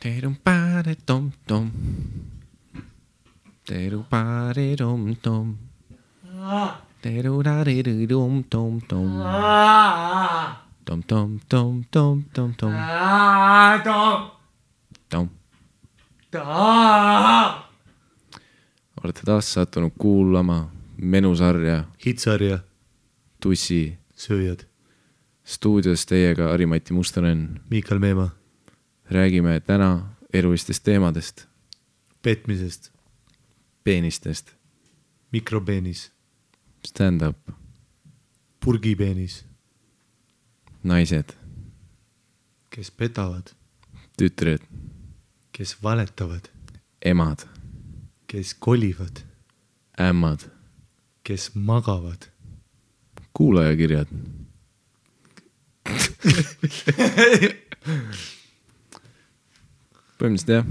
Terum-pare-tom-tom. Teru-pare-tom-tom. Teru-ra-ri-ri-rum-tom-tom. Tom-tom-tom-tom-tom-tom. Tom. Olete taas sattunud kuulama menusarja Hitsarja Tussi sööjad stuudios teiega Ari-Mati Mustonen. Miikal Meemaa. Räägime täna elulistest teemadest. Petmisest. Peenistest. Mikropeenis. Stand-up. Purgipeenis. Naised. Kes petavad. Tütred. Kes valetavad. Emad. Kes kolivad. Ämmad. Kes magavad. Kuulajakirjad. Põhimõtteliselt jah,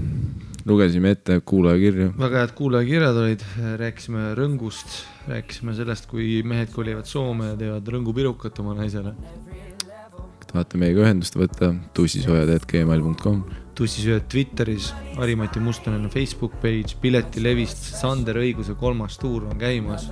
lugesime ette kuulajakirju. Väga head kuulajakirjad olid, rääkisime rõngust, rääkisime sellest, kui mehed kolivad Soome ja teevad rõngupirukat oma naisele. Tahate meiega ühendust võtta, tussisojad@gmail.com. Tussisööjad Twitteris, Ari-Mati Mustonen on Facebook page, Piletilevist, Sander Õiguse 3. tuur on käimas.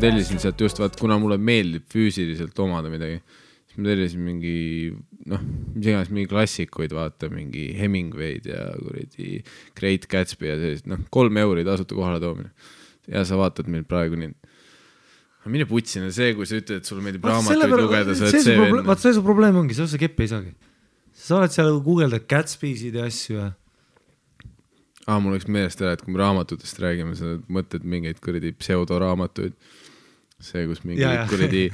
Tellisin sealt just vaat, kuna mulle meeldib füüsiliselt omada midagi, siis ma tellisin mingi, mis iganes mingi klassikuid, vaata, mingi Hemingway'd ja kuradi Great Gatsby ja sellist, 3 euri tasuta kohale toomine. Ja sa vaatad meil praegu nii. Mine putsina see, kui sa ütled, et sul meeldib raamatuid lugeda, sa oled see venn. Vaat see su probleem ongi, sa keppi ei saagi. Sa oled seal guugeldad Gatsby'sid ja asju ja... Mul oleks meelest ära, et kui me raamatutest räägime, sa mõtled mingeid kuradi pseudoraamatuid. See, kus mingi kuradi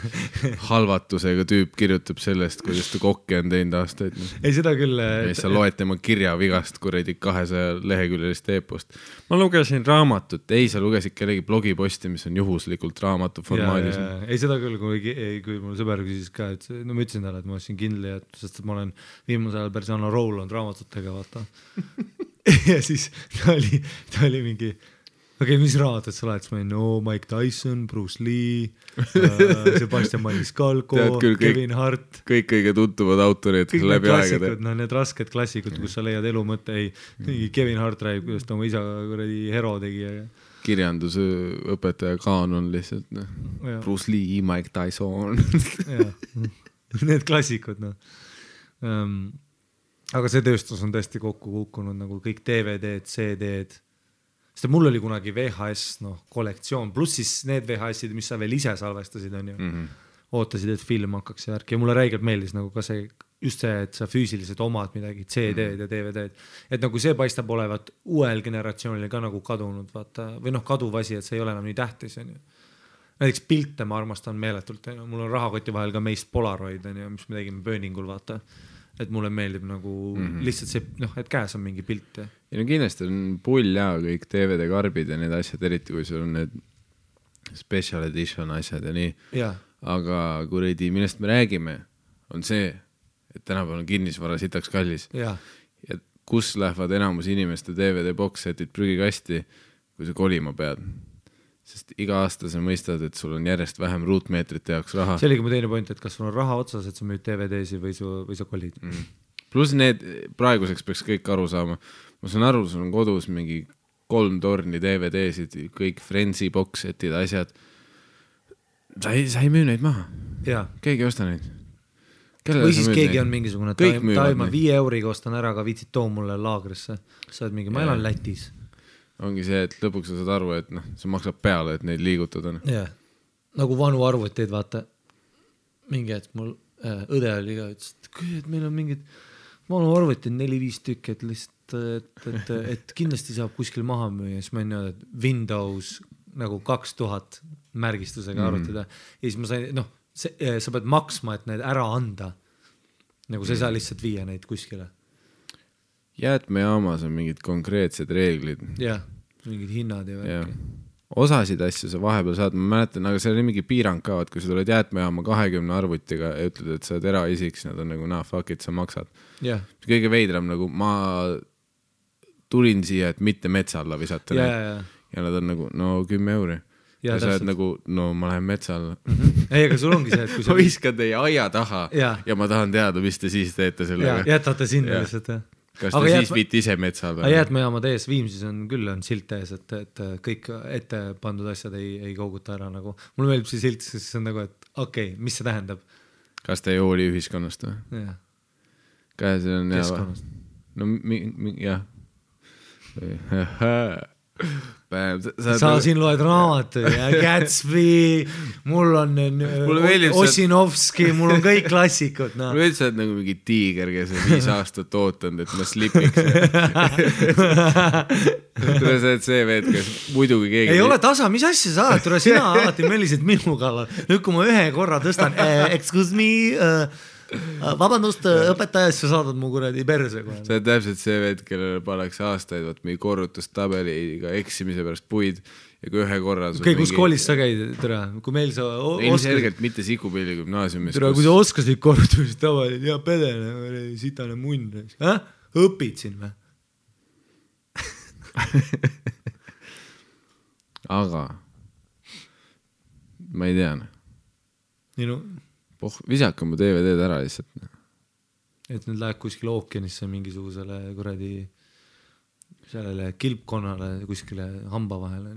halvatusega tüüp kirjutab sellest, kuidas ta kokki on teinud aastaid. Ei, seda küll... Ja sa loed tema kirjavigast kuradi 200 leheküljelist eepost. Ma lugesin raamatut. Ei, sa lugesid kellegi blogiposti, mis on juhuslikult raamatu formaadis. Ei, seda küll, kui mul sõber küsis ka, et ma ütlesin talle, et ma olin kindel, sest ma olen viimasel ajal päris anna roll on raamatutega, vaata. Ja siis ta oli mingi... Okei, mis raamatut sa laed? Mike Tyson, Bruce Lee, Sebastian Maniscalco, Kevin Hart. Kõik kõige tuntuvad autorid läbi aegade. Need rasked klassikud, kus sa leiad elu mõte. Kevin Hart räägib, kuidas ta oma isa hero tegi. Kirjandusõpetaja kaanon lihtsalt. Bruce Lee, Mike Tyson. Need klassikud. aga see tööstus on tõesti kokku kukkunud nagu kõik DVD-d, CD-d. Sest mul oli kunagi VHS kollektsioon, pluss siis need VHS-id, mis sa veel ise salvestasid, on ju. Ootasid, et film hakkaks ja värk ja mulle räigelt meeldis nagu ka see, just see, et sa füüsiliselt omad midagi, CD-d ja DVD-d. Et nagu see paistab olevat uuel generatsioonil ka nagu kadunud, vaata, või kaduv asi, et see ei ole enam nii tähtis, on ju. Näiteks pilte ma armastan meeletult, mul on rahakoti vahel ka meist Polaroid, on ju, mis me tegime Burningul, vaata. Et mulle meeldib nagu lihtsalt see, et käes on mingi pilt. Ja no kindlasti on pull ja kõik DVD-karbid ja need asjad, eriti kui sul on need special edition asjad ja nii. Ja. Aga kuradi, millest me räägime, on see, et tänapäeval on kinnisvara sitaks kallis. Ja kus lähevad enamus inimeste DVD box-setid prügikasti, kui sa kolima pead. Sest iga aasta sa mõistad, et sul on järjest vähem ruutmeetrite jaoks raha. See oligi mu teine point, et kas sul on raha otsas, et sa müüd DVD-si või sa kolid. Plus need praeguseks peaks kõik aru saama. Ma saan aru, sul on kodus mingi 3 torni DVD-sid, kõik Friendsi box-setid, asjad. Sa ei müü neid maha. Ja. Keegi osta neid. Või siis keegi on mingisugune, ma 5 euriga ostan ära, aga viitsid too mulle laagrisse. Sa oled mingi, ma elan Lätis. Ongi see, et lõpuks sa saad aru, et see maksab peale, et neid liigutada. Ja. Nagu vanu arvuteid, vaata. Mingi, et mul õde oli ka, et meil on mingid vanu arvuteid 4-5 tükki, et lihtsalt, et kindlasti saab kuskil maha müüa. Siis ma ei näe, et Windows nagu 2000 märgistusega arvutada. Ja siis ma sain, sa pead maksma, et need ära anda. Nagu sa ei saa lihtsalt viia neid kuskile. Jäätmejaamas on mingid konkreetsed reeglid. Jah, mingid hinnad ja värki. Osasid asju sa vahepeal saad, ma mäletan, aga see oli mingi piirang ka, et kui sa tuled jäätmejaama 20 arvutiga ja ütled, et sa oled eraisiks, nad on nagu, fuck it, sa maksad. Yeah. Kõige veidram, nagu ma tulin siia, et mitte metsa alla visata. Ja nad on nagu, 10 euri. Ja sa oled nagu, ma lähen metsa alla. Ei, aga sul ongi see, et kui ma viskan teie aia taha ja ma tahan teada, mis te siis teete sellega. Jätate sinna lihtsalt. Kas te siis viite ise metsa alla? Jäätmejaamad ees Viimsis on küll silt ees, et kõik ette pandud asjad ei kouguta ära. Nagu. Mulle meeldib see silt, siis on nagu, et okei, mis see tähendab? Kas te ei hooli ühiskonnast või? Jah. Kas see on keskkonnast? Jah. Sa siin loed raamatu ja Gatsby, mul on Osinovski, mul on kõik klassikud. Mul veits sa oled nagu mingi tiiger, kes on 5 aastat ootanud, et ma slipiks. Tule sa oled see veed, kes muidugi keegi... Ei ole tasa, mis asja sa oled? Tule sina alati möllisid minu kallal. Nüüd kui ma ühe korra tõstan, excuse me... Vabandust, õpetaja, sa saadad mu kuradi perse. See on täpselt see veed, kellele paneks aastaid mingi korrutustabeliga eksimise pärast puid ja kui ühe korra... Okei, kus koolis sa käid? Tere, kui meil sa... Ilmselgelt mitte Sikupilli gümnaasiumis. Tere, kui sa oskasid korrutustabelid ja pedene, sitane munn. Õpid siin või? Aga ma ei tea. Visaka mu DVD-d ära lihtsalt. Et nüüd läheb kuskil ookeanisse mingisugusele kuradi sellele kilpkonnale kuskile hamba vahele.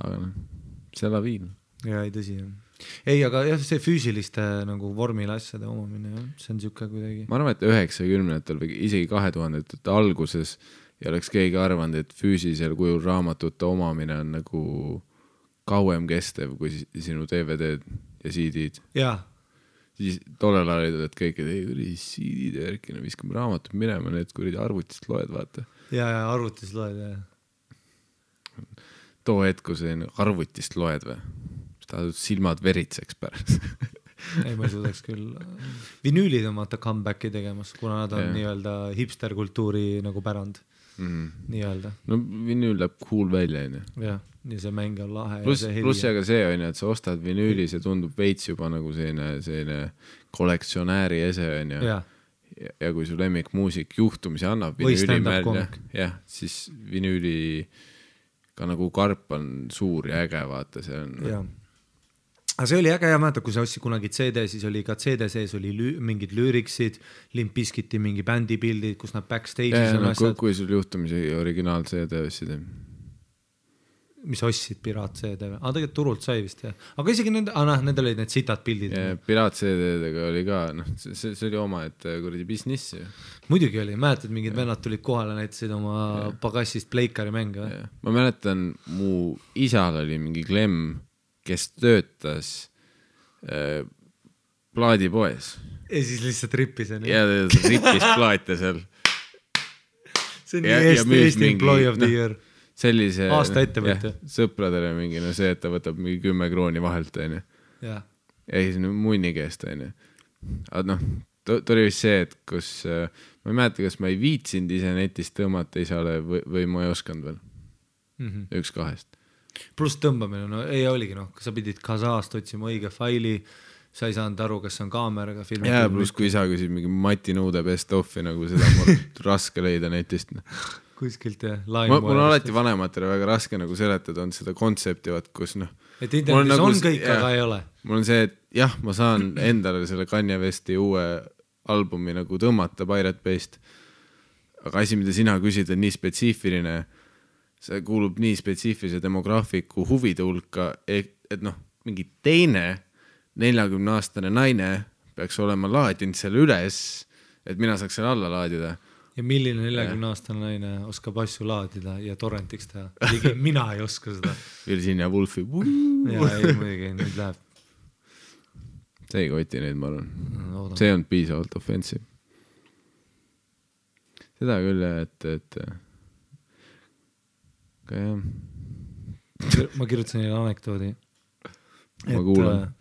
Aga see laviin. Ja ei tõsi. Ei, aga jah, see füüsiliste nagu vormile asjade omamine, see on siuke kuidagi. Ma arvan, et 90-ndatel või isegi 2000-ndate alguses ei oleks keegi arvanud, et füüsilisel kujul raamatute omamine on nagu... kauem kestev kui sinu DVD-d ja CD-d. Jaa. Siis tollel ajal olid kõik, et CD-d ja värkina viskame raamatut minema, need kuridi arvutist loed, vaata. Ja arvutist loed, jah. Too hetk, kui see arvutist loed või? Tahad silmad veritseks pärast. Ei, ma ei suudaks küll. Vinüülid on vaata comebacki tegemas, kuna nad on nii-öelda hipsterkultuuri nagu pärand. Nii-öelda. No vinüül läheb cool välja, on ju. Jah, ja see mäng on lahe. Pluss aga see on ju, et sa ostad vinüüli, see tundub veits juba nagu selline kollektsionääri ese on ju. Ja kui su lemmik muusik juhtumisi annab vinüüli välja, siis vinüüli ka nagu karp on suur ja äge, vaata, see on... Jah. Aga see oli äge ja mäeta, kui sa ostsid kunagi CD, siis oli ka CD sees oli mingid lüüriksid, Limp Bizkiti mingi bändi pildid, kus nad backstage'is on asjad. Kui sul juhtumisi originaal CD ostsid? mis ostsid Piraat-CD-ga, aga tegelikult turult sai vist jah, aga isegi nendel olid need sitad pildid. Piraat-CD-dega oli ka, see oli oma, et kuradi business ju. Muidugi oli, mäletad, mingid vennad tulid kohale, näitasid oma pagassist Pleikari mänge. Ma mäletan, mu isal oli mingi Klemm, kes töötas plaadipoes. Ja siis lihtsalt rippis. Ja rippis plaate seal. See on Eesti employee of the year. Sellise aasta ettevõtja. Sõpradele mingi, see, et ta võtab mingi 10 krooni vahelt, on ju. Ja siis munni keest, on ju. Aga ta oli vist see, et kus, ma ei mäleta, kas ma ei viitsinud ise netist tõmmata isale või ma ei osanud veel. Üks kahest. Pluss tõmbamine, ei oligi, sa pidid Kasaast otsima õige faili, sa ei saanud aru, kas on kaameraga filmi. Ja pluss kui isa küsib mingi Mati Nõude best offi, nagu seda on raske leida netist. Kuskilt jah. Mul on alati vanematele väga raske nagu seletada, on seda kontsepti, kus et internetis on kõik, aga ei ole. Mul on see, et jah, ma saan endale selle Kanye Westi uue albumi nagu tõmmata Pirate Bay'st, aga asi, mida sina küsid, on nii spetsiifiline, see kuulub nii spetsiifilise demograafiku huvide hulka, et mingi teine 40-aastane naine peaks olema laadinud selle üles, et mina saaks selle alla laadida. Ja milline 40-aastane naine oskab asju laadida ja torrentiks teha? Ligi mina ei oska seda. Virginia Woolfi. Ja ei, muidugi, nüüd läheb. See ei koti neid, ma arvan. See on piisavalt offensive. Seda küll, et ka jah. Ma kirjutasin neile anekdoodi. Ma kuulan.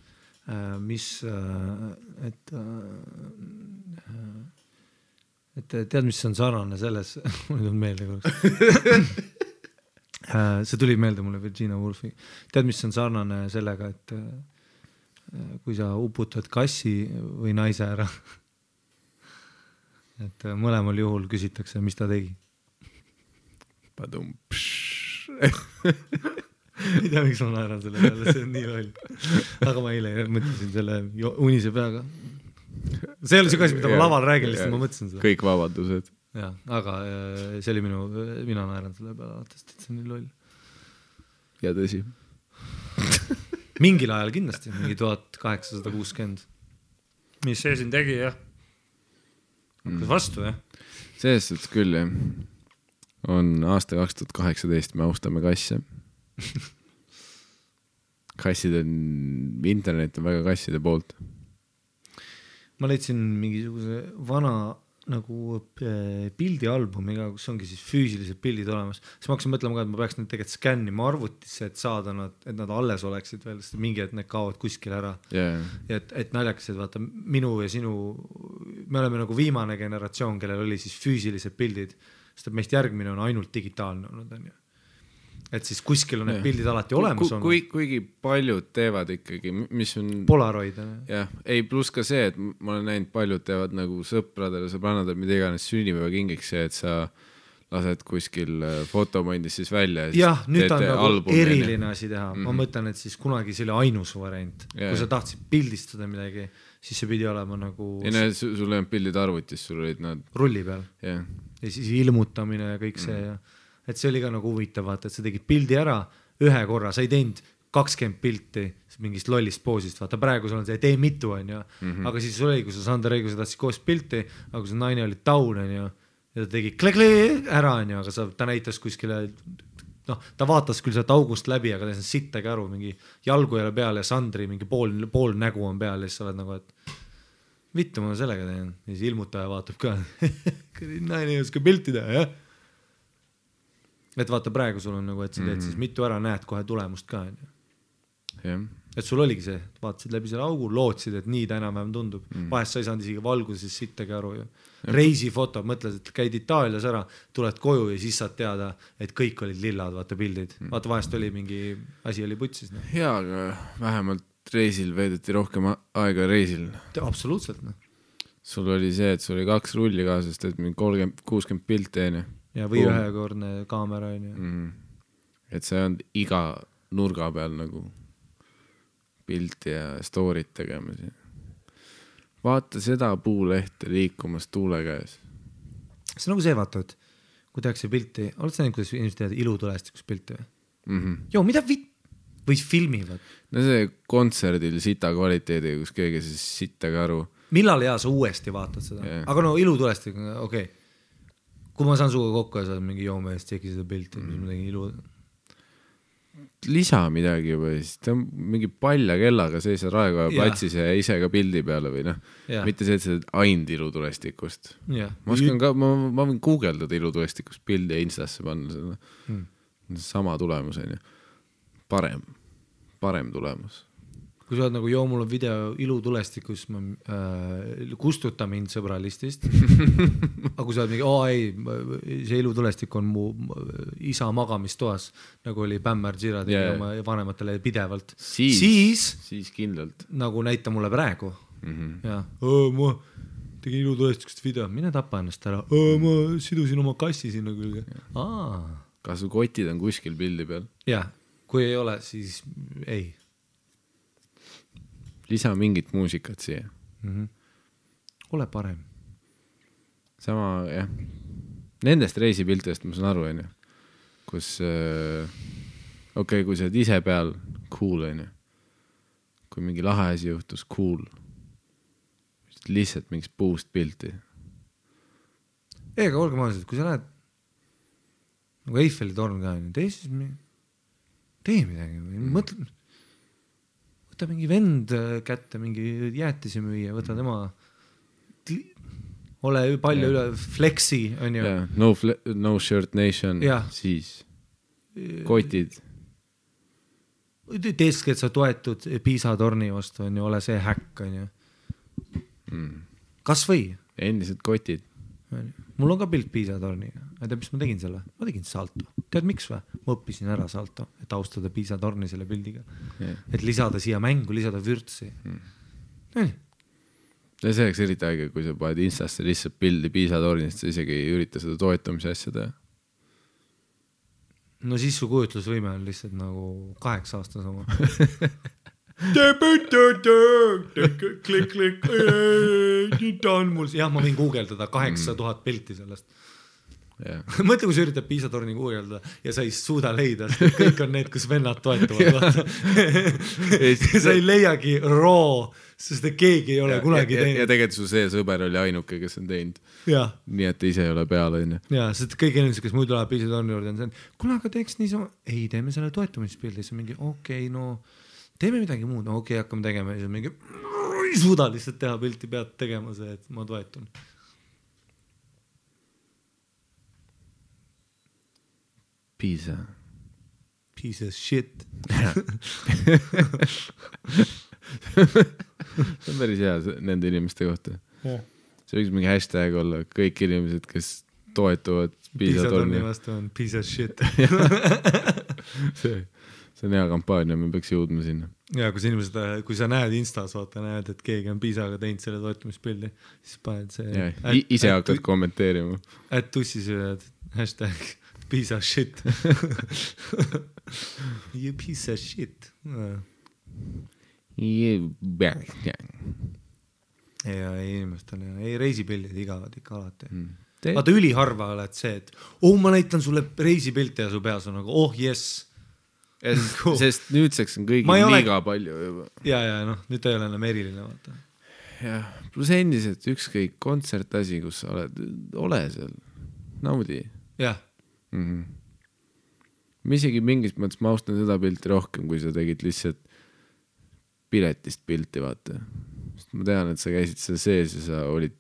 Et tead, mis on sarnane selles, mulle tuleb meelde korraks. See tuli meelde mulle Virginia Woolfi. Tead, mis on sarnane sellega, et kui sa uputad kassi või naise ära, et mõlemal juhul küsitakse, mis ta tegi. Padum. Ei tea, miks ma naeran selle peale, see on nii loll. Aga ma eile mõtlesin selle unise peaga. See oli see kasi, mida ma laval räägin, lihtsalt ma mõtlesin seda. Kõik vabadused. Ja, aga see oli mina naeran selle peale, et see on nii loll. Ja tõsi. Mingil ajal kindlasti, mingi 1860. Mis see siin tegi, jah? Hakkas vastu, jah? Selles suhtes küll, jah. On aasta 2018, me austame kasse. Kassid on, internet on väga kasside poolt. Ma leidsin mingisuguse vana nagu pildialbumiga, kus ongi siis füüsilised pildid olemas. Siis ma hakkasin mõtlema ka, et ma peaks need tegelikult skännima arvutisse, et saada nad, et nad alles oleksid veel, sest mingi, et need kaovad kuskil ära. Yeah. Ja et naljakas, et vaata, minu ja sinu, me oleme nagu viimane generatsioon, kellel oli siis füüsilised pildid, sest et meist järgmine on ainult digitaalne olnud, on ju. Et siis kuskil on need pildid alati olemas on. Kuigi paljud teevad ikkagi, mis on... Polaroid. Jah, ei pluss ka see, et ma olen näinud, paljud teevad nagu sõpradele, sõbrannadele, mida iganes sünnipäeva kingiks see, et sa lased kuskil fotomondis siis välja. Jah, nüüd on nagu eriline asi teha. Ma mõtlen, et siis kunagi see oli ainus variant. Kui sa tahtsid pildistada midagi, siis see pidi olema nagu... Ja sul ei olnud pildid arvutis, sul olid nad... Rulli peal. Ja siis ilmutamine ja kõik see ja... Et see oli ka nagu huvitav, vaata, et sa tegid pildi ära ühe korra, sa ei teinud 20 pilti mingist lollist poosist, vaata praegu sul on see, tee mitu, on ju, aga siis sul oli, kui sa Sander Reigu, sa tahtsid koos pilti, aga kui sa naine oli taun, on ju, ja ta tegi kle ära, on ju, aga ta näitas kuskile, ta vaatas küll sealt august läbi, aga ta ei sittagi aru, mingi jalgu ei ole peal ja Sandri mingi pool nägu on peal ja siis sa oled nagu, et vittu ma sellega teen, ja siis ilmutaja vaatab ka, naine ei oska pilti teha, jah. Et vaata praegu sul on nagu, et sa teed siis mitu ära, näed kohe tulemust ka. Yeah. Et sul oligi see, vaatasid läbi selle augu, lootsid, et nii ta enam-vähem tundub. Vahest sa ei saanud isegi valguses sittagi aru. Reisifoto, mõtlesid, et käid Itaalias ära, tuled koju ja siis saad teada, et kõik olid lillad, vaata pildid. Vaata vahest oli mingi asi oli putsis. Jaa, aga vähemalt reisil veedeti rohkem aega reisil. Absoluutselt. Sul oli see, et sul oli 2 rulli kaasast, et 30-60 pilti enne. Ja või ühekordne kaamera on ju. Et see on iga nurga peal nagu pilti ja story't tegema. Vaata seda puulehte liikumas tuule käes. See on nagu see, vaata, et kui tehakse pilti, oled sa näinud, kuidas inimesed teevad ilutulestikust pilti või? joo, mida või filmivad? No see kontserdil sita kvaliteedi, kus keegi siis sittagi aru. Millal sa uuesti vaatad seda? Yeah. Aga no ilutulestik, okei. Kui ma saan suga kokku ja saad mingi joomehest tšeki seda pilti, mis ma tegin ilu... Lisa midagi või siis ta on mingi palja kellaga sees Raekoja platsis ja ise ka pildi peale või noh, mitte see, et see ainult ilutulestikust. Ma oskan ka, ma võin guugeldada ilutulestikust pildi ja Instasse panna seda. Sama tulemus on ju. Parem tulemus. Kui sa oled nagu, mul on video ilutulestikus, ma kustuta mind sõbralistist. Aga kui sa oled mingi, see ilutulestik on mu isa magamistoas, nagu oli Bämmar Girardi oma vanematele pidevalt. Siis kindlalt. Nagu näita mulle praegu. Ja, ma tegin ilutulestikust video, mine tapa ennast ära. Ma sidusin oma kassi sinna külge. Kas su kotid on kuskil pildi peal? Jah, kui ei ole, siis ei. Lisa mingit muusikat siia. Ole parem. Sama, jah. Nendest reisipiltidest ma saan aru, on ju. Kus, kui sa oled ise peal, cool, on ju. Kui mingi lahe asi juhtus, cool. Lihtsalt mingis puust pilti. Aga olge maaliselt, kui sa lähed nagu Eiffeli torn ka, tee midagi. Mõtle... Võta mingi vend kätte, mingi jäätisi müüa, võta tema, ole palju üle, flexi, on ju. No shirt nation, siis kotid. Teeski, et sa toetud Piisa torni vastu, on ju, ole see häkk, on ju. Kas või? Endised kotid. Mul on ka pilt Piisa torniga. Tead, mis ma tegin selle? Ma tegin salto. Tead, miks või? Ma õppisin ära salto, et austada Piisa torni selle pildiga. Et lisada siia mängu, lisada vürtsi. Ja see oleks eriti aega, kui sa paned Instasse lihtsalt pildi Piisa tornist, sa isegi ei ürita seda toetamise asja teha. No siis su kujutlusvõime on lihtsalt nagu 8 aastas oma. Klik. Jah, ma võin guugeldada 8000 pilti sellest. Mõtle, kui sa üritad Piisa torni guugeldada ja sa ei suuda leida, kõik on need, kus vennad toetuvad. Sa ei leiagi raw, sest keegi ei ole kunagi teinud. Ja tegelikult su see sõber oli ainuke, kes on teinud. Nii, et ise ei ole peal. Ja, sest kõik inimesed, kes muidu läheb Piisa torni juurde, on see, kuna aga teeks niisama, ei, teeme selle toetumispildi, see on mingi, no teeme midagi muud, hakkame tegema ja siis mingi, ei suuda lihtsalt teha pilti, pead tegema see, et ma toetun. Piisa. Piece of shit. See on päris hea nende inimeste kohta. See võiks mingi hashtag olla, kõik inimesed, kes toetuvad Piisa torni vastu on piece of shit. See on hea kampaania, me peaks jõudma sinna. Ja kui sa näed Instas, näed, et keegi on Piisaga teinud selle toetumispildi, siis paned see... Ise hakkad kommenteerima. Et tussis ühed hashtag piece of shit. You piece of shit. Ja inimestel ei reisipildid igavad ikka alati. Vaata üliharva oled see, et ma näitan sulle reisipilti ja su peas on nagu, yes. Sest nüüdseks on kõigil liiga palju juba. Ja, nüüd ta ei ole enam eriline, vaata. Ja, plus endiselt ükskõik kontsertasi, kus sa ole seal, naudi. Jah. Ma isegi mingis mõttes ma austan seda pilti rohkem, kui sa tegid lihtsalt piletist pilti, vaata. Sest ma tean, et sa käisid seal sees ja sa olid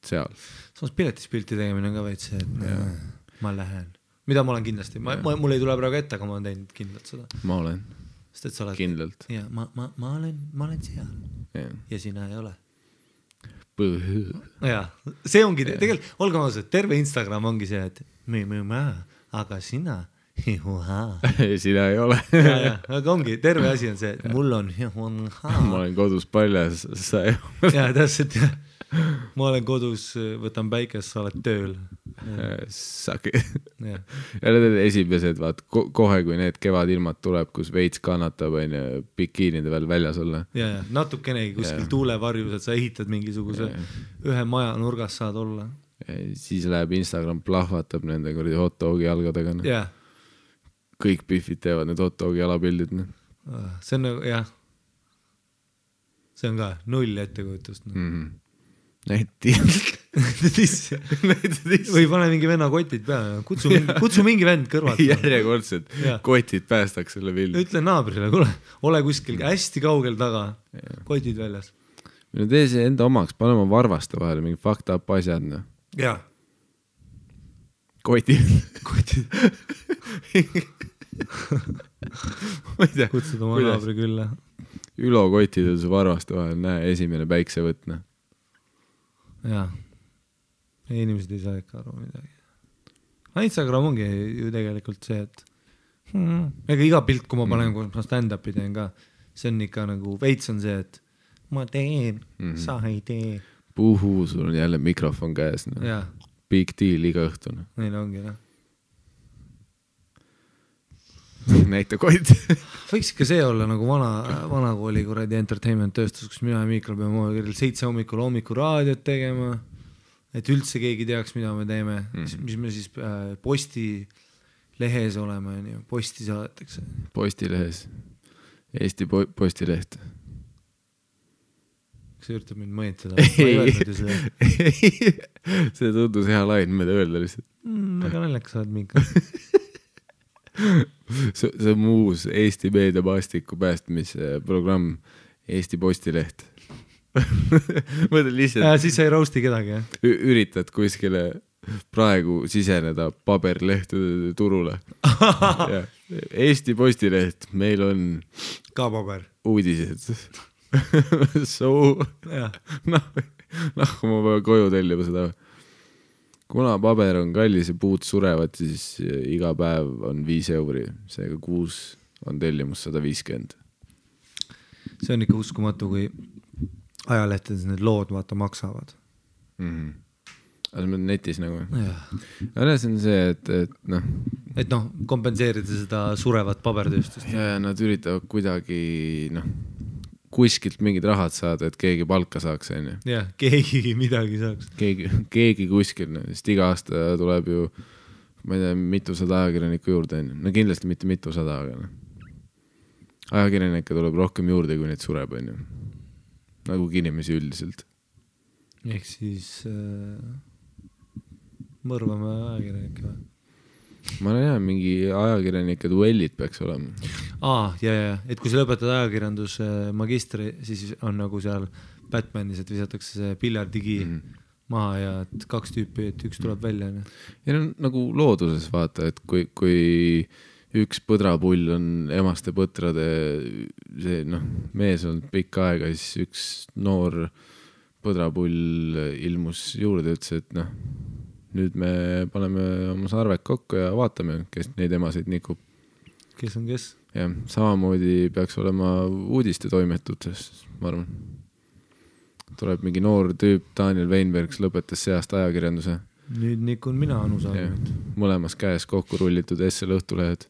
seal. Samas piletist pilti tegemine on ka veits see, et ma lähen. Mida ma olen kindlasti, mul ei tule praegu ette, aga ma olen teinud kindlalt seda. Ma olen kindlalt. Ja, ma olen seal ja sina ei ole. Ja, see ongi, tegelikult, olge maased, terve Instagram ongi see, et aga sina, sina ei ole. Ja, aga ongi, terve asi on see, et mul on ma olen kodus paljas, sa ei ole. Ja, täpselt, ma olen kodus, võtan päikest, sa oled tööl. Saki. Ja need on esimesed, vaat, kohe kui need kevadilmad tuleb, kus veits kannatab, bikiinide veel väljas olla. Ja, natukenegi kuskil tuulevarjus, et sa ehitad mingisuguse ühe maja nurgas saad olla. Siis läheb Instagram plahvatab nende hot dogi jalgadega. Ja. kõik Biffid teevad need hot dogi jalapildid. See on nagu, jah. See on ka null ettekujutust. Näiti. Või pane mingi venna kotid peale. Kutsu mingi vend kõrvalt. Järjekordselt kotid päästaks selle pildi. Ütle naabrile, kuule, ole kuskil hästi kaugel taga. Kotid väljas. Minu tee see enda omaks, pane oma varvaste vahele mingi fucked up asjad. Jaa. Kotid. Kutsud oma naabri külla. Ülo kotid on su varvaste vahel, näe, esimene päiksevõtne. Jaa. Inimesed ei saa ikka aru midagi. Instagram ongi ju tegelikult see, et ega iga pilt, kui ma panen, kui ma stand-upi teen ka, see on ikka nagu veits on see, et ma teen, sa ei tee. Puhuu, sul on jälle mikrofon käes. Jaa. Big deal iga õhtune. Neil ongi, jah. Näita koit. Võiks ikka see olla nagu vana kooli kuradi entertainment tööstus, kus mina ja Miikal peame 7 hommikul raadiot tegema, et üldse keegi teaks, mida me teeme, mis me siis posti lehes oleme, posti saadetakse. Postilehes. Eesti postileht. Kas see üritab mind mõjutada? Ma ei öelnud ju seda. See tundus hea lain, mida öelda lihtsalt. Väga naljakas saad Miikal. See on muus Eesti meediamaastiku päästmisprogramm Eesti Postileht. Mõtled lihtsalt siis sa ei roasti kedagi, jah? Üritad kuskile praegu siseneda paberlehtede turule. Eesti Postileht, meil on ka paber uudised. Ma pean koju tellima seda. Kuna paber on kallis ja puud surevad, siis iga päev on 5 €. Seega kuus on tellimus 150. See on ikka uskumatu, kui ajalehtedes need lood vaata maksavad. Aga see on netis nagu. Aga see on see, et kompenseerida seda surevat pabertööstust. Ja nad üritavad kuidagi kuskilt mingid rahad saada, et keegi palka saaks. Jah, keegi midagi saaks. Keegi kuskil, sest iga aasta tuleb ju, ma ei tea, mitusada ajakirjanikku juurde. No kindlasti mitte mitusada, aga ajakirjanikke tuleb rohkem juurde, kui neid sureb. Nagu inimesi üldiselt. Ehk siis mõrvame ajakirjanikke või? Ma ei tea, mingi ajakirjanike duellid peaks olema. Ja, et kui sa lõpetad ajakirjanduse magistri, siis on nagu seal Batmanis, et visatakse see piljardigi maha ja et 2 tüüpi, et üks tuleb välja. Ja nagu looduses vaata, et kui üks põdrapull on emaste põtrade see, mees on pikka aega, siis üks noor põdrapull ilmus juurde, ütles, et nüüd me paneme oma sarved kokku ja vaatame, kes neid emasid nikub. Kes on kes? Ja, samamoodi peaks olema uudiste toimetutes, ma arvan. Tuleb mingi noor tüüp, Daniel Weinbergs lõpetas see aasta ajakirjanduse. Nüüd nikun mina anusaagimid. Mõlemas käes kokku rullitud SL õhtulehed.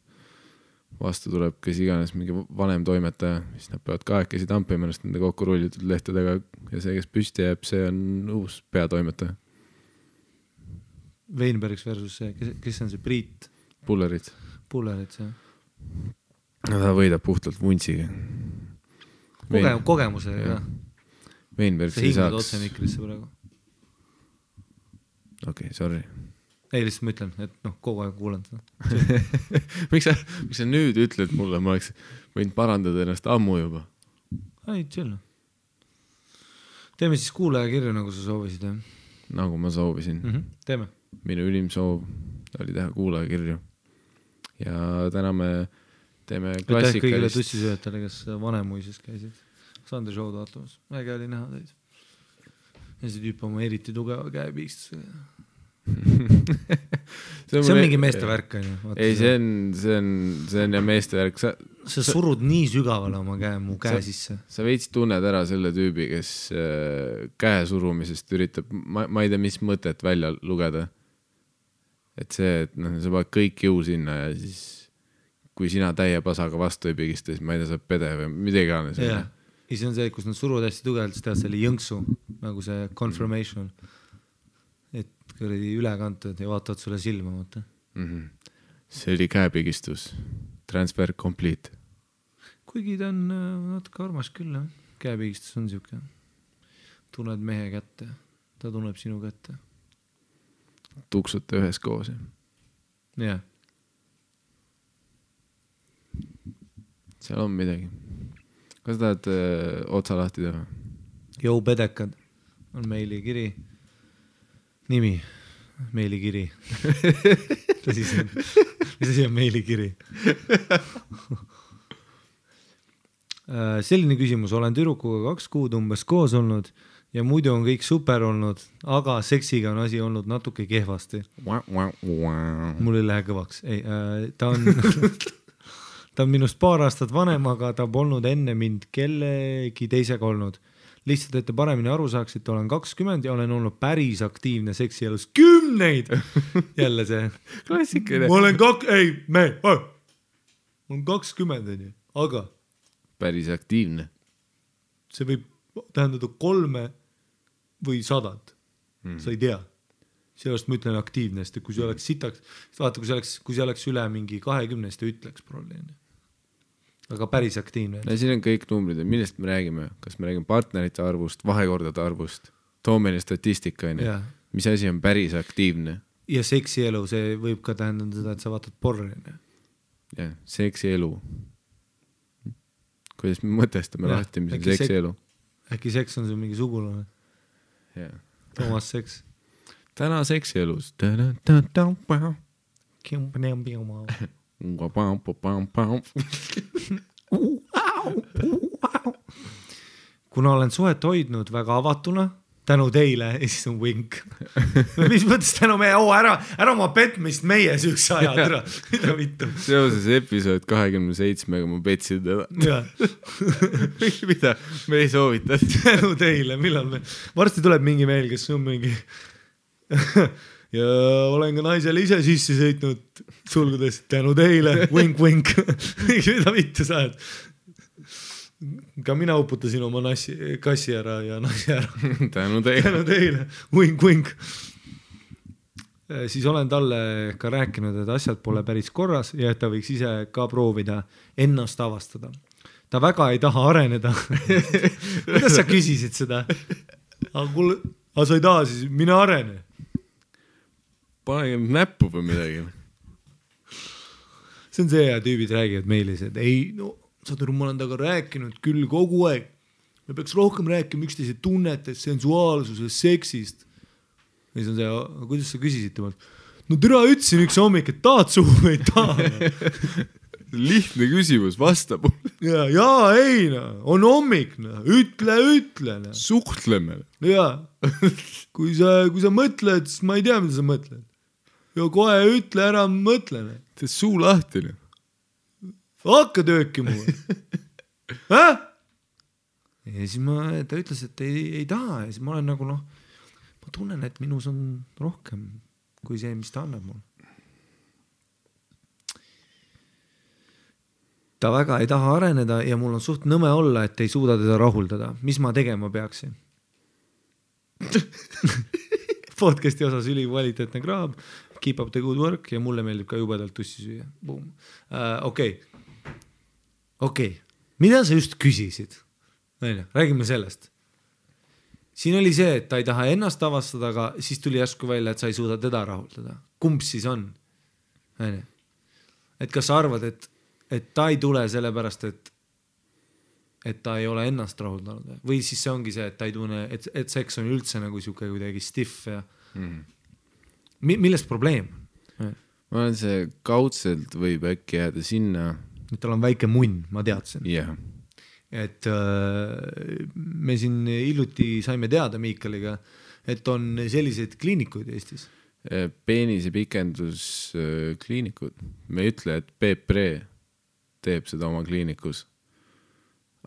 Vastu tuleb kes iganes mingi vanem toimetaja, siis nad peavad kahekesi tampima ennast nende kokku rullitud lehtedega ja see, kes püsti jääb, see on uus peatoimetaja. Weinbergs versus see, kes on see Priit? Pullerit, see. Ta võidab puhtalt vuntsiga. Kogemusega. Weinbergs ei saaks. See hingad otse mikrisse praegu. Okei, sorry. Ei, lihtsalt ma ütlen, et kogu aeg kuulan seda. Miks sa nüüd ütled mulle, ma oleks võinud parandada ennast ammu juba? Ei, chill. Teeme siis kuulaja kirju, nagu sa soovisid. Nagu ma soovisin. Teeme. Minu ülim soov oli teha kuulaja kirju. Ja täna me teeme klassikalist. Aitäh kõigile tussisööjatele, kes Vanemuises käisid. Sandri show'd vaatamas. Äge oli näha teid. Ja see tüüp oma eriti tugeva käe piistusega. See on mingi meestevärk. Ei, see on ja meestevärk. Sa surud nii sügavale oma mu käe sisse. Sa veits tunned ära selle tüübi, kes käe surumisest üritab, ma ei tea, mis mõtet välja lugeda. Et see, et sa paned kõik jõu sinna ja siis kui sina täie pasaga vastu ei pigista, siis ma ei tea, saab pede või midagi gane. Ja see on see, kus nad suruvad hästi tugevalt, siis tead selle jõnksu, nagu see confirmation. Et kõrdi üle kantud ja vaatavad sulle silma. see oli käepigistus. Transfer complete. Kuigi ta on natuke armas küll, jah. Käepigistus on siuke. Tunned mehe kätte. Ta tunneb sinu kätte. Tuksute ühes koos. Jah. Seal on midagi. Kas tahad otsa lahti teha? Jou pedekad on meilikiri. Nimi. Meilikiri. Mis asi on meilikiri? Selline küsimus. Olen tüdrukuga 2 kuud umbes koos olnud ja muidu on kõik super olnud, aga seksiga on asi olnud natuke kehvasti. Mul ei lähe kõvaks. Ei, ta on minust 2 aastat vanem, aga ta polnud enne mind kellegi teisega olnud. Lihtsalt, et te paremini aru saaksite, olen 20 ja olen olnud päris aktiivne seksielus 10. Jälle see. Klassikaline. Ma olen 20, aga päris aktiivne. See võib tähendada 3 või 100. Sa ei tea. Sellest ma ütlen aktiivne, sest kui see oleks sitaks, vaata, kui see oleks üle mingi 20, ta ütleks probleemi. Aga päris aktiivne. No siin on kõik numbrid, millest me räägime. Kas me räägime partnerite arvust, vahekordade arvust, toomene statistika. Mis asi on päris aktiivne? Ja seksielu, see võib ka tähendada seda, et sa vaatad porri. Ja, seksielu. Kuidas me mõtestame lahti, mis on seksielu? Äkki seks on see mingi sugulane? Toomas Seks. Täna seksielus. Kuna olen suhet hoidnud väga avatuna, tänu teile, ja siis on wink. Mis mõttes tänu meie, ära oma petmist meie süüks ajad, mida vittu. Seoses episood 27-ga ma petsin teda. Mida? Me ei soovita. Tänu teile, millal me... Varsti tuleb mingi meil, kes on mingi... ja olen ka naisele ise sisse sõitnud sulgudes tänu teile, wink, wink. Mida vittu sa oled? Ka mina uputasin oma kassi ära ja nasi ära. Tänu teile. Wink, wink. Siis olen talle ka rääkinud, et asjad pole päris korras ja et ta võiks ise ka proovida ennast avastada. Ta väga ei taha areneda. Kuidas sa küsisid seda? Aga sa ei taha siis, mine arene. Panege näppu või midagi. See on see, ja tüübid räägivad meilis, et ei, no saad aru, ma olen taga rääkinud küll kogu aeg. Me peaks rohkem rääkima üksteise tunnetest, sensuaalsusest, seksist. Ja siis on see, kuidas sa küsisid temalt? No tere, ütlesin üks hommik, et tahad suhu või ei taha. Lihtne küsimus, vastab. Ja, ei, on hommik, ütle. Suhtleme. Ja, kui sa mõtled, siis ma ei tea, mida sa mõtled. Ja kohe ütle ära, mõtle. Tee suu lahti. Hakka tööki mulle. Ja siis ta ütles, et ei taha. Ja siis ma olen nagu, ma tunnen, et minus on rohkem kui see, mis ta annab mulle. Ta väga ei taha areneda ja mul on suht nõme olla, et ei suuda teda rahuldada. Mis ma tegema peaksin? Podcasti osas ülikvaliteetne kraab, keep up the good work ja mulle meeldib ka jubedalt tussi süüa. Okei. Mida sa just küsisid? Räägime sellest. Siin oli see, et ta ei taha ennast avastada, aga siis tuli järsku välja, et sa ei suuda teda rahuldada. Kumb siis on? Et kas sa arvad, et ta ei tule sellepärast, et ta ei ole ennast rahuldanud. Või siis see ongi see, et ta ei tunne, et seks on üldse nagu siuke kuidagi stiff ja millest probleem? Ma olen see kaudselt võib äkki jääda sinna. Et tal on väike munn, ma teadsin. Yeah. Et me siin hiljuti saime teada Miikaliga, et on selliseid kliinikuid Eestis. Peenise pikendus kliinikud. Me ei ütle, et Peepre teeb seda oma kliinikus,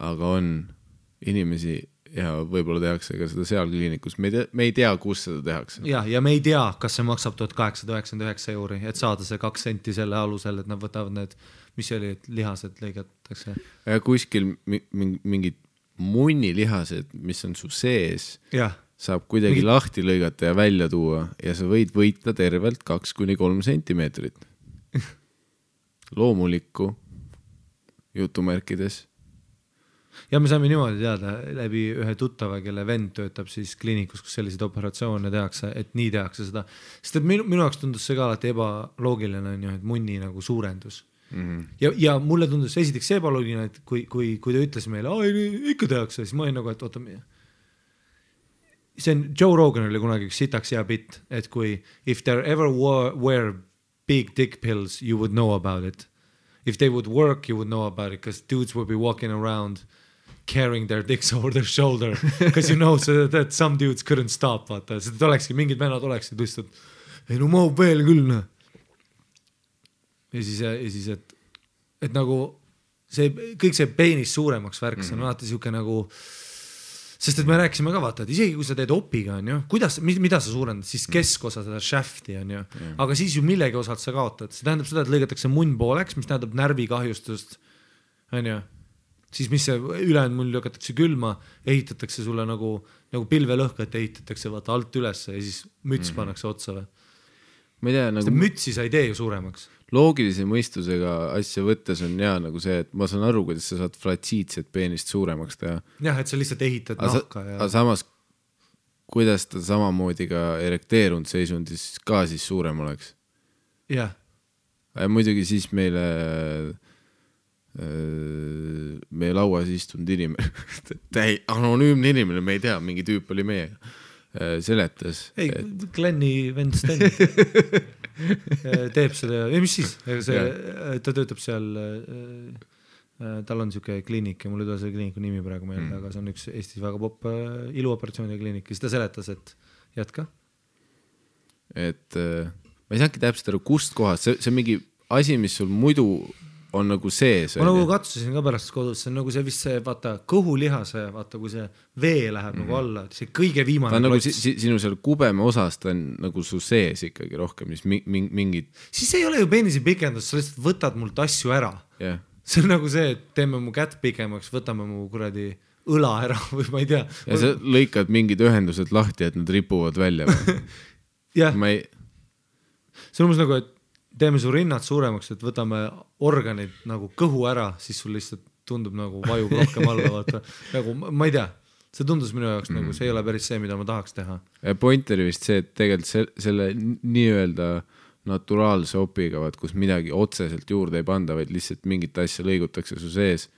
aga on inimesi ja võib-olla tehakse ka seda seal kliinikus. Me ei tea, kus seda tehakse. Ja me ei tea, kas see maksab 1899 €, et saada see 2 senti selle alusel, et nad võtavad need, mis oli, et lihased lõigatakse. Ja kuskil mingid munnilihased, mis on su sees, saab kuidagi lahti lõigata ja välja tuua ja sa võid võita tervelt 2-3 sentimeetrit. loomulikku jutumärkides. Ja me saime niimoodi teada läbi ühe tuttava, kelle vend töötab siis kliinikus, kus selliseid operatsioone tehakse, et nii tehakse seda. Sest et minu jaoks tundus see ka alati ebaloogiline on ju, et munni nagu suurendus. Ja mulle tundus esiteks ebaloogiline, et kui ta ütles meile, ikka tehakse, siis ma olin nagu, et oota, see on Joe Rogan oli kunagi üks sitaks hea bitt, et kui if there ever were big dick pills, you would know about it. If they would work, you would know about it, because dudes would be walking around carrying their dicks over their shoulder, because you know that some dudes couldn't stop, vaata, seda olekski, mingid vennad oleksid lihtsalt, ei no mahub veel küll, noh. Ja siis, et nagu see, kõik see peenis suuremaks värks on alati siuke nagu, sest et me rääkisime ka vaata, et isegi kui sa teed opiga, on ju, mida sa suurendad, siis keskosa seda shafti, on ju, aga siis ju millegi osalt sa kaotad, see tähendab seda, et lõigatakse munn pooleks, mis tähendab närvikahjustust, on ju, siis mis see ülejäänud mull lükatakse külma, ehitatakse sulle nagu pilvelõhkat ehitatakse vaata alt ülesse ja siis müts pannakse otsa või. Ma ei tea, nagu mütsi sa ei tee ju suuremaks. Loogilise mõistusega asja võttes on hea nagu see, et ma saan aru, kuidas sa saad flatsiitset peenist suuremaks teha. Jah, et sa lihtsalt ehitad nahka. Aga samas, kuidas ta samamoodi ka erekteerunud seisundis ka siis suurem oleks? Jah. Ja muidugi siis meile lauas istunud inimene, anonüümne inimene, me ei tea, mingi tüüp oli meiega, seletas. Ei, Glenni vend Sten teeb seda, ja mis siis? Ta töötab seal, tal on siuke kliinik ja mul ei tule see kliiniku nimi praegu meelde, aga see on üks Eestis väga popp iluoperatsiooni kliinik, siis ta seletas, et jätka. Et ma ei saangi täpselt aru, kust kohast, see on mingi asi, mis sul muidu on nagu sees. Ma nagu katsusin ka pärast kodus, see on nagu see vist see, vaata, kõhulihase, vaata, kui see vee läheb nagu alla, see kõige viimane ta on nagu sinu seal kubeme osas, ta on nagu su sees ikkagi rohkem, mis mingid... Siis ei ole ju peenisi pikendus, sa lihtsalt võtad mult asju ära. Yeah. See on nagu see, et teeme mu kätt pikemaks, võtame mu kuradi õla ära või ma ei tea. Ja sa lõikad mingid ühendused lahti, et nad ripuvad välja. Jah. Ma ei... See on umbes nagu, et teeme su rinnad suuremaks, et võtame organid nagu kõhu ära, siis sul lihtsalt tundub nagu vajub rohkem alla, vaata. Nagu, ma ei tea, see tundus minu jaoks nagu, see ei ole päris see, mida ma tahaks teha. Point oli vist see, et tegelikult selle nii-öelda naturaalse opiga, kus midagi otseselt juurde ei panda, vaid lihtsalt mingit asja lõigutakse su sees,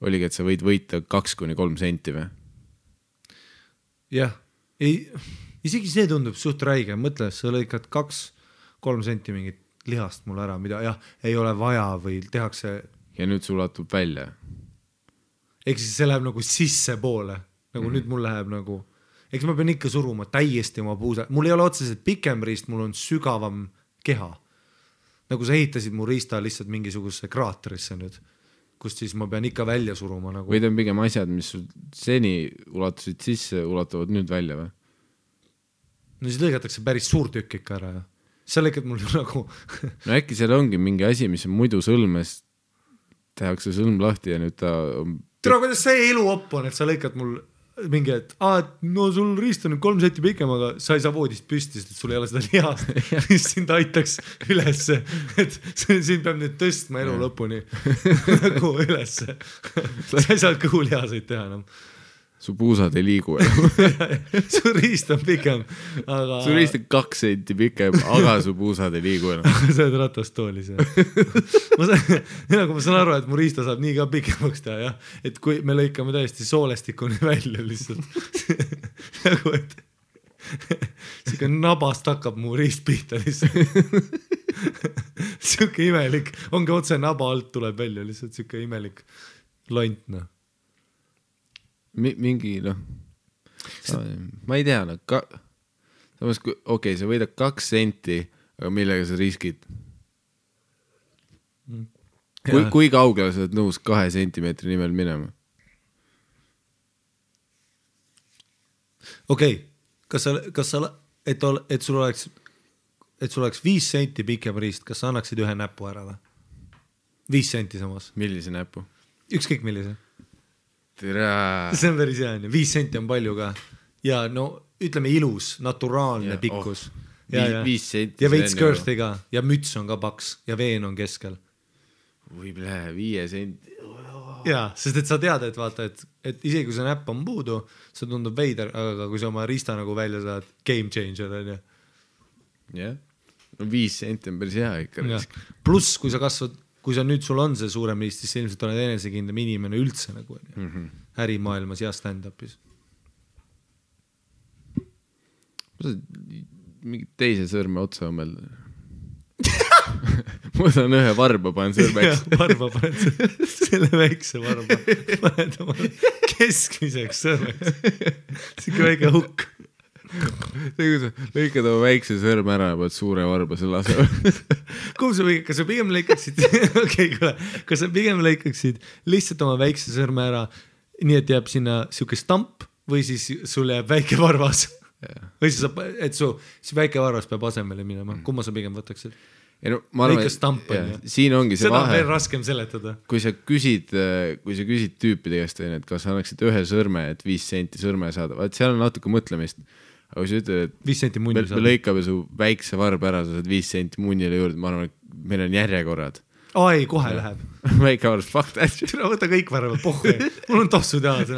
oligi, et sa võid võita 2-3 senti või? Jah, isegi see tundub suht räige, mõtle, sa lõikad 2-3 senti mingit lihast mul ära, mida jah, ei ole vaja või tehakse. Ja nüüd sul ulatub välja. Eks siis see läheb nagu sisse poole, nagu nüüd mul läheb nagu, eks ma pean ikka suruma täiesti oma puusa. Mul ei ole otseselt pikem riist, mul on sügavam keha. Nagu sa ehitasid mu riista lihtsalt mingisuguse kraaterisse nüüd, kust siis ma pean ikka välja suruma. Nagu... Või ta on pigem asjad, mis seni ulatusid sisse, ulatuvad nüüd välja või? No siis lõigatakse päris suur tükk ikka ära ja sa lõikad mul nagu... No äkki seal ongi mingi asi, mis on muidu sõlmes, tehakse sõlm lahti ja nüüd ta... Tere, kuidas see elu op on, et sa lõikad mul mingi, et no sul riist on 3 senti pikem, aga sa ei saa voodist püsti, sest sul ei ole seda lihast, mis sind aitaks ülesse, et siin peab nüüd tõstma elu lõpuni nagu ülesse. Sa ei saa kõhulihaseid teha enam. Su puusad ei liigu enam. Su riist on pikem, aga... Su riist on 2 senti pikem, aga su puusad ei liigu enam. Sa oled ratastoolis, ma saan aru, et mu riista saab nii ka pikemaks teha, jah. Et kui me lõikame täiesti soolestikuni välja lihtsalt. Nagu, et siuke nabast hakkab mu riist pihta lihtsalt. Siuke imelik, ongi otse naba alt tuleb välja lihtsalt siuke imelik lont, noh. Mingi, noh, ma ei tea, samas, okei, sa võidad 2 senti, aga millega sa riskid? Kui kaugele sa oled nõus 2 sentimeetri nimel minema? Okei, kas sa, et sul oleks 5 senti pikem riist, kas sa annaksid ühe näpu ära või? 5 senti samas. Millise näpu? Ükskõik millise. Tere. See on päris hea, 5 senti on palju ka. Ja no ütleme ilus, naturaalne pikkus. 5 senti. Ja veits kõrsti ka. Ja müts on ka paks ja veen on keskel. või 5 senti. Jaa, sest et sa tead, et vaata, et isegi kui see näpp on puudu, see tundub veider, aga kui sa oma riista nagu välja saad, game changer on ju. Jah, no 5 senti on päris hea ikka. Pluss, kui sa nüüd sul on see suurem riist, siis ilmselt oled enesekindlam inimene üldse nagu ärimaailmas ja stand-upis. Mingi teise sõrme otsa õmmelda. Ma saan ühe varba panen sõrmeks. Varba panen selle väikse varba. Paned oma keskmiseks sõrmeks. Sikke väike hukk. Lõikad oma väikse sõrme ära ja paned suure varba selle asja. Kas sa pigem lõikaksid kas sa pigem lõikaksid lihtsalt oma väikse sõrme ära, nii et jääb sinna siuke stamp või siis sul jääb väike varvas? Või siis, et su väike varvas peab asemele minema. Kumma sa pigem võtaksid? Lõika stamp on ju. Siin ongi see seda vahe. Seda on veel raskem seletada. Kui sa küsid tüüpide käest, et kas sa annaksid ühe sõrme, et 5 senti sõrme saada, vaat seal on natuke mõtlemist. Aga kui sa ütled, et 5 senti munni me lõikame su väikse varba ära, sa saad 5 senti munnile juurde, ma arvan, et meil on järjekorrad. Ai, kohe läheb. Väike varvas, fuck that. Tule võta kõik varvad, pohhu. Mul on tossud jalas,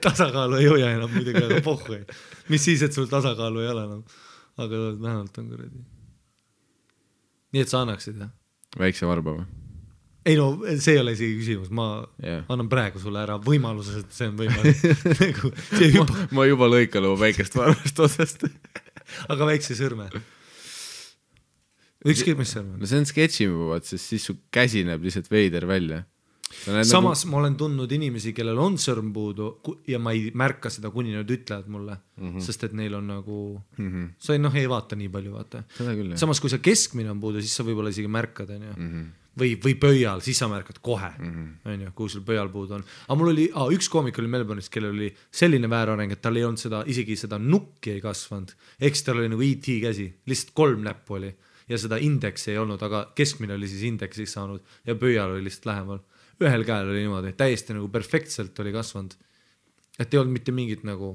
tasakaalu ei hoia enam muidugi, aga pohhu. Mis siis, et sul tasakaalu ei ole enam. Aga vähemalt on kuradi. Nii et sa annaksid, jah? Väikse varba või? Ei no, see ei ole isegi küsimus. Ma annan praegu sulle ära võimaluses, et see on võimalik. Ma juba lõikan oma väikest varvast otsast. Aga väikse sõrme? Ükskõik mis sõrme? No see on sketšimubad, sest siis su käsi näeb lihtsalt veider välja. Samas ma olen tundnud inimesi, kellel on sõrm puudu ja ma ei märka seda, kuni nad ütlevad mulle, sest et neil on nagu sa ei vaata nii palju, vaata. Samas kui sa keskmine on puudu, siis sa võib-olla isegi märkad või pöial, siis sa märkad kohe kui sul pöial puudu on. Aga mul oli, üks koomik oli Melbourne'is, kellel oli selline väärareng, et tal ei olnud isegi seda nukki ei kasvanud, eks tal oli nagu E.T. käsi, lihtsalt 3 näppu oli ja seda indeksi ei olnud, aga keskmine oli siis indeksist saanud ja pöial oli lihtsalt lähemal. Ühel käel oli niimoodi, täiesti nagu perfektselt oli kasvanud. Et ei olnud mitte mingit nagu,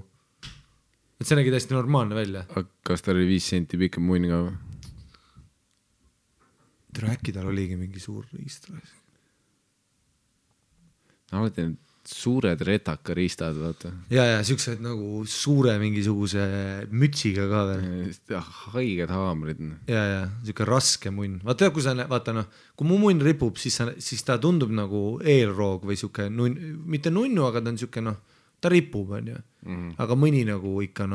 et see nägi täiesti normaalne välja. Kas tal oli 5 senti pikem munn ka või? Äkki tal oligi mingi suur riist. Alati need suured retaka riistad, vaata. Ja siuksed nagu suure mingisuguse mütsiga ka veel. Haiged haamrid. Ja, siuke raske munn. Vaata, kui mu munn ripub, siis ta tundub nagu eelroog või siuke, mitte nunnu, aga ta on siuke, ta ripub, on ju. Aga mõni nagu ikka,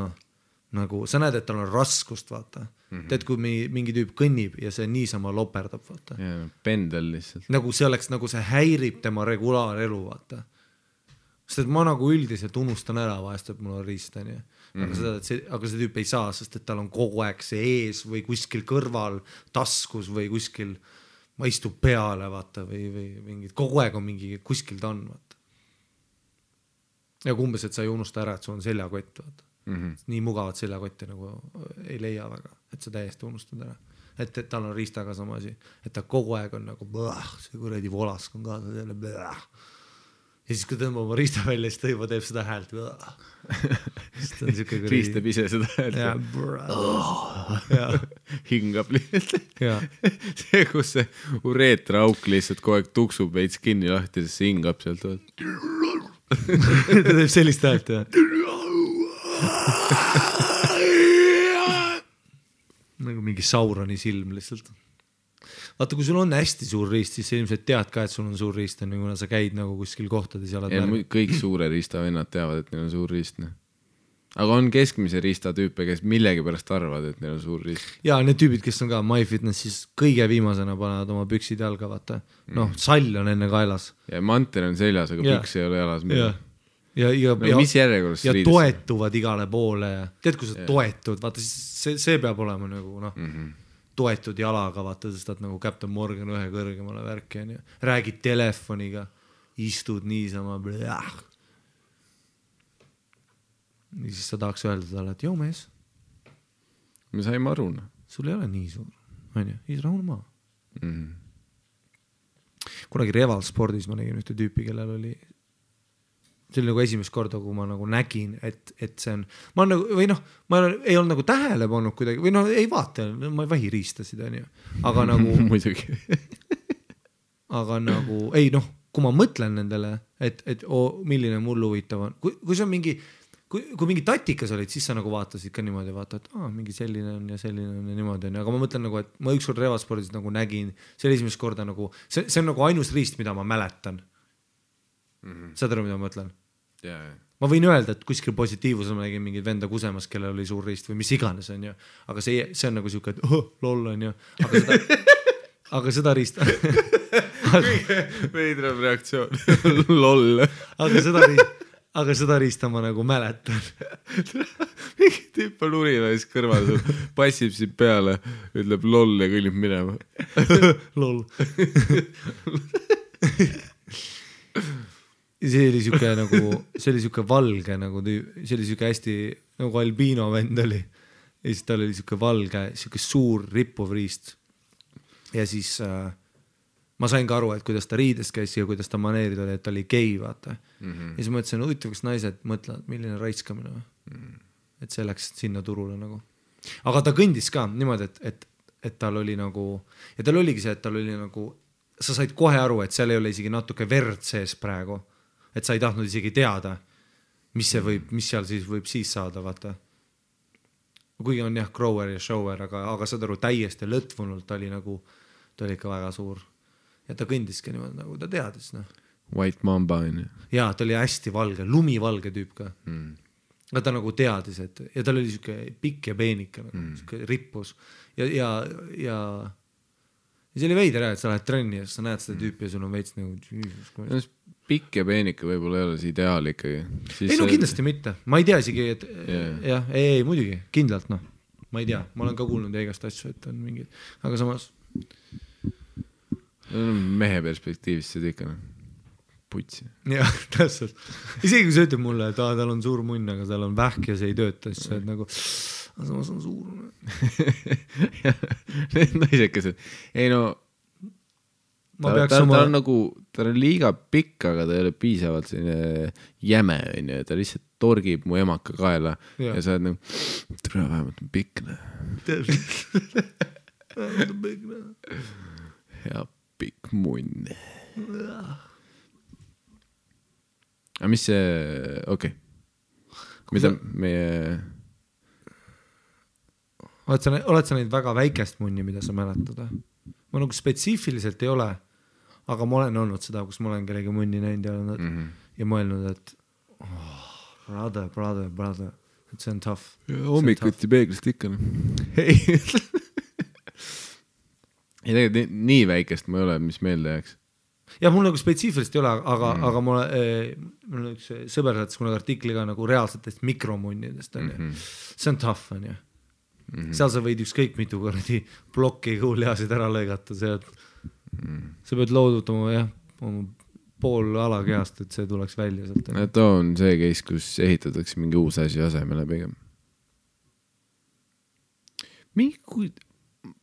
nagu sa näed, et tal on raskust, vaata. Teed, kui mingi tüüp kõnnib ja see niisama loperdab, vaata. Ja, pendel lihtsalt. Nagu see oleks, nagu see häirib tema regulaarelu, vaata. Sest et ma nagu üldiselt unustan ära vahest, et mul on riist, on ju. Aga see tüüp ei saa, sest et tal on kogu aeg see ees või kuskil kõrval, taskus või kuskil, ma istub peale, vaata, või mingid, kogu aeg on mingi, kuskil ta on, vaata. Ja kumbes, et sa ei unusta ära, et sul on seljakott, vaata. Nii mugavat seljakotti nagu ei leia väga, et sa täiesti unustad ära. Et tal on riistaga sama asi, et ta kogu aeg on nagu see kuradi volask on kaasa selle ja siis kui tõmbab oma riista välja, siis ta juba teeb seda häält. Riistab ise seda häält. Hingab lihtsalt. See, kus see ureetraauk lihtsalt kogu aeg tuksub veits kinni lahti, siis see hingab sealt. Ta teeb sellist häält, nagu mingi Sauroni silm lihtsalt. Vaata, kui sul on hästi suur riist, siis sa ilmselt tead ka, et sul on suur riist, kuna sa käid nagu kuskil kohtades ja kõik suure riista vennad teavad, et neil on suur riist. Aga on keskmise riista tüüpe, kes millegi pärast arvad, et neil on suur riist. Ja need tüübid, kes on ka MyFitnessis kõige viimasena panevad oma püksid jalga, vaata. Sall on enne kaelas. Ja mantel on seljas, aga püks ei ole jalas. Mis järjekorras ja toetuvad igale poole. Tead, kui sa toetud, vaata, see peab olema nagu, toetud jalaga, vaata, sest et nagu Captain Morgan ühe kõrgemale värki on ja räägid telefoniga, istud niisama ja siis sa tahaks öelda talle, et joo mees me saime aru, sul ei ole nii suur, on ju, siis rahune maa. Kunagi Reval spordis ma nägin ühte tüüpi, kellel oli see oli nagu esimest korda, kui ma nagu nägin, et see on, ma ei olnud nagu tähele pannud kuidagi, või ei vaata, ma ei vahi riistasid, on ju, aga nagu muidugi aga nagu ei noh, kui ma mõtlen nendele, et milline mul huvitav on, kui see on mingi, kui mingi tatikas olid, siis sa nagu vaatasid ka niimoodi, vaata, et mingi selline on ja niimoodi on, aga ma mõtlen nagu, et ma ükskord revaspordis nagu nägin, see oli esimest korda nagu, see on nagu ainus riist, mida ma mäletan. Saad aru, mida ma mõtlen? Ma võin öelda, et kuskil positiivusel ma nägin mingid venda kusemas, kellel oli suur riist või mis iganes on ju, aga see on nagu siuke, et lol on ju, aga seda riist veidram reaktsioon lol aga seda riista ma nagu mäletan. Mingi tüüp on urina ja siis kõrval passib siin peale, ütleb lol ja kõnnib minema. Lol. See oli siuke valge nagu, see oli siuke hästi nagu albiino vend oli. Ja siis tal oli siuke valge, siuke suur rippuv riist. Ja siis ma sain ka aru, et kuidas ta riides käis ja kuidas ta maneerid oli, et ta oli gei, vaata. Ja siis mõtlesin, huvitav, kas naised mõtlevad, milline raiskamine. Et see läks sinna turule nagu. Aga ta kõndis ka niimoodi, et tal oli nagu, ja tal oligi see, et tal oli nagu, sa said kohe aru, et seal ei ole isegi natuke verd sees praegu. Et sa ei tahtnud isegi teada, mis seal siis võib siis saada, vaata. Kuigi on jah, grower ja shower, aga saad aru, täiesti lõtvunult ta oli nagu, ta oli ikka väga suur. Ja ta kõndiski niimoodi, nagu ta teadis. No. White Mamba on ju. Jaa, ta oli hästi valge, lumivalge tüüp ka. Aga ta nagu teadis, ja tal oli siuke pikk ja peenike, siuke rippus. Ja see oli veider, et sa lähed trenni ja sa näed seda tüüpi ja sul on veits nagu... Pikk ja peenike võib-olla ei ole see ideaal ikkagi. Ei no kindlasti mitte. Ma ei tea isegi, et jah, ei, muidugi, kindlalt noh. Ma ei tea, ma olen ka kuulnud igast asju, et on mingid, aga samas... Mehe perspektiivist see ikka putsi. Jah, täpselt. Isegi kui sa ütleb mulle, et tal on suur munn, aga tal on vähk ja see ei tööta, siis sa oled nagu, samas on suur. Need naisekesed. Ei no, ta on nagu, ta on liiga pikk, aga ta ei ole piisavalt selline jäme, ta lihtsalt torgib mu emaka kaela ja sa oled nagu, tule vähemalt on pikne. Vähemalt on pikne. Ja pikk munn. Aga mis see, okei. Mida meie... Oled sa neid väga väikest munni, mida sa mäletad? Ma nagu spetsiifiliselt ei ole, aga ma olen olnud seda, kus ma olen kellegi munni näinud ja mõelnud, et brother, et see on tough. Hommikuti peeglist ikka. Ei, tegelikult nii väikest ma ei ole, mis meelde jääks. Ja mul nagu spetsiifilist ei ole, aga mul on üks sõber saatis kunagi artikli ka nagu reaalsetest mikromunnidest. See on tough, on ju. Seal sa võid ükskõik mitu kordi plokki kuuliasid ära lõigata. Sa pead loodutama pool alakehast, et see tuleks välja sealt. Too on see case, kus ehitatakse mingi uus asi asemele pigem.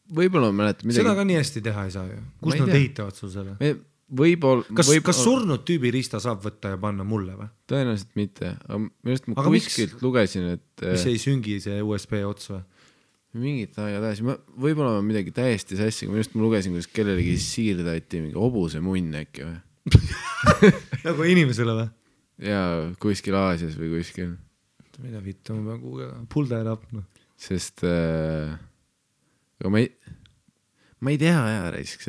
Võib-olla ma mäletan midagi. Seda ka nii hästi teha ei saa ju. Kus nad ehitavad sul selle? Kas surnud tüübi riista saab võtta ja panna mulle või? Tõenäoliselt mitte. Ma kuskilt lugesin, et... Mis ei süngi see USB ots või? Mingit aega tähes. Võib-olla ma midagi täiesti sassi, ma lugesin, kus kellelegi siirdati mingi hobuse munn äkki või? Nagu inimesele või? Jaa, kuskil Aasias või kuskil. Mida vittu, ma pean kuugega. Pulda ja lapna. Sest ma ei tea aja raisk,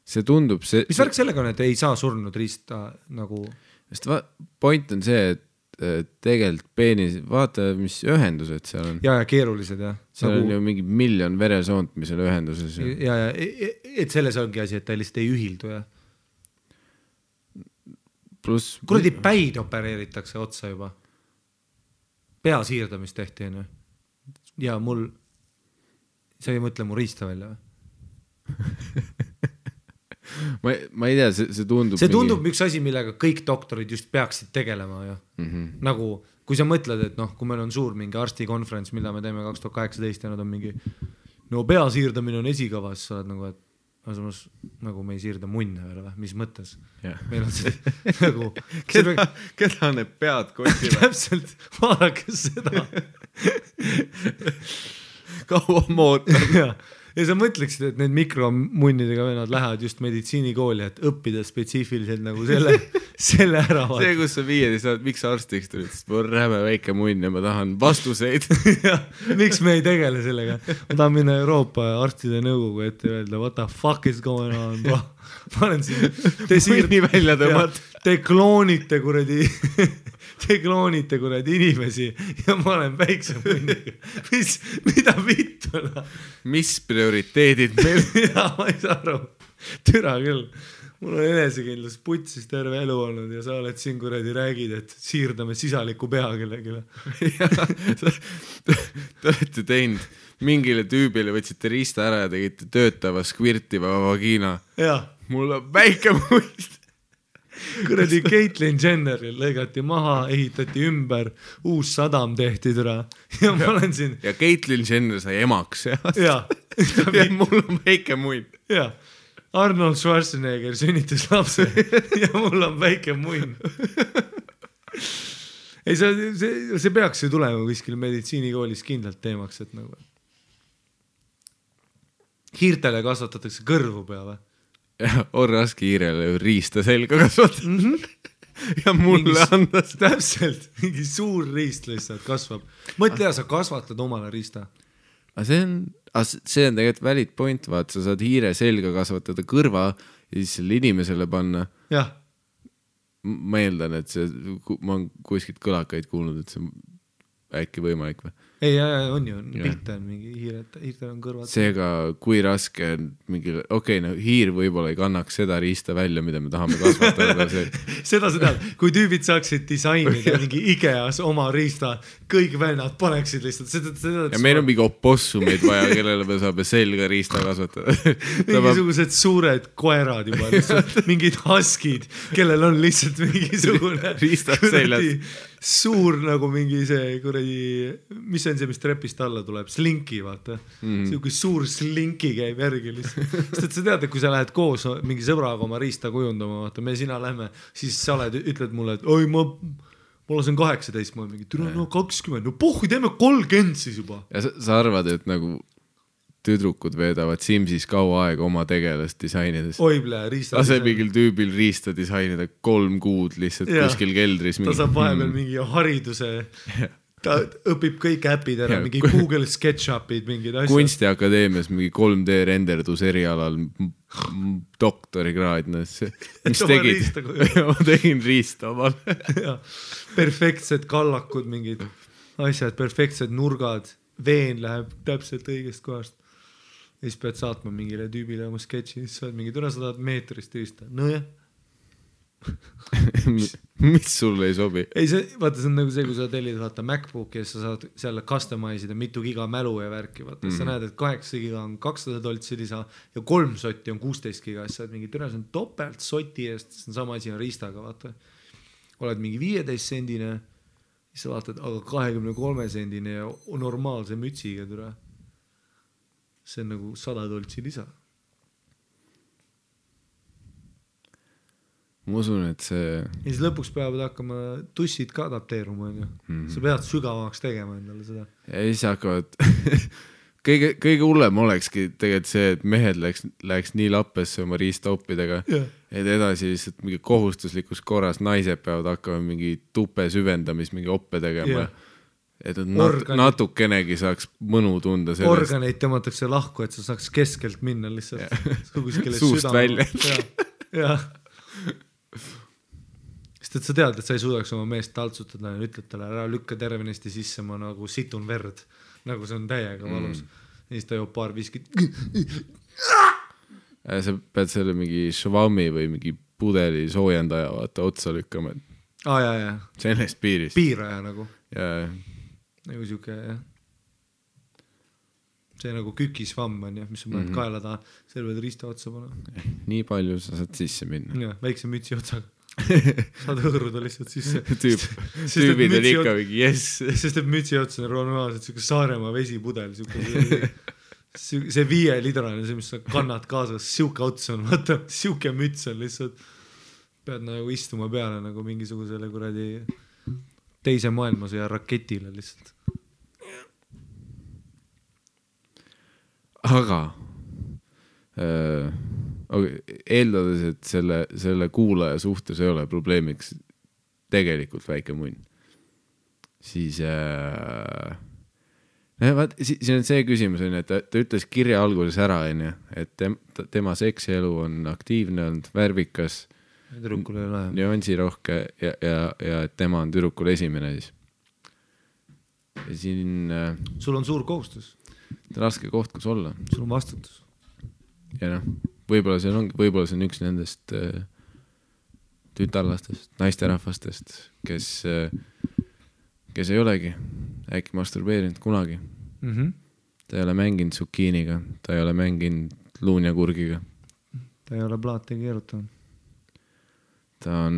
see tundub mis värk sellega on, et ei saa surnud riista nagu sest point on see, et tegelikult peenis, vaata mis ühendused seal on ja keerulised seal nagu... on ju mingi 1 miljon veresoont, mis on ühenduses ja et selles ongi asi, et ta lihtsalt ei ühildu pluss kuradi päid opereeritakse otsa juba pea siirdamist tehti ja mul sa ei mõtle mu riista välja või? ma ei tea, see tundub... See tundub üks asi, millega kõik doktorid just peaksid tegelema. Nagu, kui sa mõtled, et kui meil on suur mingi arstikonferents, mida me teeme 2018 ja nad on mingi, pea siirdamine on esikavas, sa oled nagu, et nagu me ei siirda munne veel või, mis mõttes? Meil on see nagu... Keda need pead kotivad? Täpselt, vaadake seda. Kaua ma ootan. ja sa mõtleksid, et need mikromunnidega vennad lähevad just meditsiinikooli, et õppida spetsiifiliselt nagu selle ära. See, kus sa 15 saad, miks sa arstiks tulid, sest mul on räme väike munn ja ma tahan vastuseid. Miks me ei tegele sellega? Ma tahan minna Euroopa arstide nõukogu ette ja öelda, what the fuck is going on, bro? Ma olen siin, te kloonite kuradi inimesi ja ma olen väikse munniga. Mida vittu? Mis prioriteedid meil? Ja, ma ei saa aru. Türa küll. Mul on enesekindlus putsis terve elu olnud ja sa oled siin kuradi räägid, et siirdame sisaliku pea kellegile. Te olete teinud mingile tüübile, võtsite riista ära ja tegite töötava skvirtiva vagina. Ja. Mul on väike muist. Kuradi Caitlyn Jenneril lõigati maha, ehitati ümber, uus sadam tehti türa. Ja ma olen siin... Ja Caitlyn Jenner sai emaks. Ja. Ja mul on väike munn. Ja. Arnold Schwarzenegger sünnitas lapse ja mul on väike munn. Ei, see peaks ju tulema kuskil meditsiinikoolis kindlalt teemaks, et nagu... Hiirtele kasvatatakse kõrvu peale. Ja on raske hiirele riista selga kasvatada. Ja mulle andas. Täpselt, mingi suur riist lihtsalt kasvab. Mõtle, sa kasvatad omale riista. See on tegelikult valid point, vaat sa saad hiire selga kasvatada kõrva ja siis selle inimesele panna. Jah. Ma eeldan, et ma olen kuskilt kõlakaid kuulnud, et see on äkki võimalik või? Ei, on ju, pilte on mingi hiirtel on kõrvad. Seega, kui raske on mingi, no hiir võib-olla ei kannaks seda riista välja, mida me tahame kasvatada. Seda sa tead, kui tüübid saaksid disainida mingi Ikeas oma riista, kõik vennad paneksid lihtsalt. Ja meil on mingi opossumid vaja, kellele me saame selga riista kasvatada. Mingisugused suured koerad juba, lihtsalt mingid huskid, kellel on lihtsalt mingisugune riista seljas. Suur nagu mingi see kuradi, mis on see, mis trepist alla tuleb, slinki, vaata. See kui suur slinki käib järgi lihtsalt. Sest et sa tead, et kui sa lähed koos mingi sõbraga oma riista kujundama, vaata, me sina lähme, siis sa ütled mulle, et oi, ma lasen 18, ma olen mingi, türa, no 20, no pohhu, teeme 30 siis juba. Ja sa arvad, et nagu tüdrukud veedavad Simsis kaua aega oma tegelast disainides. Oible, riista. Lase mingil tüübil riista disainida 3 kuud lihtsalt kuskil keldris. Ta saab vahepeal mingi hariduse, ta õpib kõik äpid ära, mingi Google SketchUpid, mingid asjad. Kunstiakadeemias mingi 3D renderdus erialal doktorikraad. Mis tegid? Ma tegin riista omal. Perfektsed kallakud, mingid asjad, perfektsed nurgad, veen läheb täpselt õigest kohast. Ja siis pead saatma mingile tüübile oma sketši, siis sa oled mingi, türa 100 meetrist riista. No jah. Mis sulle ei sobi? Ei, vaata, see on nagu see, kui sa tellid vaata MacBooki ja sa saad selle customize'ida mitu giga mälu ja värki. Vaata, sa näed, et 8 giga on 200 doltsi lisa ja 3 sotti on 16 giga. Siis sa oled mingi, türa, see on topelt soti eest, see on sama asi on riistaga, vaata. Oled mingi 15 sendine, siis sa vaatad, aga 23 sendine ja normaalse mütsiga, türa. See on nagu 100 doltsi lisa. Ma usun, et see... Ja siis lõpuks peavad hakkama tussid ka adapteeruma. Sa pead sügavamaks tegema endale seda. Ja siis hakkavad... kõige hullem olekski tegelikult see, et mehed läheks nii lappesse oma riistaoppidega, et edasi lihtsalt mingi kohustuslikus korras naised peavad hakkama mingi tupe süvendamis, mingi oppe tegema. Et natukenegi saaks mõnu tunda sellest. Organeid tõmmatakse lahku, et sa saaks keskelt minna lihtsalt. Suust välja. Jah. Sest et sa tead, et sa ei suudaks oma meest taltsutada ja ütled talle, ära lükka tervenesti sisse, ma nagu situn verd. Nagu see on täiega valus. Ja siis ta joob paar viskit. Sa pead selle mingi švami või mingi pudeli soojendaja vaata otsa lükkama. Ja. Sellest piirist. Piiraja nagu. Ja. Nagu siuke, jah. See nagu kükisvamm on, mis on mõned kaela taha, seal võid riista otsa panna. Nii palju sa saad sisse minna. Ja, väikse mütsi otsaga. Saad hõõruda lihtsalt sisse. Tüübid on ikka mingi, yes. Sest et mütsi otsa on normaalselt siuke Saaremaa vesipudel. See 5 litrane, see, mis sa kannad kaasas, siuke ots on, vaata, siuke müts on lihtsalt. Pead nagu istuma peale nagu mingisugusele kuradi teise maailmasõja raketile lihtsalt. Aga eeldades, et selle kuulaja suhtes ei ole probleemiks tegelikult väike munn, siis vaat, siin on see küsimus, et ta ütles kirja alguses ära, et tema seksielu on aktiivne olnud, värvikas, tüdrukul ei ole nüansirohke ja et tema on tüdrukul esimene siis. Ja siin sul on suur kohustus. Raske koht, kus olla. Sul on vastutus. Ja võib-olla see on üks nendest tütarlastest, naisterahvastest, kes ei olegi äkki masturbeerinud kunagi. Ta ei ole mänginud zukiiniga, ta ei ole mänginud luunjakurgiga. Ta ei ole plaate keerutanud. Ta on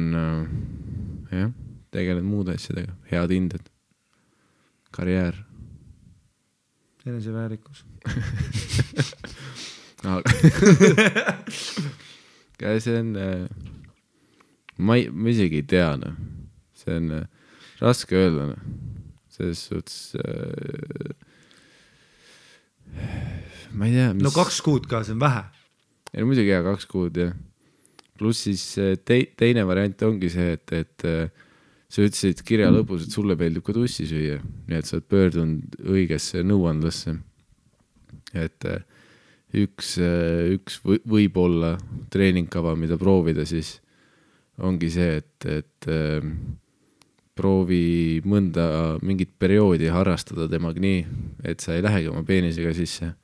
tegelenud muude asjadega, head hinded, karjäär. Eneseväärikus. See on ma isegi ei tea, see on raske öelda, selles suhtes ma ei tea no 2 kuud ka, see on vähe. Ei, muidugi 2 kuud, jah. Pluss siis teine variant ongi see, et sa ütlesid kirja lõpus, et sulle meeldib ka tussi süüa, nii et sa oled pöördunud õigesse nõuandlasse, et üks võib-olla treeningkava, mida proovida, siis ongi see, et proovi mingit perioodi harrastada temaga nii, et sa ei lähegi oma peenisega sisse,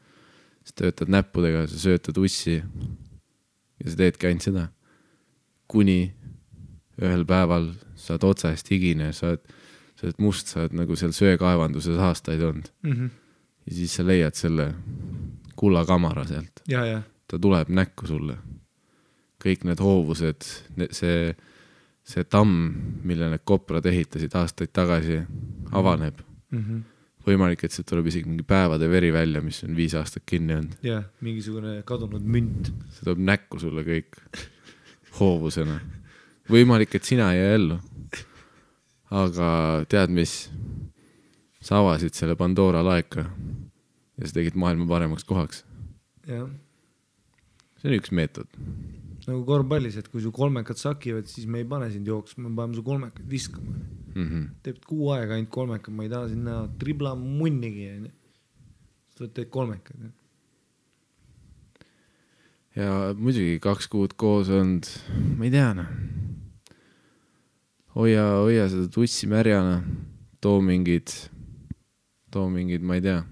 sa töötad näppudega, sa söötad ussi ja sa teedki ainult seda, kuni ühel päeval saad otsast higine, sa oled must, sa oled nagu seal söekaevanduses aastaid olnud. Ja siis sa leiad selle kullakamara sealt. Ja. Ta tuleb näkku sulle. Kõik need hoovused, see tamm, mille need koprad ehitasid aastaid tagasi, avaneb. Võimalik, et see tuleb isegi mingi päevade veri välja, mis on 5 aastat kinni olnud. Ja, mingisugune kadunud münt. See tuleb näkku sulle kõik hoovusena. Võimalik, et sina ei ellu. Aga tead mis? Sa avasid selle Pandora laeka ja sa tegid maailma paremaks kohaks. Ja. See on üks meetod. Nagu korvpallis, et kui su kolmekad sakivad, siis me ei pane sind jooksma, me paneme su kolmekad viskama. Teeb 6 aega ainult kolmekad, ma ei taha sinna tribla munnigi. Sa teed kolmekad. Ja muidugi 2 kuud koos olnud, ma ei tea, hoia seda tussi märjana, too mingid, ma ei tea,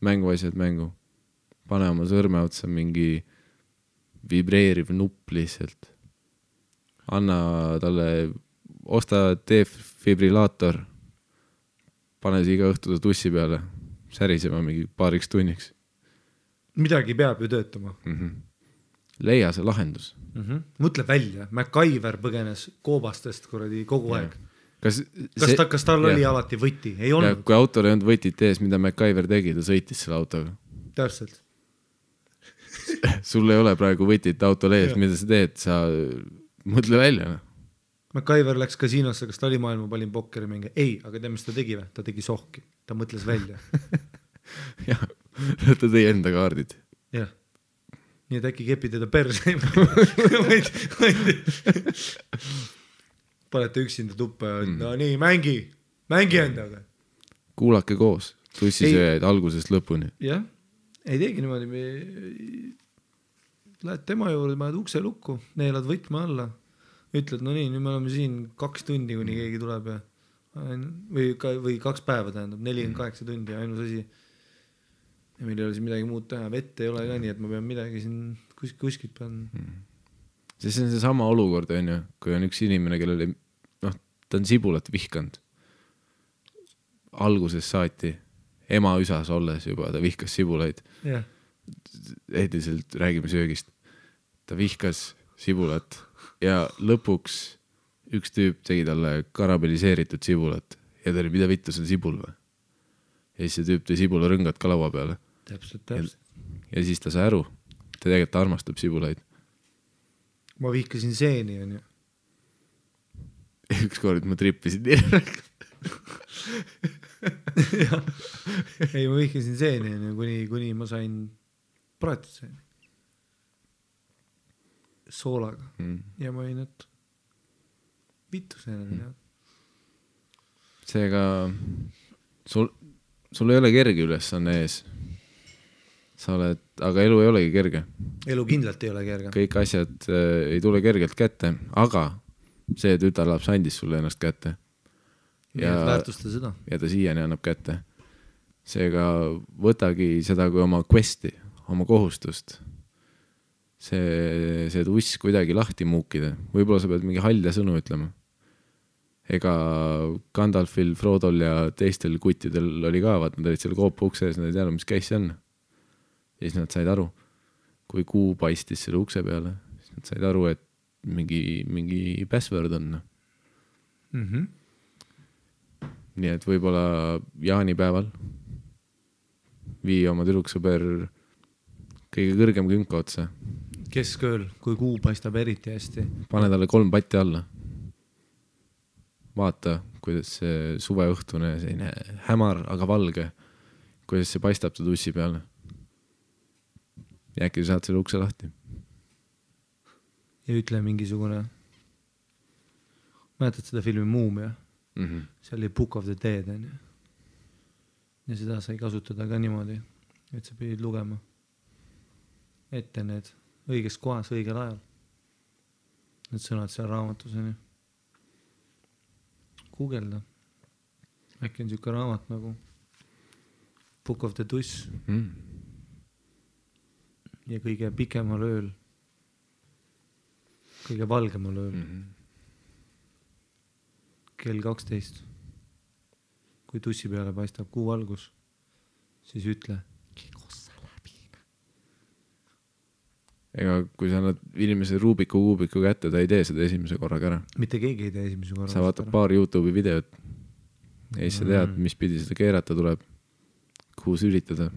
mänguasjad mängu, pane oma sõrme otsa mingi vibreeriv nupp lihtsalt, anna talle, osta defibrillaator, pane see iga õhtu tussi peale, särisema mingi paariks tunniks. Midagi peab ju töötama. Leia see lahendus. Mõtle välja, MacGyver põgenes koobastest kuradi kogu aeg. Kas tal oli alati võti? Ei olnud. Kui autol ei olnud võtit ees, mida MacGyver tegi, ta sõitis selle autoga. Täpselt. Sul ei ole praegu võtit autol ees, mida sa teed, sa mõtle välja. MacGyver läks kasiinosse, kas ta oli maailma palim pokkeri mingi? Ei, aga tead, mis ta tegi või? Ta tegi sohki. Ta mõtles välja. Jah, ta tõi enda kaardid. Jah. Nii et äkki kepi teda perse. Panete üksinda tuppa ja no nii, mängi endaga. Kuulake koos, tussisööjaid algusest lõpuni. Jah, ei teegi niimoodi. Lähed tema juurde, paned ukse lukku, neelad võtma alla. Ütled, no nii, nüüd me oleme siin 2 tundi, kuni keegi tuleb. Või 2 päeva tähendab, 48 tundi ja ainus asi. Ja meil ei ole siin midagi muud teha. Vett ei ole ka nii, et ma pean midagi siin kuskilt pean. See on see sama olukord, kui on üks inimene, kellele ta on sibulat vihkanud. Alguses saati ema üsas olles juba, ta vihkas sibulaid. Yeah. Ehdiselt räägime söögist. Ta vihkas sibulat ja lõpuks üks tüüp tegi talle karameliseeritud sibulat ja ta oli, mida vittu see sibul või? Ja siis see tüüp tõi sibula rõngad ka laua peale. Täpselt. Ja siis ta sai aru, ta tegelikult armastab sibulaid. Ma vihkasin seeni, on ju. Ükskord ma trippisin nii. Ei, ma vihkasin seeni, kuni ma sain praetud seeni. soolaga ja ma olin, et vittu see seega sul ei ole kerge ülesanne ees. Sa oled, aga elu ei olegi kerge. Elu kindlalt ei ole kerge. Kõik asjad ei tule kergelt kätte, aga see tütarlaps andis sulle ennast kätte. Ja väärtusta seda. Ja ta siiani annab kätte. Seega võtagi seda kui oma questi, oma kohustust. See tuss kuidagi lahti muukida. Võib-olla sa pead mingi halja sõnu ütlema. Ega Gandalfil, Frodol ja teistel kuttidel oli ka, vaat nad olid seal koopa ukse ees, nad ei teadnud, mis käis see on. Ja siis nad said aru, kui kuu paistis selle ukse peale, siis nad said aru, et mingi password on. Nii et võib-olla jaanipäeval vii oma tüdruksõber kõige kõrgem künka otsa. Keskööl, kui kuu paistab eriti hästi. Pane talle 3 patti alla. Vaata, kuidas see suveõhtune, selline hämar, aga valge, kuidas see paistab ta tussi peale. Ja äkki saad selle ukse lahti. Ja ütle mingisugune, mäletad seda filmi Muumia? See oli Book of the Dead. Ja seda sai kasutada ka niimoodi, et sa pidid lugema ette need õiges kohas, õigel ajal. Need sõnad seal raamatuseni. Googelda. Äkki on siuke raamat nagu Book of the Tuss. Ja kõige pikemal ööl, kõige valgemal ööl, kell 12, kui tussi peale paistab kuu valgus, siis ütle, kikossa läbi. Ega kui sa annad inimese Rubiku kuubiku kätte, ta ei tee seda esimese korraga ära. Mitte keegi ei tee esimese korraga. Sa vaatad paar YouTube'i videot ja siis sa tead, mis pidi seda keerata tuleb, kuhu sülitada.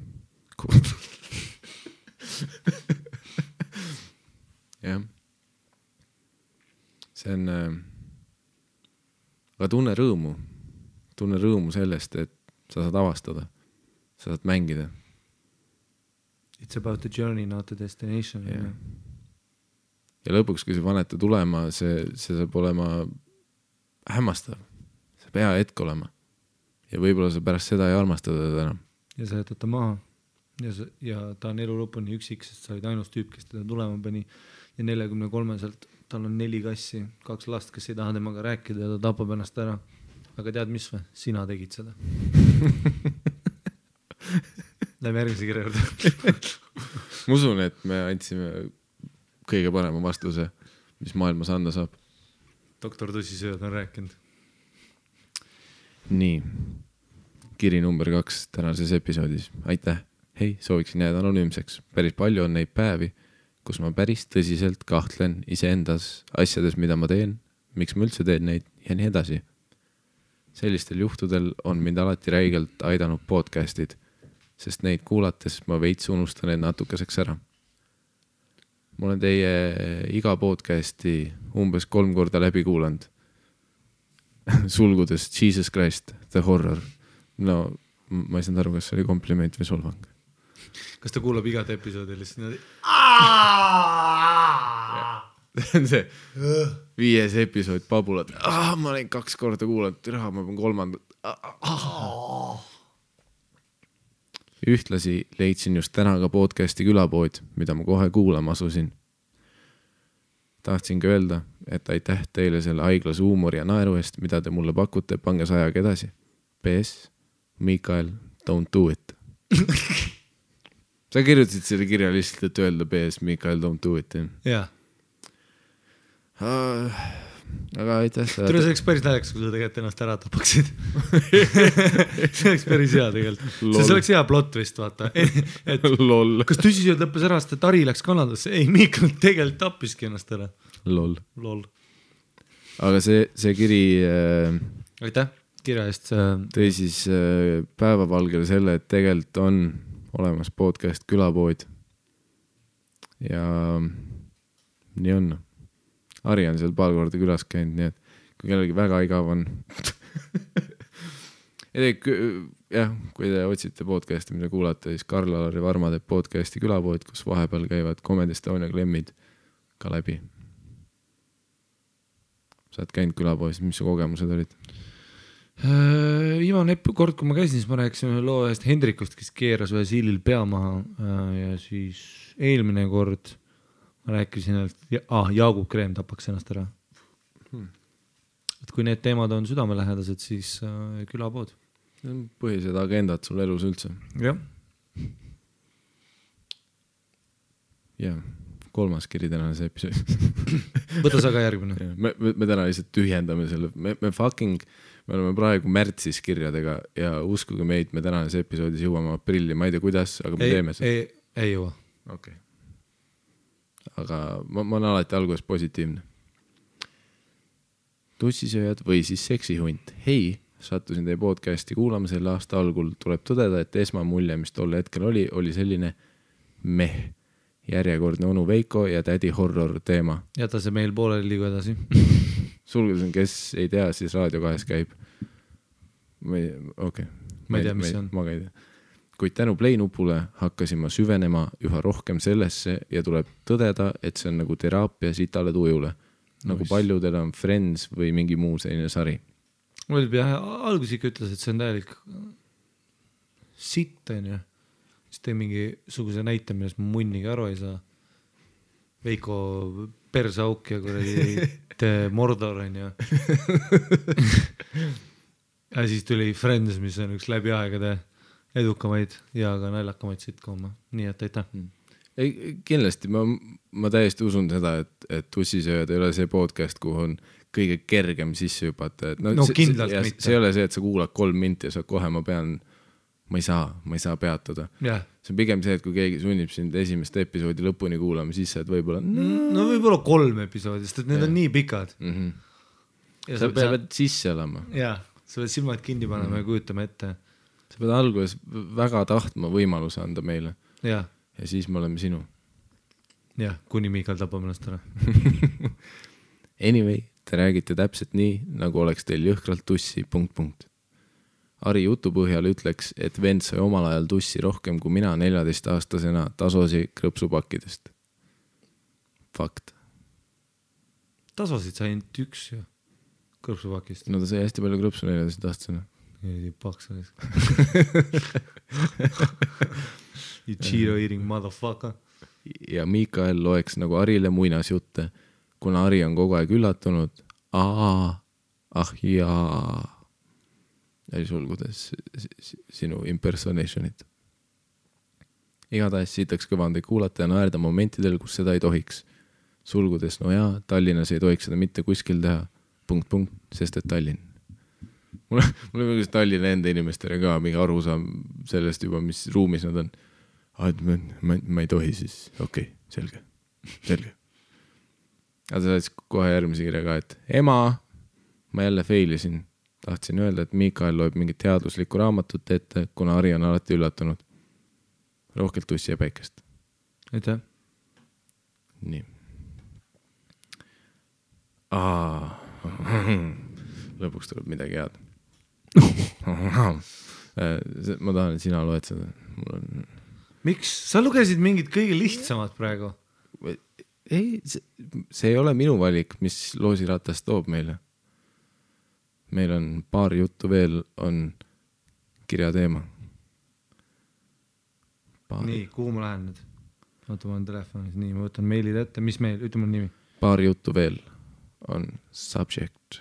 Jah. See on aga tunne rõõmu sellest, et sa saad avastada, sa saad mängida. It's about the journey, not the destination. Yeah. Ja lõpuks, kui see panete tulema, see saab olema hämmastav. See pea hetk olema. Ja võib-olla sa pärast seda ei armastada teda enam. Ja sa jätad ta maha. Ja ta on elu lõpuni üksik, sest sa olid ainus tüüp, kes teda tulema pani. Ja 43-selt tal on 4 kassi, 2 last, kes ei taha temaga rääkida ja ta tapab ennast ära. Aga tead mis või? Sina tegid seda. Lähme järgmise kirja juurde. Ma usun, et me andsime kõige parema vastuse, mis maailmas anda saab. Doktor Tussisööd on rääkinud. Nii. Kiri number 2 tänases episoodis. Aitäh! Hei, sooviksin jääda anonüümseks. Päris palju on neid päevi, kus ma päris tõsiselt kahtlen iseendas asjades, mida ma teen, miks ma üldse teen neid ja nii edasi. Sellistel juhtudel on mind alati räigelt aidanud podcastid, sest neid kuulates ma veits unustan need natukeseks ära. Ma olen teie iga podcasti umbes 3 korda läbi kuulanud. Sulgudes Jesus Christ, the horror. No, ma ei saanud aru, kas see oli kompliment või solvang. Kas ta kuulab igat episoodi lihtsalt? See on see 5. episood Pabulad. Ma olen 2 korda kuulanud, ma pean 3. Ühtlasi leidsin just täna ka podcasti Külapood, mida ma kohe kuulama asusin. Tahtsingi öelda, et aitäh teile selle haiglas huumori ja naeru eest, mida te mulle pakute, pange sajaga edasi. PS, Mikael, don't do it. Sa kirjutasid selle kirja lihtsalt, et öelda PS, Mikael, don't do it. Jaa. Aga aitäh. Tule, see oleks päris naljakas, kui sa tegelikult ennast ära tapaksid. See oleks päris hea tegelikult. See oleks hea plot vist, vaata. Et, kas Tussisööd lõppes ära, sest Tari läks Kanadasse? Ei, Mikael tegelikult tappiski ennast ära. Lol. Aga see kiri aitäh kirja eest. Tõi siis päevavalgele selle, et tegelikult on olemas podcast Külapood. Ja nii on. Ari on seal paar korda külas käinud, nii et kui kellelgi väga igav on. Jah, kui te otsite podcasti, mida kuulate, siis Karl-Alari Varma teeb podcasti Külapood, kus vahepeal käivad Comedy Estonia klemmid ka läbi. Sa oled käinud külapoes, mis su kogemused olid? Viimane kord, kui ma käisin, siis ma rääkisin ühe loo ühest Hendrikust, kes keeras ühe siilil pea maha ja siis eelmine kord ma rääkisin, et Jaagup Kreem tapaks ennast ära. Et kui need teemad on südamelähedased, siis külapood. Põhilised agendad sul elus üldse. Jah. Ja 3. kiri tänane see episood. Võta sa ka järgmine. Me täna lihtsalt tühjendame selle. Me oleme praegu märtsis kirjadega ja uskuge meid, me tänanes episoodis jõuame aprilli. Ma ei tea, kuidas, aga me teeme seda. Ei jõua. Okay. Aga ma olen alati alguses positiivne. Tussisööjad või siis seksihunt. Hei, sattusin teie podcasti kuulama selle aasta algul. Tuleb tõdeda, et esmamulje, mis tol hetkel oli selline järjekordne onu Veiko ja tädi horror teema. Jäta see meil pooleli liigu edasi. Sulgudes on, kes ei tea, siis Raadio 2 käib. Ma ei tea, mis see on. Ma ka ei tea. Kuid tänu Play-nupule hakkasin ma süvenema üha rohkem sellesse ja tuleb tõdeda, et see on nagu teraapia sitale tujule. Nagu paljudel on Friends või mingi muu selline sari. Algus ikka ütles, et see on täielik sitt, on ju. Siis tee mingi suguse näite, millest ma munniga aru ei saa. Veiko persauk ja Mordor, on ju. Ja siis tuli Friends, mis on üks läbi aegade edukamaid ja ka naljakamaid sitcom. Nii et aitäh. Kindlasti, ma täiesti usun seda, et Tussisööjad ei ole see podcast, kuhu on kõige kergem sisse hüpata. No kindlalt mitte. See ei ole see, et sa kuulad 3 minti ja sa kohe ma ei saa peatuda. Yeah. See on pigem see, et kui keegi sunnib sind esimest episoodi lõpuni kuulama, siis sa võib-olla... No võib-olla 3 episoodi, sest et need on nii pikad. Ja sa pead sisse olema. Jah, sa pead silmad kinni panema ja kujutama ette. Sa pead alguses väga tahtma võimaluse anda meile. Ja siis me oleme sinu. Jah, kuni Miikal tapab ennast ära. Anyway, te räägite täpselt nii, nagu oleks teil jõhkralt tussi ... Ari jutu põhjal ütleks, et vend sai omal ajal tussi rohkem kui mina 14-aastasena tasosi krõpsupakkidest. Fakt. Tasosid sai ainult üks ju krõpsupakist. No ta sai hästi palju krõpsu 14-aastasena. Ei paks olis. You Cheeto eating motherfucker. Ja Miikael loeks nagu Arile muinasjutte, kuna Ari on kogu aeg üllatunud. Jaa. Ja sulgudes sinu impersonationit. Igatahes siitaks kõvandi kuulata ja naerda momentidel, kus seda ei tohiks. Sulgudes, no jaa, Tallinnas ei tohiks seda mitte kuskil teha. ... sest et Tallinn. Mul on mingi Tallinna enda inimestele ka mingi arusaam sellest juba, mis ruumis nad on. Ma ei tohi siis. Okei, selge. Aga sa saad kohe järgmise kirja ka, et ema, ma jälle failisin. Tahtsin öelda, et Miikael loeb mingit teaduslikku raamatut ette, kuna Ari on alati üllatunud. Rohkelt tussi ja päikest. Aitäh. Nii. Lõpuks tuleb midagi head. Ma tahan, et sina loed seda. Miks? Sa lugesid mingid kõige lihtsamad praegu. Ei, see ei ole minu valik, mis loosiratas toob meile. Meil on paar juttu veel, on kirja teema. Nii, kuhu ma lähen nüüd? Oota, ma olen telefonis. Nii, ma võtan meilid ette. Mis meil? Ütle mul nimi. Paar juttu veel on subject.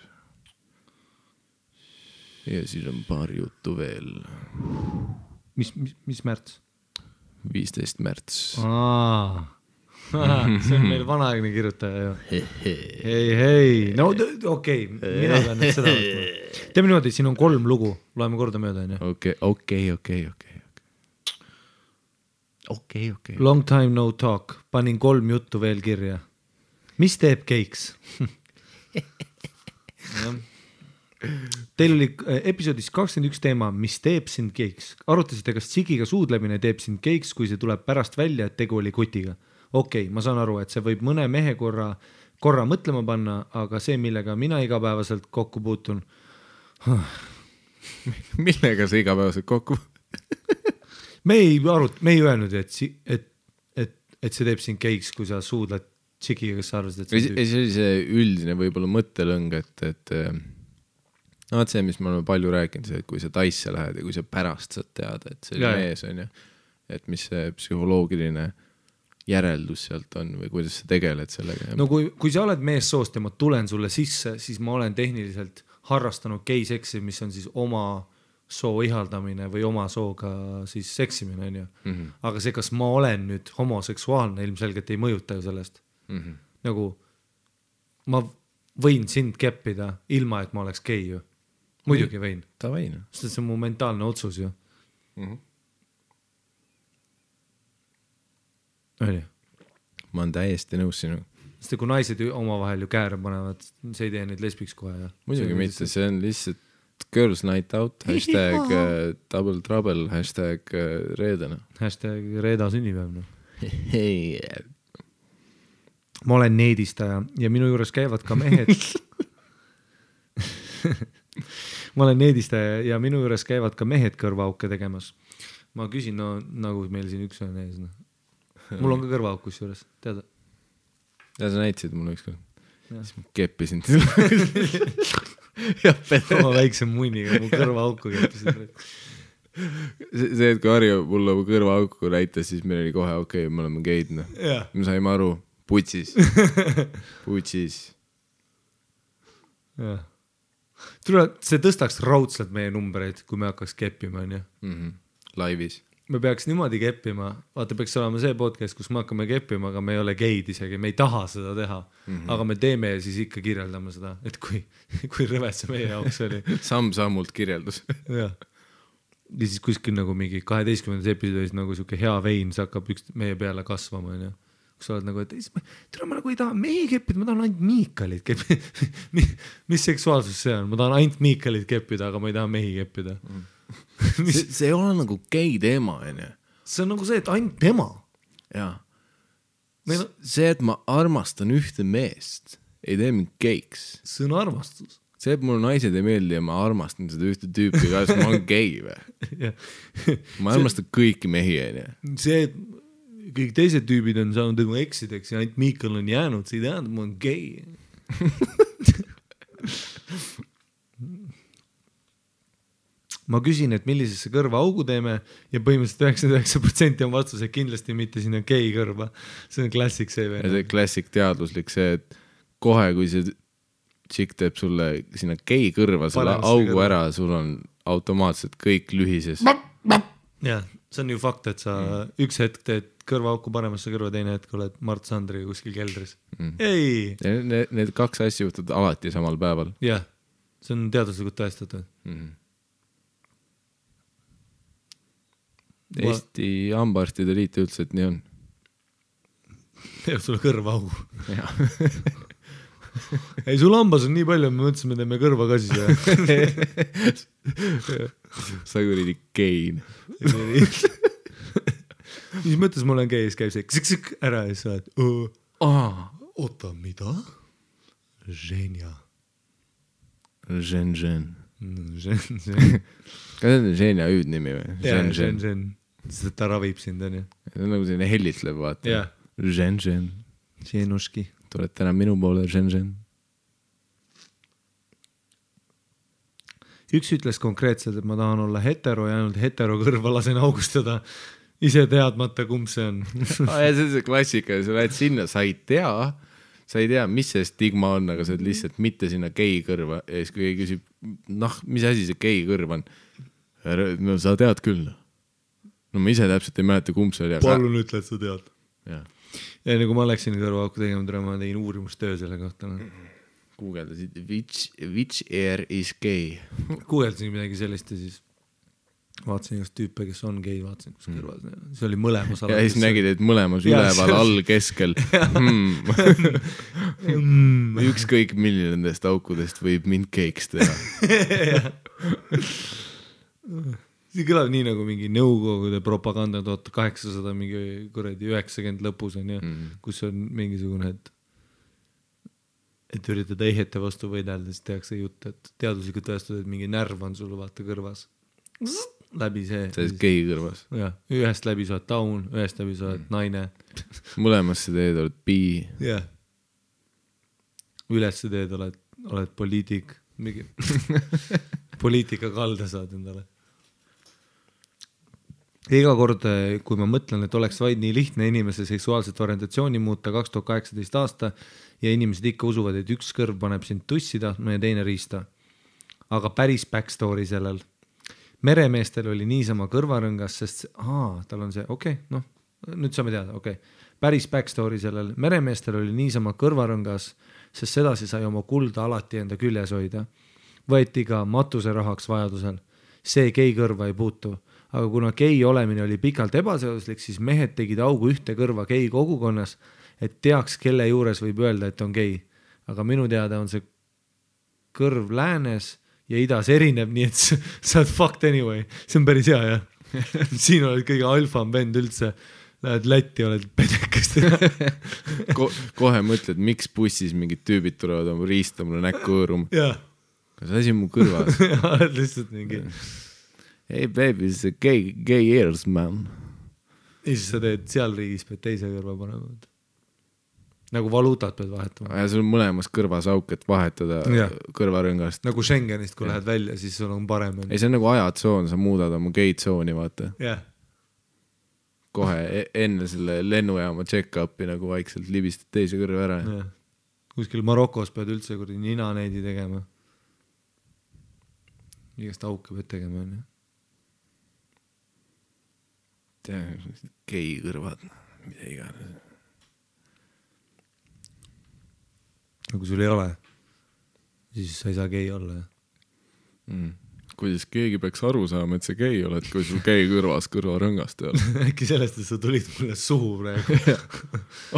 Ja siis on paar juttu veel. Mis märts? 15 märts. See on meil vanaaegne kirjutaja ju. Hei. No okei, mina pean nüüd seda võtma. Teeme niimoodi, siin on 3 lugu. Loeme korda mööda. Okei. Long time no talk. Panin 3 juttu veel kirja. Mis teeb keiks? Teil oli episoodis 21 teema, mis teeb sind keiks. Arutasite, kas tsigiga suudlemine teeb sind keiks, kui see tuleb pärast välja, et tegu oli kutiga. Okei, ma saan aru, et see võib mõne mehe korra mõtlema panna, aga see, millega mina igapäevaselt kokku puutun. Millega sa igapäevaselt kokku? Me ei öelnud, et see teeb sind keiks, kui sa suudled tšikiga, kes sa arvasid, et see oli see üldine võib-olla mõttelõng, et no see, mis me oleme palju rääkinud, see, et kui sa taisse lähed ja kui sa pärast saad teada, et see oli mees on ju, et mis see psühholoogiline järeldus sealt on või kuidas sa tegeled sellega. No kui sa oled meessoost ja ma tulen sulle sisse, siis ma olen tehniliselt harrastanud geiseksi, mis on siis oma soo ihaldamine või oma sooga siis seksimine, on ju. Aga see, kas ma olen nüüd homoseksuaalne, ilmselgelt ei mõjuta ju sellest. Nagu ma võin sind keppida ilma, et ma oleks gei ju. Muidugi võin. Ta võin. Sest see on mu mentaalne otsus ju. Oli. Ma olen täiesti nõus sinu. Sest kui naised oma vahel ju kääre panevad, see ei tee neid lesbiks kohe. Muidugi mitte, see on lihtsalt girls night out, hashtag double trouble, hashtag reedena. Hashtag reeda sünnipäev. Hei. Ma olen needistaja ja minu juures käivad ka mehed. Ma olen needistaja ja minu juures käivad ka mehed kõrvaauke tegemas. Ma küsin, no nagu meil siin üks on ees. No. Mul on ka kõrvaauk kus juures, teada? Ja sa näitasid mulle ükskord. Siis ma keppisin. Oma väikse munniga mu kõrvaauku keppisin. See, et kui Harju mulle mu kõrvaauku näitas, siis meil oli kohe okei, me oleme geid. No. Me saime aru, putsis. See tõstaks raudselt meie numbreid, kui me hakkaks keppima, on ju? Laivis. Me peaks niimoodi keppima, vaata peaks olema see podcast, kus me hakkame keppima, aga me ei ole geid isegi, me ei taha seda teha, aga me teeme ja siis ikka kirjeldame seda, et kui rõved see meie jaoks oli. Samm-sammult kirjeldus. Ja siis kuskil nagu mingi 12. episoodis nagu siuke hea vein, see hakkab meie peale kasvama, on ju. Kus sa oled nagu, et ma nagu ei taha mehi keppida, ma tahan ainult Miikalit keppida. Mis seksuaalsus see on? Ma tahan ainult Miikalit keppida, aga ma ei taha mehi keppida. See ei ole nagu gei teema, on ju. See on nagu see, et ainult tema. Jaa. See, et ma armastan ühte meest, ei tee mind geiks. See on armastus. See, et mulle naised ei meeldi ja ma armastan seda ühte tüüpi, kas ma olen gei või? Ma armastan kõiki mehi, on ju. See, et kõik teised tüübid on saanud nagu eksideks ja ainult Miikal on jäänud, see ei tähenda, ma olen gei. Ma küsin, et millisesse kõrva augu teeme ja põhimõtteliselt 99% on vastus, et kindlasti mitte sinna gei kõrva. See on klassik see veel. Ja see klassik teadluslik see, et kohe kui see tšik teeb sulle sinna gei kõrva selle augu ära, sul on automaatselt kõik lühises. Jah, see on ju fakt, et sa üks hetk teed kõrvaauku paremasse kõrva, teine hetk oled Mart Sandriga kuskil keldris. Ei! Need kaks asja juhtud alati samal päeval. Jah, see on teaduslikult tõestatud. Eesti hambaarstide liit üldse, et nii on. Teeb sulle kõrvaaugu. Ei, sul hambas on nii palju, me mõtlesime, teeme kõrva ka siis. Sa kuridi gein. Mis mõttes ma olen gei, siis käib see ksik ära ja sa oled oota, mida? Ženja. Ženžen. Kas see on Ženja hüüdnimi või? Ženžen. Sest ta ravib sind, on ju. See on nagu selline hellitlev, vaata. Ženžen. Ženuški. Tuled täna minu poole, Ženžen. Üks ütles konkreetselt, et ma tahan olla hetero ja ainult hetero kõrva lasen augustada ise teadmata, kumb see on. See on see klassika, sa lähed sinna, sa ei tea, mis see stigma on, aga sa oled lihtsalt mitte sinna gei kõrva ja siis kui keegi küsib, mis asi see gei kõrv on? No sa tead küll. No ma ise täpselt ei mäleta, kumb see oli. Palun ütle, et sa tead. Ja nagu ma läksin kõrvaauku tegema, ma tegin uurimustöö selle kohta. Guugeldasid, which ear is gay? Guugeldasin midagi sellist ja siis vaatasin igast tüüpe, kes on gei, vaatasin, kus kõrvas. See oli mõlemas ja siis nägid, et mõlemas üleval, all, keskel. Ükskõik milline nendest aukudest võib mind geiks teha. See kõlab nii nagu mingi nõukogude propaganda 1800 mingi 90 lõpus on ja, kus on mingisugune, et üritada eihete vastu võidelda, siis tehakse jutt, et teaduslikult tõestada, et mingi närv on sul vaata kõrvas. läbi see. sa oled gei kõrvas. Jah, ühest läbi sa oled taun, ühest läbi sa oled naine. Mõlemasse teed oled bi. Jah. Ülesse teed oled poliitik. Mingi poliitika kalda saad endale. Iga kord, kui ma mõtlen, et oleks vaid nii lihtne inimese seksuaalset orientatsiooni muuta 2018 aasta ja inimesed ikka usuvad, et üks kõrv paneb sind tussi tahtma ja teine riista. Aga päris backstory sellel. Meremeestel oli niisama kõrvarõngas, sest tal on see, noh, nüüd saame teada, Päris backstory sellel. Meremeestel oli niisama kõrvarõngas, sest sedasi sai oma kulda alati enda küljes hoida. Võeti ka matuse rahaks vajadusel. See gei kõrva ei puutu. Aga kuna gei olemine oli pikalt ebaseaduslik, siis mehed tegid augu ühte kõrva gei kogukonnas, et teaks, kelle juures võib öelda, et on gei. Aga minu teada on see kõrv läänes ja idas erineb, nii et sa oled fucked anyway. See on päris hea, jah. Siin oled kõige alfam vend üldse. Lähed Lätti, oled pedekast. Kohe mõtled, miks bussis mingid tüübid tulevad oma riista mulle näkku hõõruma. Jah. Kas asi mu kõrvas? Oled lihtsalt mingi... Hey baby, it's a gay ears, man. Ja siis sa teed seal riigis, pead teise kõrva panema. Nagu valuutat pead vahetama. Ja sul on mõlemas kõrvas auk, et vahetada kõrvarõngast. Nagu Schengenist, kui lähed välja, siis sul on parem. Ei, see on nagu ajatsoon, sa muudad oma gay-tsooni, vaata. Jah. Kohe enne selle lennujaama check-upi nagu vaikselt libistad teise kõrva ära. Ja. Kuskil Marokos pead üldse kurdi nina neidi tegema. Igast auke pead tegema, on ju. Gei kõrvad, mida iganes. Kui sul ei ole, siis sa ei saa gei olla. Kuidas keegi peaks aru saama, et sa gei oled, kui sul gei kõrvas kõrvarõngast ei ole? Äkki sellest, et sa tulid mulle suhu praegu.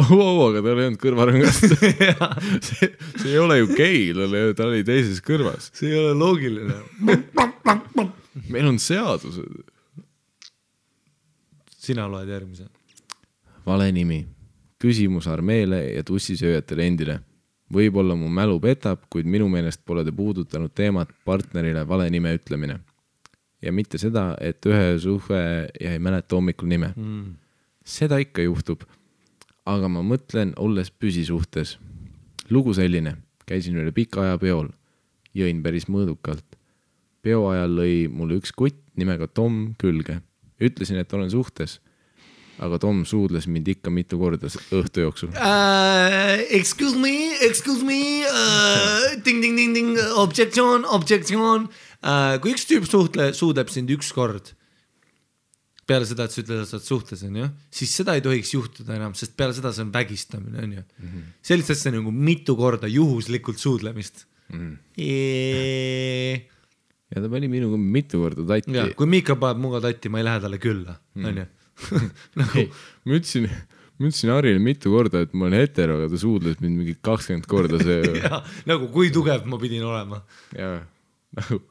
Aga tal ei olnud kõrvarõngast. see ei ole ju gei, ta oli teises kõrvas. See ei ole loogiline. Meil on seadused. Sina loed järgmise. Vale nimi. Küsimus armeele ja tussisööjatele endile. Võib-olla mu mälu petab, kuid minu meelest pole te puudutanud teemat partnerile vale nime ütlemine. Ja mitte seda, et ühe suhe ja ei mäleta hommikul nime. Seda ikka juhtub. Aga ma mõtlen, olles püsisuhtes. Lugu selline. Käisin üle pika aja peol. Jõin päris mõõdukalt. Peo ajal lõi mulle üks kutt nimega Tom külge. Ütlesin, et olen suhtes, aga Tom suudles mind ikka mitu korda õhtu jooksul. Excuse me, ding, objection. Kui üks tüüp suudleb sind üks kord, peale seda, et sa ütled, et sa oled suhtes, on ju, siis seda ei tohiks juhtuda enam, sest peale seda see on vägistamine, on ju. Sellist asja nagu mitu korda juhuslikult suudlemist. Ja ta pani minuga mitu korda tatti. Ja, kui Miika paneb muga tatti, ma ei lähe talle külla. Nagu... Ma ütlesin Harile mitu korda, et ma olen hetero, aga ta suudles mind mingi 20 korda see... ja, nagu kui tugev ma pidin olema. Ja, nagu...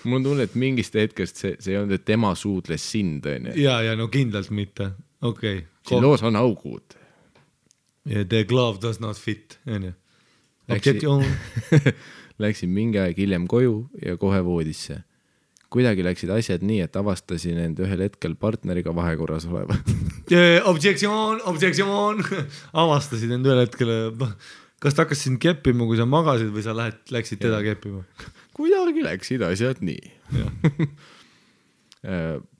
Mul on tunne, et mingist hetkest see ei olnud, et tema suudles sind. Ja, no kindlalt mitte. Okay. Siin loos on augud. Yeah, the glove does not fit. Objection. Läksin mingi aeg hiljem koju ja kohe voodisse. Kuidagi läksid asjad nii, et avastasin end ühel hetkel partneriga vahekorras oleva. Objection. Avastasid end ühel hetkel. Kas ta hakkas sind keppima, kui sa magasid või sa läksid teda keppima? Kuidagi läksid asjad nii.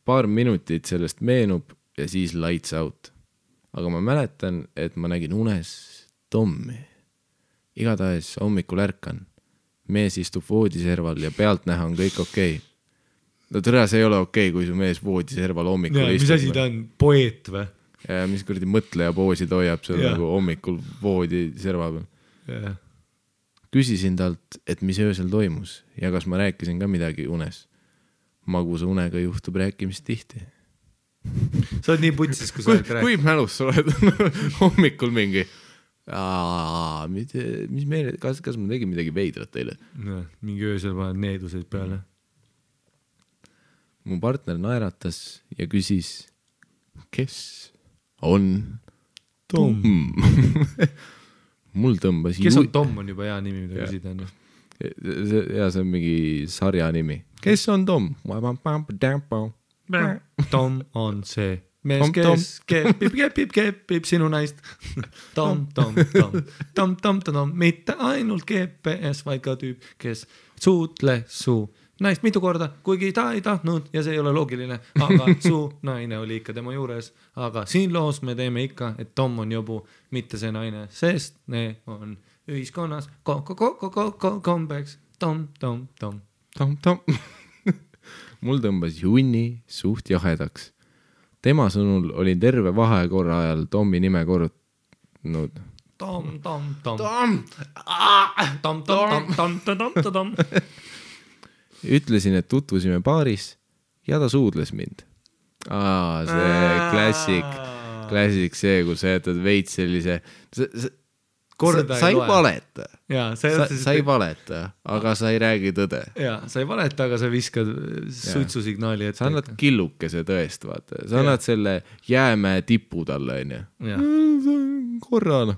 Paar minutit sellest meenub ja siis lights out. Aga ma mäletan, et ma nägin unes Tommi. Igatahes hommikul ärkan. Mees istub voodiserval ja pealt näha on kõik okei. No tõra, see ei ole okei, kui su mees voodiserval hommikul istub. Mis asi ta on? Poeet või? Ja mis kuradi mõtleja poosi ta hoiab seal nagu hommikul voodiserva peal. Küsisin talt, et mis öösel toimus ja kas ma rääkisin ka midagi unes. Magusa unega juhtub rääkimist tihti. Sa oled nii putsis, kui sa oled rääkimist. Kui mälus sa oled hommikul mingi... mis meile, kas ma tegin midagi veidrat teile? No, mingi öösel paned needuseid peale. Mu partner naeratas ja küsis, kes on Tom? Mul tõmbas kes on Tom on juba hea nimi, mida küsida. ja see on mingi sarja nimi. Kes on Tom? Tom on see mees, kes kepib sinu naist. Tom, mitte ainult GPS, vaid ka tüüp, kes suutle su naist mitu korda, kuigi ta ei tahtnud ja see ei ole loogiline, aga su naine oli ikka tema juures. Aga siin loos me teeme ikka, et Tom on jobu, mitte see naine, sest ne on ühiskonnas kombeks. Tom. Mul tõmbas junni suht jahedaks. Tema sõnul oli terve vahekorra ajal Tommi nime korrutanud. Tom. Ütlesin, et tutvusime baaris ja ta suudles mind. See klassik see, kus sa jätad veits sellise... Sa ei valeta. Sa ei valeta, aga sa ei räägi tõde. Sa ei valeta, aga sa viskad suitsusignaali ette. Sa annad killukese tõest, vaata. Sa annad selle jäämäe tipu talle, korrana.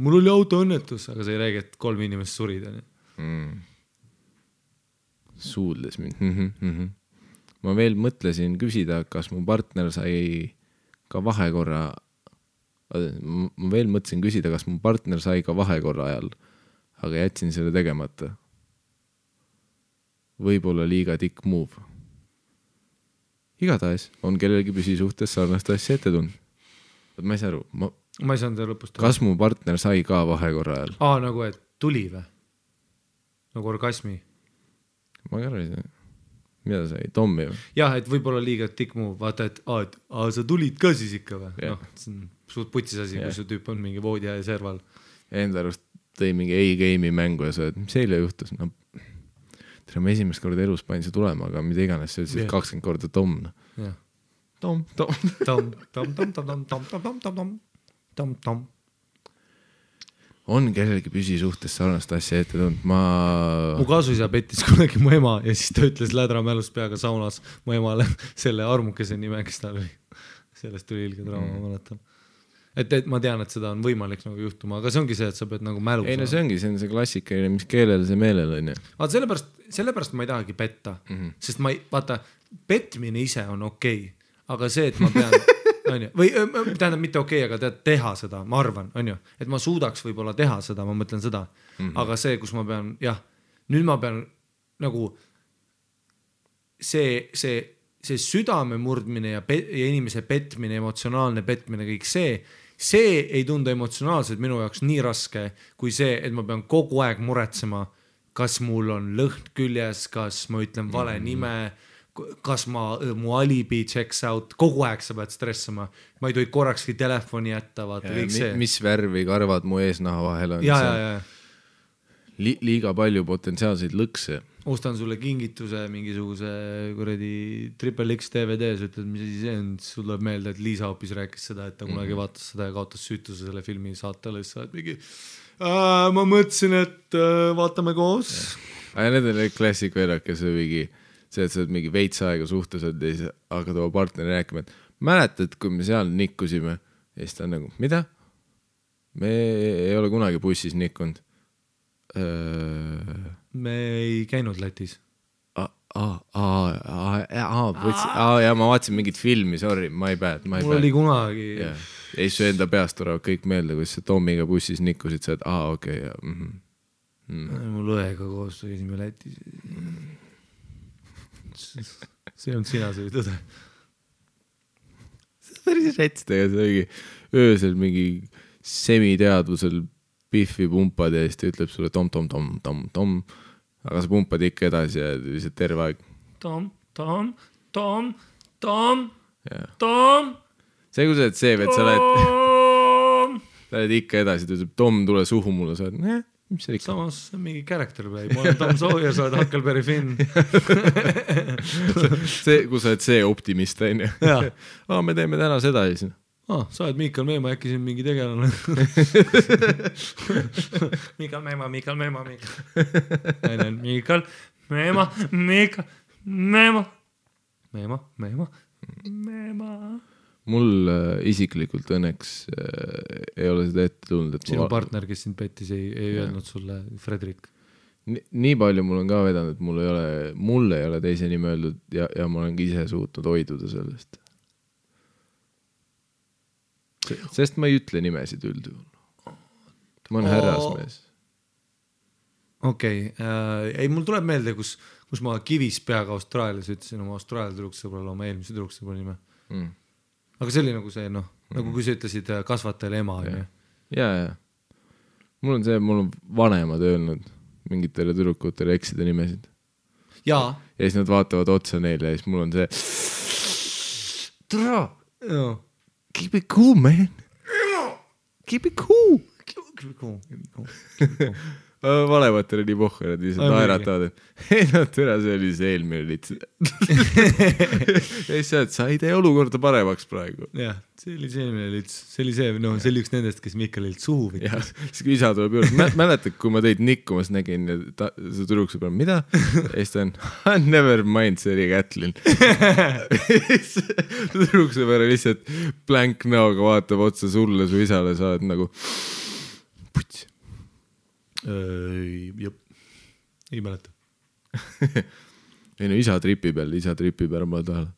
Mul oli autoõnnetus, aga sa ei räägi, et 3 inimest surid. Suudles mind. Ma veel mõtlesin küsida, kas mu partner sai ka vahekorra ajal, aga jätsin selle tegemata. Võib-olla liiga tikk move. Igatahes on kellelgi püsisuhtes sarnast asja ette tund. Ma ei saa aru. Ma ei saanud lõpust. Kas mu partner sai ka vahekorra ajal? Nagu et tuli või? Nagu orgasmi? Ma ei arva, mida sai? Tommi või? Jah, et võib-olla liiga tikk move. Vaata, et sa tulid ka siis ikka või? See on suht putsis asi, kui su tüüp on mingi voodi ja serval. Enda arust tõi mingi A-game'i mängu ja sa oled, mis eile juhtus? Ma esimest korda elus panin see tulema, aga mida iganes see ütles 20 korda Tom. Tom. On kellelgi püsisuhtes sarnast asja ette tund. Mu kasuisa pettis kunagi mu ema ja siis ta ütles lädra mälust peaga saunas mu emale selle armukese nime, kes tal oli. Sellest tuli ilge draama, mäletan. Et ma tean, et seda on võimalik nagu juhtuma, aga see ongi see, et sa pead nagu mälu. Ei, no see ongi see klassikaline, mis keelele see meelel on. Sellepärast ma ei tahagi petta, sest vaata, petmine ise on okei, aga see, et ma pean või tähendab mitte okei, aga teha seda, ma arvan, et ma suudaks võib-olla teha seda, ma mõtlen seda, aga see, kus ma pean, nüüd ma pean nagu see südame murdmine ja inimese petmine, emotsionaalne petmine, kõik see ei tundu emotsionaalselt minu jaoks nii raske, kui see, et ma pean kogu aeg muretsema, kas mul on lõhn küljes, kas ma ütlen vale nime, kas mu alibi checks out, kogu aeg sa pead stressama. Ma ei tohi korrakski telefoni jätta, vaata kõik see. Mis värvi karvad mu eesnaha vahel on? Liiga palju potentsiaalseid lõkse. Ostan sulle kingituse mingisuguse kuradi Triple X DVD-s, ütled, mis asi see on, sul tuleb meelde, et Liisa hoopis rääkis seda, et ta kunagi vaatas seda ja kaotas süütuse selle filmi saatele, siis sa oled mingi ma mõtlesin, et vaatame koos. Need on klassik veerak, kes on mingi see, et sa oled mingi veits aega suhtes ja siis hakkad oma partneri rääkima, et mäletad, kui me seal nikkusime ja siis ta on nagu, mida? Me ei ole kunagi bussis nikkunud. Me ei käinud Lätis. Ja ma vaatasin mingit filmi, sorry, my bad. Mul oli kunagi. Ei su enda peast tulevad kõik meelde, kui sa Tomiga bussis nikkusid, sa oled, okei. Mul õega koos käisime Lätis. See on sina, see tõde. See on päris rätstega, see oligi öösel mingi semiteadvusel piffi pumpad ja siis ta ütleb sulle tom, aga sa pumpad ikka edasi ja lihtsalt terve aeg. Tom. See kui sa oled see, et sa oled ikka edasi, ta ütleb Tom, tule suhu mulle, sa oled, mis see ikka? Samas mingi character play, ma olen Tom Sawyer, sa oled Huckleberry Finn. See, kui sa oled see optimist, on ju. Me teeme täna seda ja siis. Sa oled Miikal Meema, äkki siin mingi tegelane. Miikal Meema. Mul isiklikult õnneks ei ole seda ette tulnud. Sinu partner, kes sind pettis, ei öelnud sulle, Fredrik? nii palju mul on ka vedanud, et mul ei ole teise nime öeldud ja ma olen ka ise suutnud hoiduda sellest. Sest ma ei ütle nimesid üldjuhul. Ma olen härrasmees. Okei. Ei, mul tuleb meelde, kus ma kivis peaga Austraalias ütlesin oma Austraalia tüdruksõbrale oma eelmise tüdruksõbra nime. Aga see oli nagu see, nagu kui sa ütlesid kasvatajale ema. Ja. Mul on vanemad öelnud mingitele tüdrukutele eksida nimesid. Ja siis nad vaatavad otsa neile ja siis mul on see Tra! Keep it cool, man! Keep it cool! Valematele nii pohku, nad lihtsalt naeratavad, et no türa, see oli see eelmine lits. Ja siis sa ei tee olukorda paremaks praegu. Jah, see oli see eelmine lits. See oli üks nendest, kes Mikkalilt suhu võttis. Siis kui isa tuleb juurde, mäletad, kui ma teid nikkumas nägin ja see tüdrukse peal, mida? Ja siis ta on, never mind, see oli Kätlin. Tüdrukse peale lihtsalt blank näoga vaatab otsa sulle, su isale, sa oled nagu puts. Jop. Ei mäleta. Ei no isa tripib ära mulle tahale.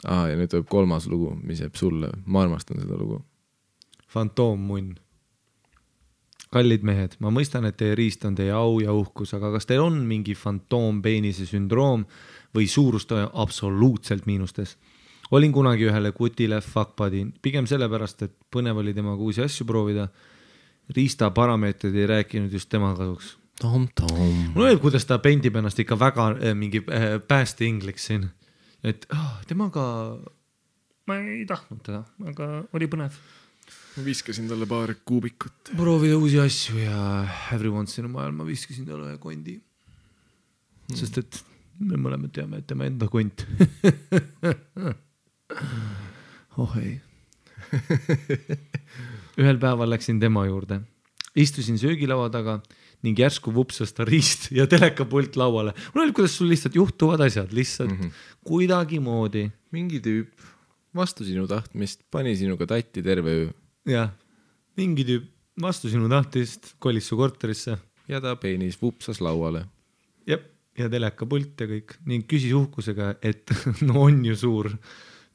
Ja nüüd tuleb 3. lugu, mis jääb sulle. Ma armastan seda lugu. Fantoommunn. Kallid mehed, ma mõistan, et teie riist on teie au ja uhkus, aga kas teil on mingi fantoompeenise sündroom või suurust absoluutselt miinustes? Olin kunagi ühele kutile fuckbuddy, pigem sellepärast, et põnev oli temaga uusi asju proovida. Riista parameetrid ei rääkinud just tema kasuks. Tom. Mul öelb, kuidas ta pendib ennast ikka väga mingi pääste ingliks siin. Et temaga ma ei tahtnud teda, aga oli põnev. Ma viskasin talle paar kuubikut. Proovida uusi asju ja every once in a while ma viskasin talle ühe kondi. Sest et me mõlemad teame, et tema enda kont. Ei. Ühel päeval läksin tema juurde. Istusin söögilaua taga ning järsku vupsas ta riist ja telekapult lauale. Mul oli, kuidas sul lihtsalt juhtuvad asjad, lihtsalt kuidagi moodi. Mingi tüüp vastu sinu tahtmist pani sinuga tatti terve öö. Ja, mingi tüüp vastu sinu tahtist kolis su korterisse. Ja ta peenis vupsas lauale. Jep, ja telekapult ja kõik. Ning küsis uhkusega, et no on ju suur.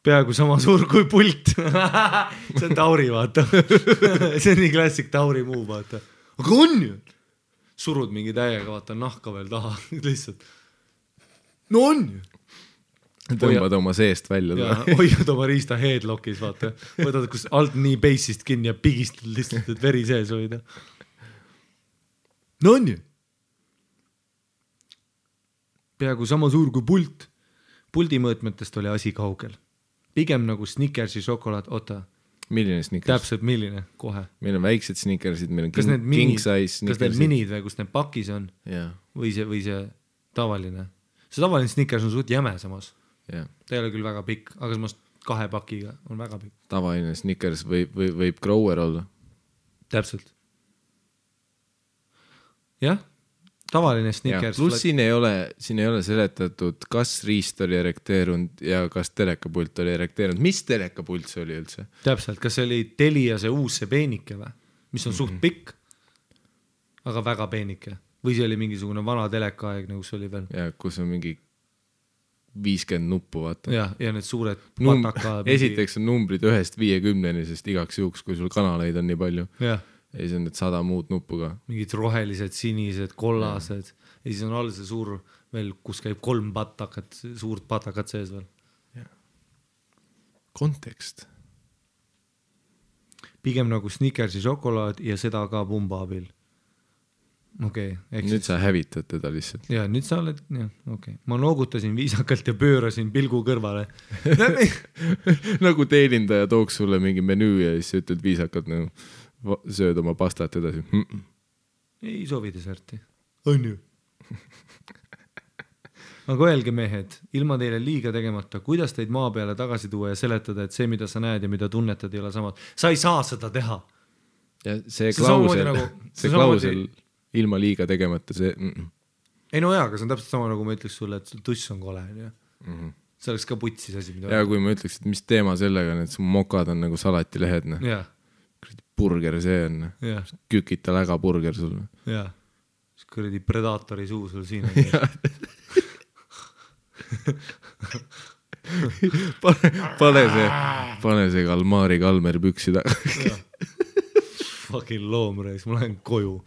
Peaaegu sama suur kui pult. See on Tauri, vaata. See on nii klassik Tauri muu, vaata. Aga on ju. Surud mingi täiega, vaata, nahka veel taha. Lihtsalt. No on ju. Tõmbad oma seest välja. Ja, hoiad oma riista headlockis, vaata. Võtad, kus alt nii bassist kinni ja pigistad lihtsalt, et veri sees hoida. No on ju. Peaaegu sama suur kui pult. Puldi mõõtmetest oli asi kaugel. Pigem nagu Snickersi šokolaad, Milline Snickers? Täpselt milline, kohe. Meil on väiksed Snickersid, meil on king size Snickersid. Kas need minid või kus need pakis on? Yeah. Või see tavaline? See tavaline Snickers on suht jäme samas. Yeah. Ta ei ole küll väga pikk, aga samas 2 pakiga on väga pikk. Tavaline Snickers võib grower olla. Täpselt. Jah. Tavaline Snickers. Plus siin ei ole seletatud, kas riist oli erekteerunud ja kas telekapult oli erekteerunud. Mis telekapult see oli üldse? Täpselt, kas see oli Telia see uus see peenike või? Mis on suht pikk, aga väga peenike. Või see oli mingisugune vana telekaaeg, kus oli veel? Ja kus on mingi 50 nuppu, vaata. Ja need suured pataka... Esiteks on numbrid 1-50, sest igaks juhuks, kui sul kanaleid on nii palju. Jah. Ja siis on need 100 muud nuppu ka. Mingid rohelised, sinised, kollased. Ja siis on all see suur veel, kus käib 3 patakat, suurt patakat sees veel. Ja. Kontekst. Pigem nagu Snickersi šokolaad ja seda ka pumba abil. Okei. Nüüd sa hävitad teda lihtsalt. Ja nüüd sa oled, okei. Ma noogutasin viisakalt ja pöörasin pilgu kõrvale. Nagu teenindaja tooks sulle mingi menüü ja siis ütled viisakalt nagu sööd oma pastat edasi. Ei soovi deserti. On ju. Aga öelge mehed, ilma teile liiga tegemata, kuidas teid maa peale tagasi tuua ja seletada, et see, mida sa näed ja mida tunnetad, ei ole samad. Sa ei saa seda teha. Ja see klausel ilma liiga tegemata, see... Ei no jaa, aga see on täpselt sama, nagu ma ütleks sulle, et sul tuss on kole. See oleks ka putsis asi, mida... Ja kui ma ütleks, et mis teema sellega, et su mokad on nagu salatilehed. Jaa. burger see on? Kükita läga burger sul. Jaa, siis kuradi Predaatori suu sul siin on. pane see Kalmari Kalmer püksi taga. Fucking loomreis, ma lähen koju.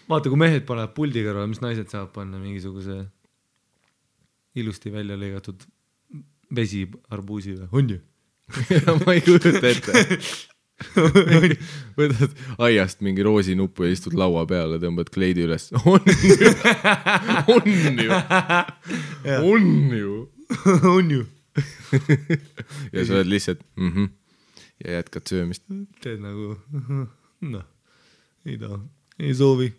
Vaata, kui mehed panevad puldi kõrval, mis naised saavad panna mingisuguse ilusti välja lõigatud vesi arbuusi või? On ju? Ma ei kujuta ette. Võtad aiast mingi roosinuppu ja istud laua peale, tõmbad kleidi üles. On ju. Ja sa oled lihtsalt ja jätkad söömist. Teed nagu, ei taha, ei soovi.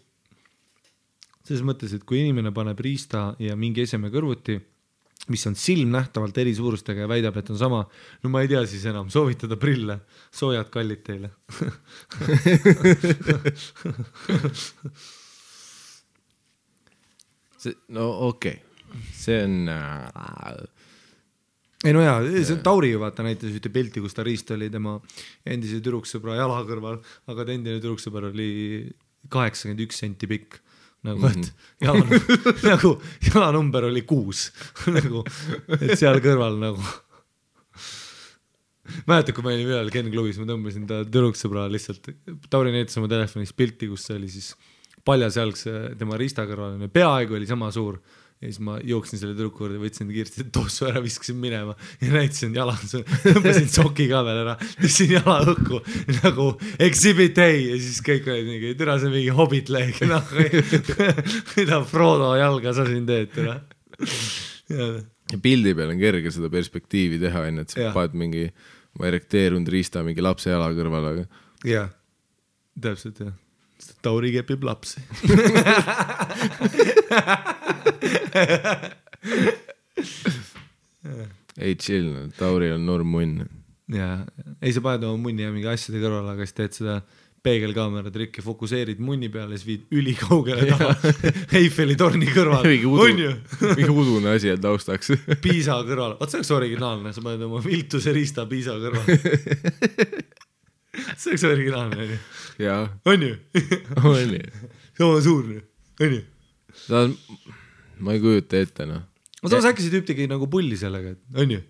Selles mõttes, et kui inimene paneb riista ja mingi eseme kõrvuti, mis on silmnähtavalt eri suurustega ja väidab, et on sama, no ma ei tea siis enam, soovitada prille, soojad kallid teile. No okei. See on... Ei no jaa, see on Tauri ju vaata näitas ühte pilti, kus ta riist oli tema endise tüdruksõbra jala kõrval, aga ta endine tüdruksõbra oli 81 senti pikk. Nagu, et jalanumber oli 6 nagu, et seal kõrval nagu mäletad, kui ma olin ühel Ken klubis, ma tõmbasin ta tüdruksõbra lihtsalt, Tauri näitas oma telefonis pilti, kus see oli siis paljasjalgse tema riista kõrval, peaaegu oli sama suur ja siis ma jooksin selle tüdruku juurde, võtsin kiiresti tossu ära, viskasin minema ja näitasin jala, tõmbasin soki ka veel ära, tõstsin jala õhku nagu exhibit A ja siis kõik olid mingi, türa see mingi Hobbit leeg, mida Frodo jalga sa siin teed, türa. Pildi peal on kerge seda perspektiivi teha, et sa paned mingi erekteerunud riista mingi lapse jala kõrval, aga... Jah, täpselt jah. Tauri kepib lapsi. Ei chill, Tauri on norm munn. Jaa, ei sa paned oma munni ja mingi asjade kõrval, aga siis teed seda peegelkaamera trikki, fokuseerid munni peale, siis viid ülikaugele taha Eiffeli torni kõrval. On ju? Mingi udune asi on taustaks. Piisa kõrval. Vaat see oleks originaalne, sa paned oma viltuse riista Piisa kõrval. See oleks originaalne, on ju? Jaa. On ju? On ju. Sama suurne, on ju? Ma ei kujuta ette, noh. Ma samas äkki see tüüp tegi nagu pulli sellega, on ju?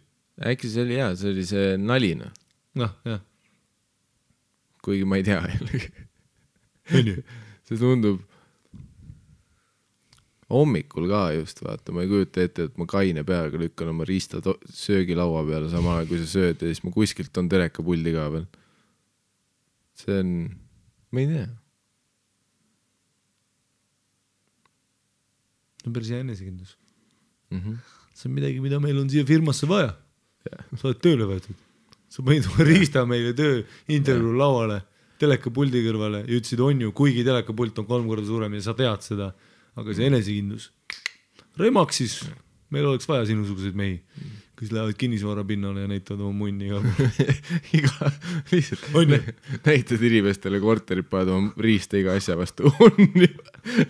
Äkki see oli hea, see oli see nalina. Noh, jah. Kuigi ma ei tea. On ju? See tundub hommikul ka just, vaata, ma ei kujuta ette, et ma kaine peaga lükkan oma riista söögilaua peale samal ajal, kui sa sööd ja siis ma kuskilt on telekapuldi ka veel. See on, ma ei tea. See on päris hea enesekindlus. See on midagi, mida meil on siia firmasse vaja. Sa oled tööle võetud. Sa panid riista meile töö intervjuu lauale, telekapuldi kõrvale ja ütlesid on ju, kuigi telekapult on 3 korda suurem ja sa tead seda, aga see enesekindlus. Remaksis meil oleks vaja sinusuguseid mehi, kes lähevad kinnisvara pinnale ja näitavad oma munni ka. Näitad inimestele korterit, paned oma riista iga asja vastu. On ju.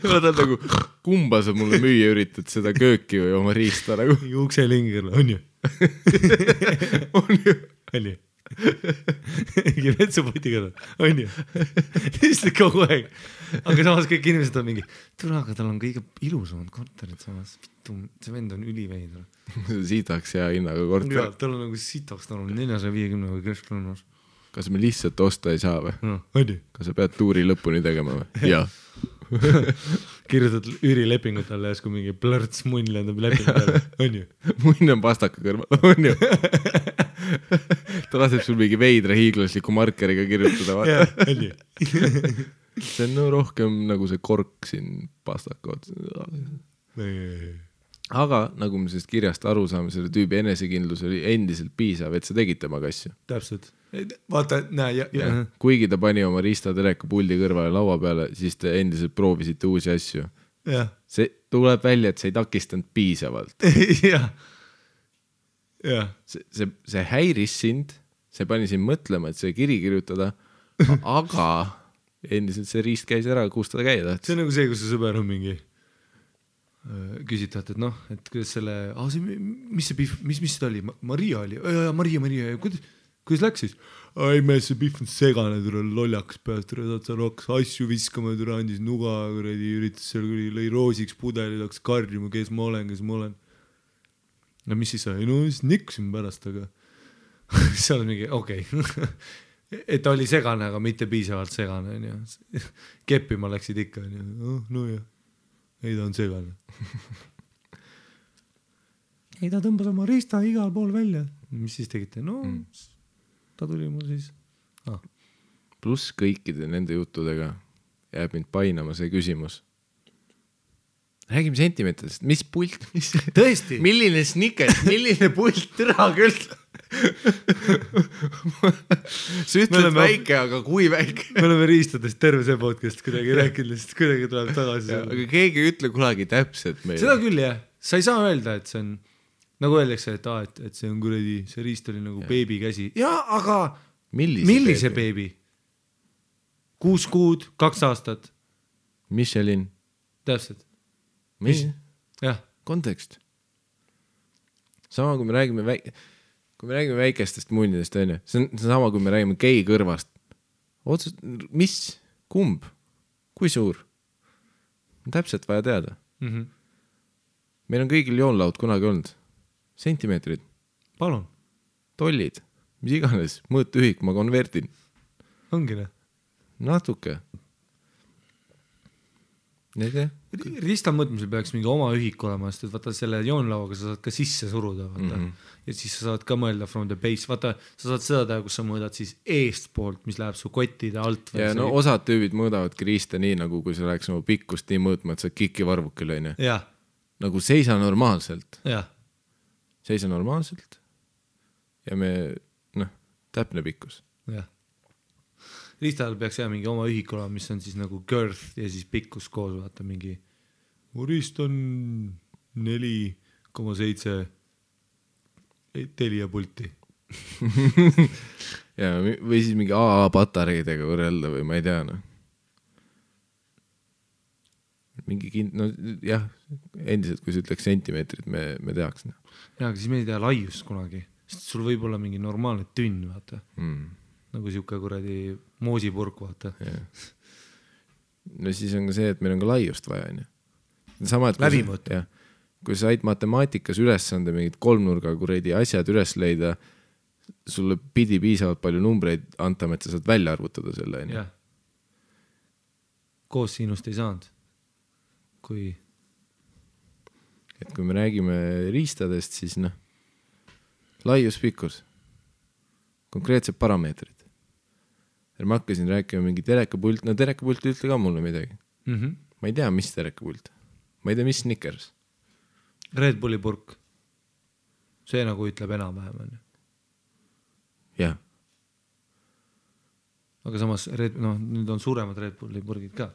Vaatad nagu, kumba sa mulle müüa üritad, seda kööki või oma riista nagu. Ukselingel, on ju? On ju? On ju? Mingi vetsupoti kõrval, on ju? Lihtsalt kogu aeg. Aga samas kõik inimesed on mingi, tule, aga tal on kõige ilusamad korterid samas. See vend on üliveidur. Sitaks hea hinnaga korter. Ja, tal on nagu sitaks, tal on 450 või kesklõnnas. Kas me lihtsalt osta ei saa või? No, on ju? Kas sa pead tuuri lõpuni tegema või? Jah. Kirjutad üürilepingut talle ja kui mingi plõrts munn lendab lepingutele, on ju? Munn on pastaka kõrval, on ju? Ta laseb sul mingi veidra hiiglasliku markeriga kirjutada, vaata. Jah, on ju? See on rohkem nagu see kork siin pastaka ots. Aga nagu me sellest kirjast aru saame, selle tüübi enesekindlus oli endiselt piisav, et sa tegid temaga asju. Täpselt. Vaata, näe. Kuigi ta pani oma riista telekapuldi kõrvale laua peale, siis te endiselt proovisite uusi asju. See tuleb välja, et sa ei takistanud piisavalt. Jah. See häiris sind, see pani sind mõtlema, et see kiri kirjutada, aga endiselt see riist käis ära, kus ta käia tahtis. See on nagu see, kus see sõber on mingi küsitad, et noh, et kuidas selle, mis see oli? Maria oli? Maria, kuidas läks siis? Ai mees, see Pihv on segane, tule lollakas peast, saad seal hakkas asju viskama, tule andis nuga, üritas seal, lõi roosiks pudeli, hakkas karjuma, kes ma olen. No mis siis sai? No siis nikkusin pärast, aga seal on mingi, okei. Et oli segane, aga mitte piisavalt segane. Keppima läksid ikka. No jah, ei ta on segane. Ei ta tõmbas oma riista igal pool välja. Mis siis tegite? No ta tuli mul siis. Pluss kõikide nende juttudega jääb mind painama see küsimus. Räägime sentimeetritest. Mis pult? Tõesti? Milline snickers? Milline pult? Türa küll. Sa ütled väike, aga kui väike? Me oleme riistadest terve see podcast kuidagi rääkinud, sest kuidagi tuleb tagasi. Aga keegi ei ütle kunagi täpselt meile. Seda küll jah. Sa ei saa öelda, et see on, nagu öeldakse, et see on kuradi, see riist oli nagu beebi käsi. Jaa, aga millise beebi? 6 kuud, 2 aastat. Michelin. Täpselt. Mis? Jah. Kontekst. Sama, kui me räägime väikestest munnidest, on ju. See on sama, kui me räägime gei kõrvast. Otsust, mis? Kumb? Kui suur? On täpselt vaja teada. Meil on kõigil joonlaud kunagi olnud. Sentimeetrid. Palun. Tollid. Mis iganes. Mõõtühik, ma konvertin. Ongi ne? Natuke. Riista mõõtmisel peaks mingi oma ühik olema, sest et vaata selle joonlauaga sa saad ka sisse suruda, vaata. Ja siis sa saad ka mõelda from the base, vaata, sa saad seda teha, kus sa mõõdad siis eestpoolt, mis läheb su kottide alt. Ja no osad tüübid mõõdavadki riista nii, nagu kui sa läheks oma pikkust nii mõõtma, et sa kiki varvukil, on ju. Jah. Nagu seisa normaalselt. Jah. Seisa normaalselt. Ja me, täpne pikkus. Jah. Riistal peaks jää mingi oma ühik olema, mis on siis nagu girth ja siis pikkus koos, vaata mingi. Mu riist on 4,7 Telia pulti. Ja, või siis mingi AA patareidega võrrelda või ma ei tea, Mingi jah, endiselt, kui sa ütleks sentimeetrit, me teaks. Ja, aga siis me ei tea laiust kunagi. Sest sul võib olla mingi normaalne tünn, vaata. Nagu siuke kuradi moosipurk, vaata. No siis on ka see, et meil on ka laiust vaja, on ju. Sama, et kui sa said matemaatikas ülesande mingid 3-nurga kuradi asjad üles leida, sulle pidi piisavalt palju numbreid antama, et sa saad välja arvutada selle, on ju. Koos sinust ei saanud. Et kui me räägime riistadest, siis laius, pikkus, konkreetsed parameetrid. Ma hakkasin rääkima mingi terekapult, terekapult ütle ka mulle midagi. Ma ei tea, mis terekapult. Ma ei tea, mis snickers. Red Bulli purk. See nagu ütleb enam-vähem. Jah. Aga samas, nüüd on suuremad Red Bulli purgid ka.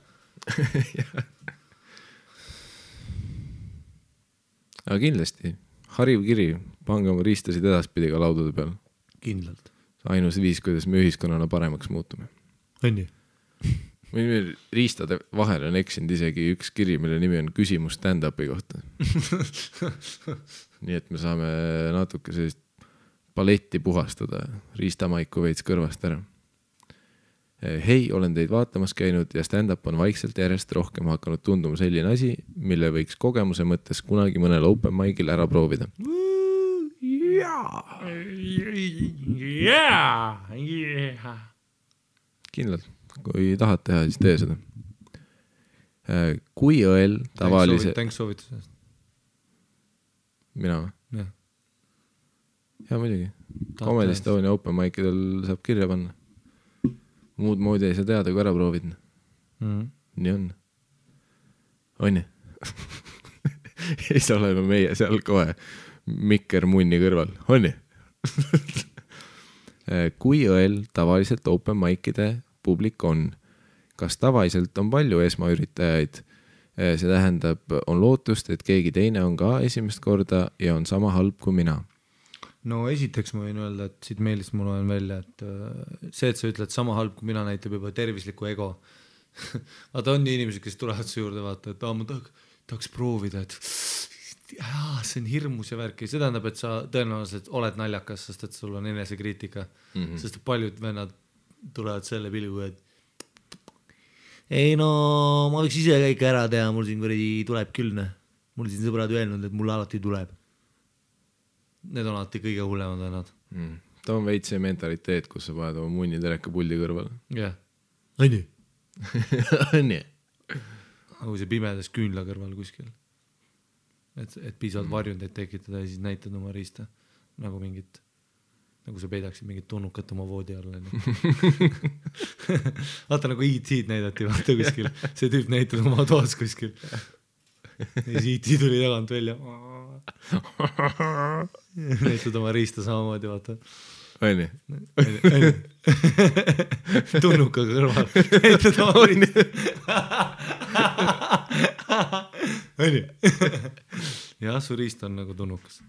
Aga kindlasti, hariv kiri, pange oma riistasid edaspidi ka laudade peal. Kindlalt. Ainus viis, kuidas me ühiskonnana paremaks muutume. On ju? Meil riistade vahel on eksinud isegi üks kiri, mille nimi on küsimus stand-upi kohta. Nii et me saame natuke sellist paletti puhastada, riistamaiku veits kõrvast ära. Hei, olen teid vaatamas käinud ja stand-up on vaikselt järjest rohkem hakanud tunduma selline asi, mille võiks kogemuse mõttes kunagi mõnel open mic'il ära proovida. Kindlalt, kui tahad teha, siis tee seda. Kui õel tavalise... Tänks soovitusest. Mina või? Jah. Ja muidugi. Comedy Estonia open mic'idel saab kirja panna. Muud moodi ei saa teada, kui ära proovid. Nii on. On ju? Ei saa olema meie seal kohe mikker munni kõrval. On ju? Kui õel tavaliselt open mic'ide publik on? Kas tavaliselt on palju esmaüritajaid? See tähendab, on lootust, et keegi teine on ka esimest korda ja on sama halb kui mina. No esiteks ma võin öelda, et siit meelist mul on välja, et see, et sa ütled sama halb kui mina, näitab juba tervislikku ego. Vaata on inimesed, kes tulevad su juurde vaata, et ma tahaks proovida, et see on hirmus ja värk ja see tähendab, et sa tõenäoliselt oled naljakas, sest et sul on enesekriitika, sest paljud vennad tulevad selle pilgu, et ei no ma võiks ise kõik ära teha, mul siin kuradi tuleb küll, mul siin sõbrad öelnud, et mul alati tuleb. Need on alati kõige hullemad vennad. Ta on veits see mentaliteet, kus sa paned oma munni teleka puldi kõrval. Jah. Õnni. Õnni. Kui see pimedas küünla kõrval kuskil. Et piisavalt varjundeid tekitada ja siis näitad oma riista. Nagu mingit, nagu sa peidaksid mingit tunnukat oma voodi alla. Vaata nagu E.T.'d näidati vaata kuskil. See tüüp näitab oma toas kuskil. Ja siis E.T. tuli tagant välja. Näitad oma riista samamoodi, vaata. Õnni. Tunnuka kõrval. Näitad oma riista. Õnni. Jah, su riist on nagu tunnukas.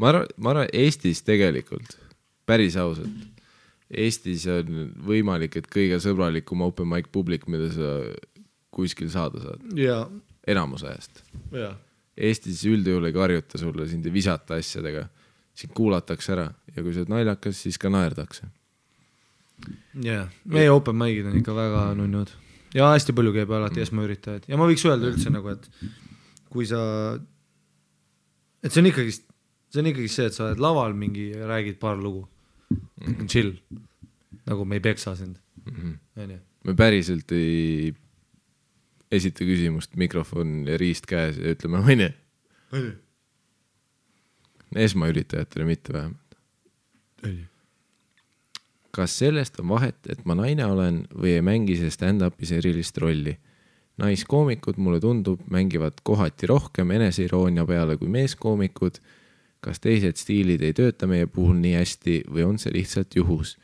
Ma arvan, Eestis tegelikult, päris ausalt, Eestis on võimalik, et kõige sõbralikum open mic publik, mida sa kuskil saada saad. Jaa. Enamus ajast. Jaa. Eestis üldjuhul ei karjuta sulle, sind ei visata asjadega, sind kuulatakse ära ja kui sa oled naljakas, siis ka naerdakse. Jaa, meie open mic'id on ikka väga nunnud. Ja hästi palju käib alati esmaüritajaid. Ja ma võiks öelda üldse nagu, et kui sa, et see on ikkagi see, et sa oled laval mingi ja räägid paar lugu. Chill. Nagu me ei peksa sind. Me päriselt ei esita küsimust, mikrofon ja riist käes ja ütleme õnne. Esmaüritajatele mitte vähemalt. Kas sellest on vahet, et ma naine olen või ei mängi see stand-upis erilist rolli? Naiskoomikud, mulle tundub, mängivad kohati rohkem eneseiroonia peale kui meeskoomikud. Kas teised stiilid ei tööta meie puhul nii hästi või on see lihtsalt juhus?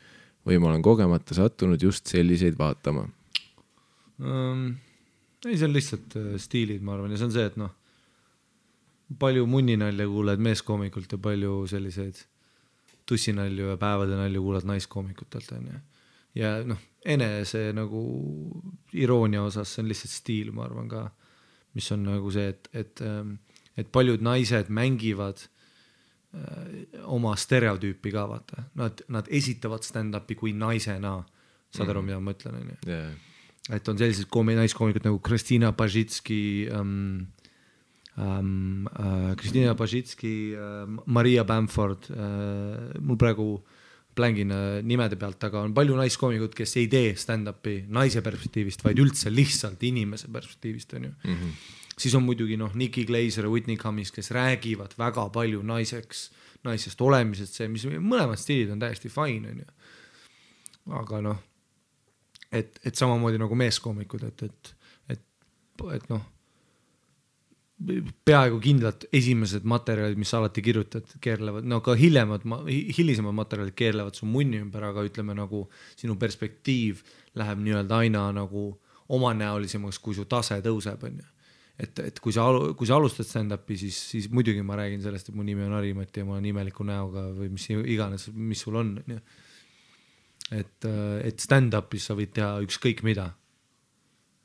Või ma olen kogemata sattunud just selliseid vaatama? Ei, see on lihtsalt stiilid, ma arvan. Ja see on see, et palju munninalja kuuled meeskoomikult ja palju selliseid tussinalju ja päevade nalju kuuled naiskoomikutelt. Ja enese nagu iroonia osas see on lihtsalt stiil, ma arvan ka, mis on nagu see, et paljud naised mängivad oma stereotüüpi ka, vaata. Nad esitavad stand-upi kui naisena, saad aru, mida ma mõtlen. Yeah. Et on sellised naiskoomikud nagu Kristina Pajitski, Maria Bamford, mul praegu plängin nimede pealt, aga on palju naiskoomikud, kes ei tee stand-upi naise perspektiivist, vaid üldse lihtsalt inimese perspektiivist. On ju. Siis on muidugi Nikki Glaser ja Whitney Cummings, kes räägivad väga palju naisest olemisest, see, mis mõlemad stiilid on täiesti fine. On ju. Aga et samamoodi nagu meeskoomikud, et peaaegu kindlalt esimesed materjalid, mis alati kirjutad, keerlevad, ka hilisemad materjalid keerlevad su munni ümber, aga ütleme nagu sinu perspektiiv läheb nii-öelda aina nagu omanäolisemaks, kui su tase tõuseb, on ju. Et kui sa alustad stand-upi, siis muidugi ma räägin sellest, et mu nimi on Harimati ja ma olen imeliku näoga või mis iganes, mis sul on. Et stand-upis sa võid teha ükskõik mida.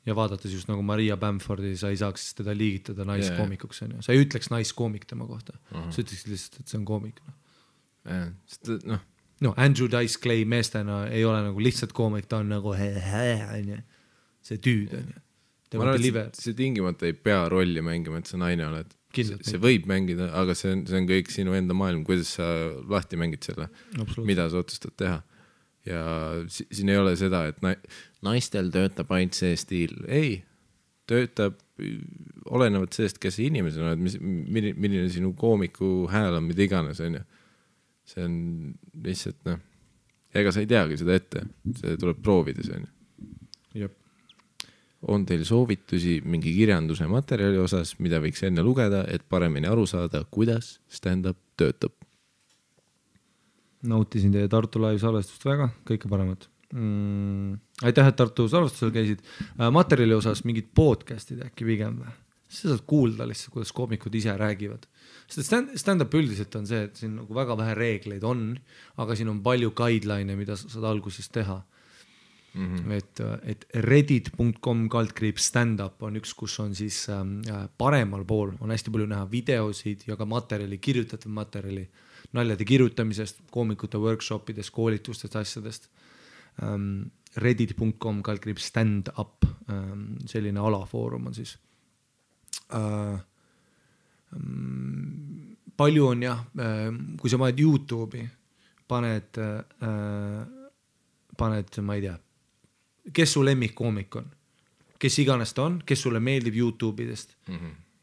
Ja vaadates just nagu Maria Bamfordi, sa ei saaks teda liigitada naiskoomikuks. Yeah. Sa ei ütleks naiskoomik tema kohta. Sa ütleksid lihtsalt, et see on koomik. Andrew Dice Clay meestena ei ole nagu lihtsalt koomik, ta on nagu see tüüd. Ma arvan, et see tingimata ei pea rolli mängima, et sa naine oled. See võib mängida, aga see on kõik sinu enda maailm, kuidas sa lahti mängid selle, mida sa otsustad teha. Ja siin ei ole seda, et naistel töötab ainult see stiil. Ei, töötab olenevad sellest, kes inimesena oled, milline sinu koomiku hääl on, mida iganes. On ju. See on lihtsalt, ega sa ei teagi seda ette, see tuleb proovida. See on. Jep. On teil soovitusi mingi kirjanduse materjali osas, mida võiks enne lugeda, et paremini aru saada, kuidas stand-up töötab? Nautisin teie Tartu live salvestust väga, kõike paremat. Aitäh, et Tartu salvestusel käisid. Materjali osas mingid podcastid äkki pigem või? Sa saad kuulda lihtsalt, kuidas koomikud ise räägivad. Stand-up üldiselt on see, et siin nagu väga vähe reegleid on, aga siin on palju guideline, mida sa saad alguses teha. et reddit.com /stand-up on üks, kus on siis paremal pool on hästi palju näha videosid ja ka materjali, kirjutatud materjali, naljade kirjutamisest, koomikute workshopidest, koolitustest, asjadest. Reddit.com /stand-up, selline alafoorum on siis. Palju on jah, kui sa paned YouTube'i, paned, ma ei tea, kes su lemmikkoomik on, kes iganes ta on, kes sulle meeldib YouTube'idest,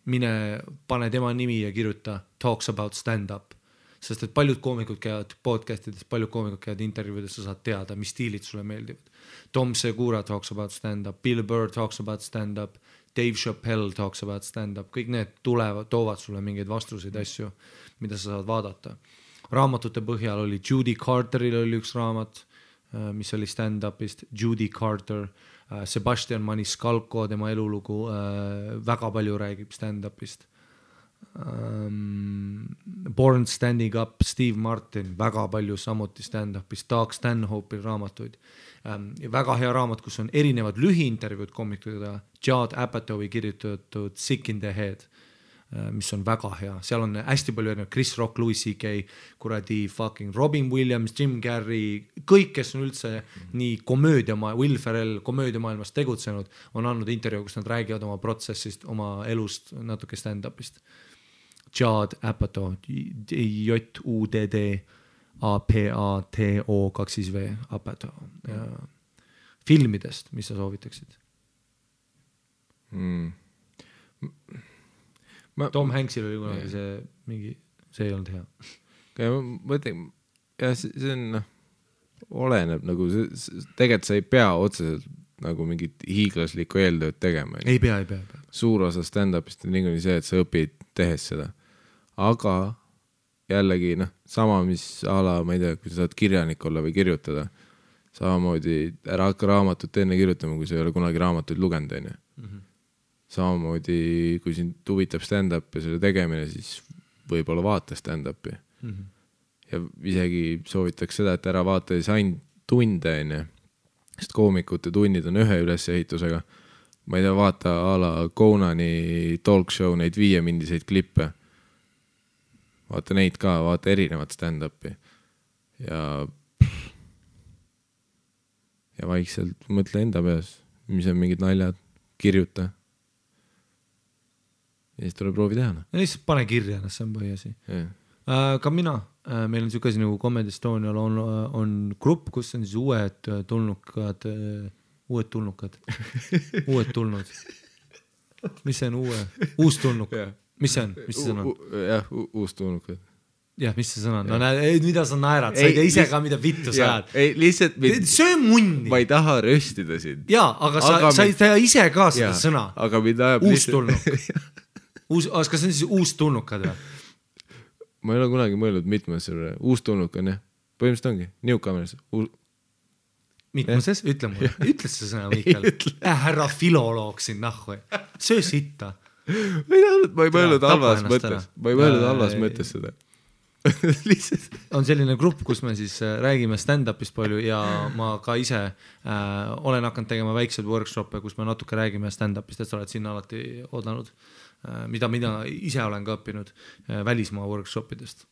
mine pane tema nimi ja kirjuta talks about stand-up, sest et paljud koomikud käivad podcastidest, paljud koomikud käivad intervjuudes, sa saad teada, mis stiilid sulle meeldivad. Tom Segura talks about stand-up, Bill Burr talks about stand-up, Dave Chappelle talks about stand-up, kõik need toovad sulle mingeid vastuseid asju, mida sa saad vaadata. Raamatute põhjal oli Judy Carteril oli üks raamat, mis oli stand-upist, Judy Carter, Sebastian Maniscalco, tema elulugu, väga palju räägib stand-upist. Born Standing Up, Steve Martin, väga palju samuti stand-upist, Doug Stanhope'il raamatuid. Väga hea raamat, kus on erinevad lühiintervjuud koomikutega, Judd Apatowi kirjutatud Sick in the Head, mis on väga hea, seal on hästi palju erinevad, Chris Rock, Louis C.K., kuradi fucking Robin Williams, Jim Carrey, kõik, kes on üldse nii Will Ferrell komöödiamaailmas tegutsenud, on andnud intervjuu, kus nad räägivad oma protsessist, oma elust, natuke stand-upist. Judd Apatow, J-U-D-D A-P-A-T-O 2V Apatow. Filmidest, mis sa soovitaksid? Tom Hanksil oli kunagi see ei olnud hea. Ma ütlen, see on, oleneb nagu, tegelikult sa ei pea otseselt nagu mingit hiiglaslikku eeltööd tegema. Ei pea. Suur osa stand-upist on niikuinii see, et sa õpid tehes seda. Aga jällegi, sama mis ala, ma ei tea, kui sa saad kirjanik olla või kirjutada, samamoodi ära hakka raamatut enne kirjutama, kui sa ei ole kunagi raamatuid lugenud, on ju. Samamoodi, kui sind huvitab stand-up ja selle tegemine, siis võib-olla vaata stand-upi. Ja isegi soovitaks seda, et ära vaata ainult tunde, on ju. Sest koomikute tunnid on ühe ülesehitusega. Ma ei tea, vaata ala Conani talk show, neid 5-mindiseid klippe. Vaata neid ka, vaata erinevat stand-upi. Ja vaikselt mõtle enda peas, mis on mingid naljad, kirjuta. Ja siis tuleb proovi teha. Ja lihtsalt pane kirja, see on põhiasi. Ka mina, meil on siuke asi nagu Comedy Estonial on grupp, kus on siis uued tulnud. Mis see on uus tulnuk? Mis see on? Mis see sõna? Jah, uus tulnuk. Jah, mis see sõna on? No näed, mida sa naerad? Sa ei tea ise ka, mida vittu sa ajad. Ei, lihtsalt see on munni. Ma ei taha röstida sind. Jaa, aga sa ei tea ise ka seda sõna. Aga mida ajab uus tulnuk. Kas see on siis uus tulnukad või? Ma ei ole kunagi mõelnud mitmes uus tulnuk on, jah. Põhimõtteliselt ongi, newcomers. Mitmuses? Ütle mulle. Ütle see sõna, Mikael. Härra filoloog siin nahhu. Söö sitta. Ma ei mõelnud halvas mõttes seda. On selline grupp, kus me siis räägime stand-upist palju ja ma ka ise olen hakanud tegema väikseid workshop'e, kus me natuke räägime stand-upist, et sa oled sinna alati oodanud, mida ise olen ka õppinud välismaa workshopidest.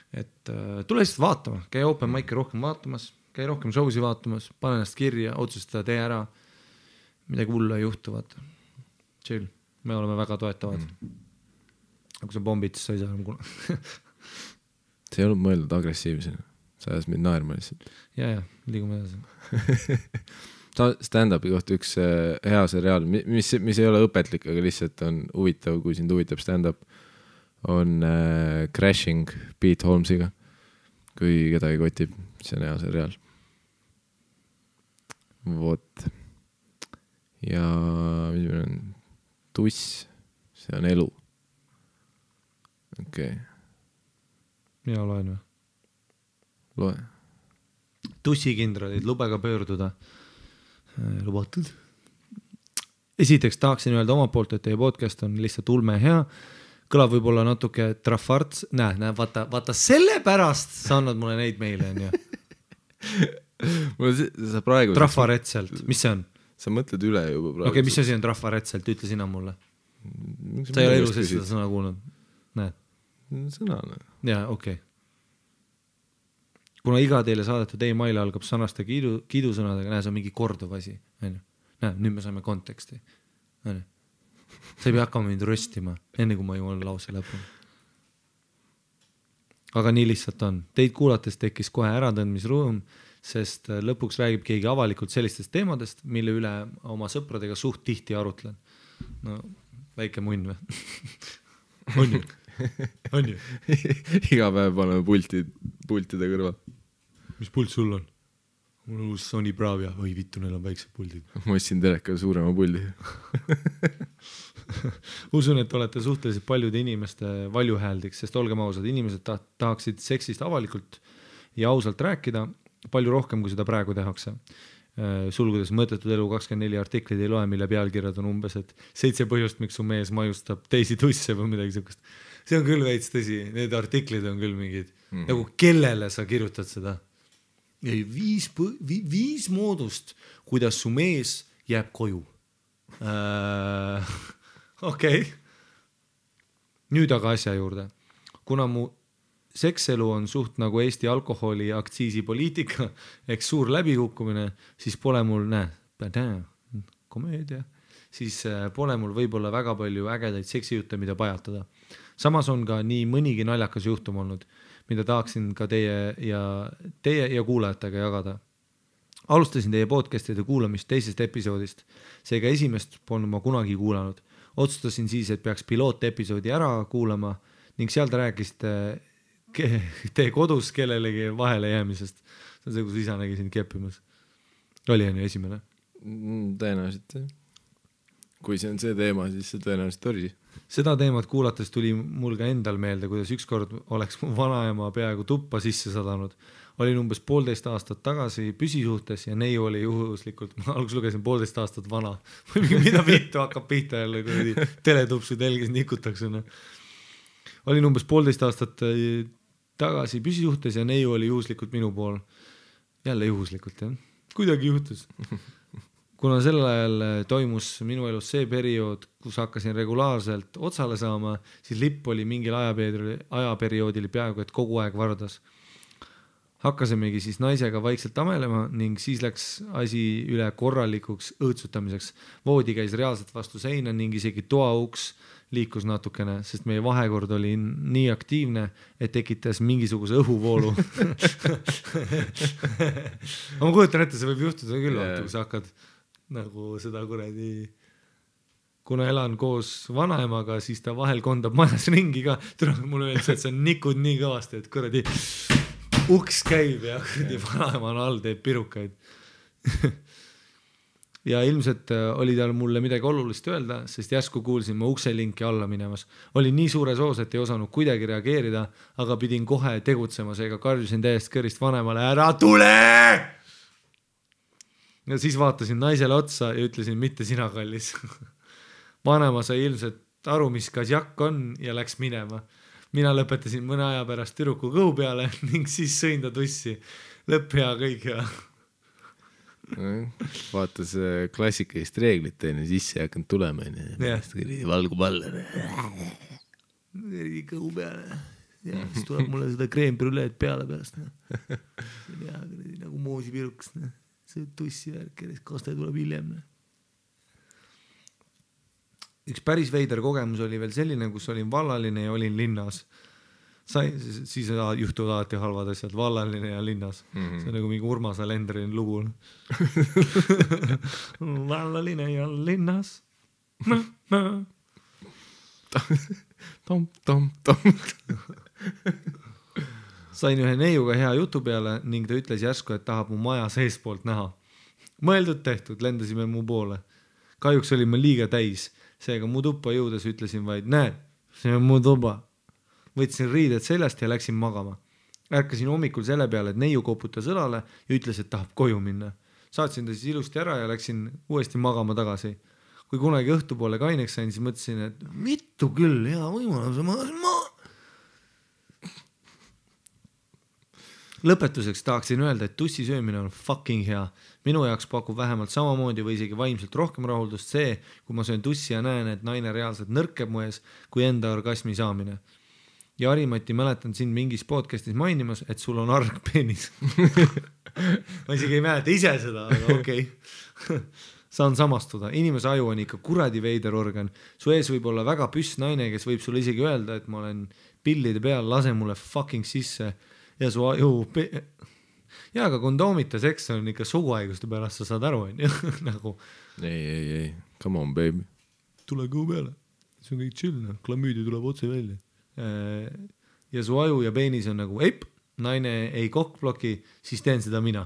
Et tule lihtsalt vaatama, käi open mic'i rohkem vaatamas, käi rohkem showsi vaatamas, pane ennast kirja, otsustada, tee ära, midagi hullu ei juhtu, vaata. Chill, me oleme väga toetavad. Aga kui sa bombid, siis sa ei saa enam kuna. See ei olnud mõeldud agressiivsena. Sa ajas mind naerma lihtsalt. Ja, liigume edasi. Stand-upi kohta üks hea seriaal, mis ei ole õpetlik, aga lihtsalt on huvitav, kui sind huvitab stand-up, on Crashing Pete Holmesiga. Kui kedagi kotib, see on hea seriaal. Vot. Ja mis meil on? Tuss, see on elu. Okei. Mina loen või? Loe. Tussikindralid, lubega pöörduda. Lubatud. Esiteks tahaksin öelda oma poolt, et teie podcast on lihtsalt ulme hea. Kõlab võib-olla natuke trafarts. Vaata selle pärast sa annad mulle neid meile. sa praegu... Trafaretselt, mis see on? Sa mõtled üle juba praegu. Okei, mis asi on trafaretselt, ütle sina mulle. Sa ei ole elus seda sõna kuulnud. Näed? Sõna. Jaa, okei. Kuna iga teile saadetud e-mail algab sõnaste kiidusõnadega, näe, see on mingi korduv asi. Näe, nüüd me saame konteksti. Sa ei pea hakkama mind röstima, enne kui ma jõuan lause lõpuni. Aga nii lihtsalt on. Teid kuulates tekkis kohe äratõndmisruum, sest lõpuks räägib keegi avalikult sellistest teemadest, mille üle oma sõpradega suht tihti arutlen. No, väike munn või? On ju? On ju? Iga päev paneme pultide kõrval. Mis pult sul on? Mul on uus Sony Bravia. Oi vittu, neil on väiksed puldid. Ma ostsin teleka suurema puldi. Usun, et olete suhteliselt paljude inimeste valjuhääldiks, sest olgem ausad, inimesed tahaksid seksist avalikult ja ausalt rääkida palju rohkem, kui seda praegu tehakse. Sulgudes mõttetud elu 24 artiklid ei loe, mille pealkirjad on umbes, et 7 põhjust, miks su mees majustab teisi tusse või midagi sellist. See on küll veits tõsi, need artiklid on küll mingid, nagu kellele sa kirjutad seda? 5 moodust, kuidas su mees jääb koju. Okei. Nüüd aga asja juurde. Kuna mu sekselu on suht nagu Eesti alkoholi aktsiisipoliitika, eks suur läbikukkumine, siis pole mul, komöödia, siis pole mul võib-olla väga palju ägedaid seksijutte, mida pajatada. Samas on ka nii mõnigi naljakas juhtum olnud, mida tahaksin ka teie ja kuulajatega jagada. Alustasin teie podcastide kuulamist teisest episoodist, seega esimest polnud ma kunagi kuulanud. Otsustasin siis, et peaks pilootepisoodi ära kuulama ning seal te rääkisite teie kodus kellelegi vahele jäämisest. See on see, kus isa nägi sind keppimas. Oli on ju esimene? Tõenäoliselt. Kui see on see teema, siis see tõenäoliselt oli. Seda teemat kuulates tuli mul ka endal meelde, kuidas ükskord oleks mu vanaema peaaegu tuppa sisse sadanud. Olin umbes 1,5 aastat tagasi püsisuhtes ja neiu oli juhuslikult, ma alguses lugesin 1,5 aastat vana. Mida vittu hakkab pihta jälle, kui teletupsu telgis nikutakse. Olin umbes 1,5 aastat tagasi püsisuhtes ja neiu oli juhuslikult minu pool. Jälle juhuslikult, jah. Kuidagi juhtus. Kuna sel ajal toimus minu elus see periood, kus hakkasin regulaarselt otsale saama, siis lipp oli mingil ajaperioodil peaaegu, et kogu aeg vardas. Hakkasimegi siis naisega vaikselt amelema ning siis läks asi üle korralikuks õõtsutamiseks. Voodi käis reaalselt vastu seina ning isegi toauks liikus natukene, sest meie vahekord oli nii aktiivne, et tekitas mingisuguse õhuvoolu. Ma kujutan ette, see võib juhtuda küll, kui sa hakkad nagu seda kuradi, kuna elan koos vanaemaga, siis ta vahel kondab majas ringi ka. Mulle öeldakse, et sa nikud nii kõvasti, et kuradi uks käib ja kuradi vanaema on all, teeb pirukaid. Ja ilmselt oli tal mulle midagi olulist öelda, sest järsku kuulsin ma ukselinki alla minemas. Olin nii suures oos, et ei osanud kuidagi reageerida, aga pidin kohe tegutsema, seega karjusin täiesti kõrist vanemale, ära tule! Ja siis vaatasin naisele otsa ja ütlesin, mitte sina kallis. Vanema sai ilmselt aru, mis kasjakk on ja läks minema. Mina lõpetasin mõne aja pärast türuku kõhu peale ning siis sõin ta tussi. Lõpp hea kõik ja... Vaatas klassikalist reeglit teine, sisse ei hakanud tulema. Valgub alla. Kõhu peale. Ja siis tuleb mulle seda kreembrüleed peale pärast. Ja, nagu moosipiruks. See tussi värk, kaste tuleb hiljem. Üks päris veider kogemus oli veel selline, kus olin vallaline ja olin linnas. Siis juhtuvad alati halvad asjad, vallaline ja linnas. See on nagu mingi Urmas Alendrin lugu. Vallaline ja linnas. Tom. Sain ühe neiuga hea jutu peale ning ta ütles järsku, et tahab mu maja seespoolt näha. Mõeldud tehtud, lendasime mu poole. Kahjuks oli ma liiga täis, seega mu tuppa jõudes ütlesin vaid, näed, see on mu tuba. Võtsin riided seljast ja läksin magama. Ärkasin hommikul selle peale, et neiu koputas õlale ja ütles, et tahab koju minna. Saatsin ta siis ilusti ära ja läksin uuesti magama tagasi. Kui kunagi õhtupoole kaineks sain, siis mõtlesin, et vittu küll, hea võimalus. lõpetuseks tahaksin öelda, et tussi söömine on fucking hea. Minu jaoks pakub vähemalt samamoodi või isegi vaimselt rohkem rahuldust see, kui ma söön tussi ja näen, et naine reaalselt nõrkeb mu ees, kui enda orgasmi saamine. Ja Harimati mäletan sind mingis podcastis mainimas, et sul on argpeenis. Ma isegi ei mäleta ise seda, aga okei. Saan samastuda. Inimese aju on ikka kuradi veider organ. Su ees võib olla väga püss naine, kes võib sulle isegi öelda, et ma olen pillide peal, lase mulle fucking sisse. Ja su aju ja aga kondoomita seks on ikka suguhaiguste pärast, sa saad aru, on ju? Nagu ei, come on baby, tule kõu peale, see on kõik chill, klamüüdi tuleb otse välja ja su aju ja peenis on nagu eip, naine ei kokkbloki, siis teen seda mina,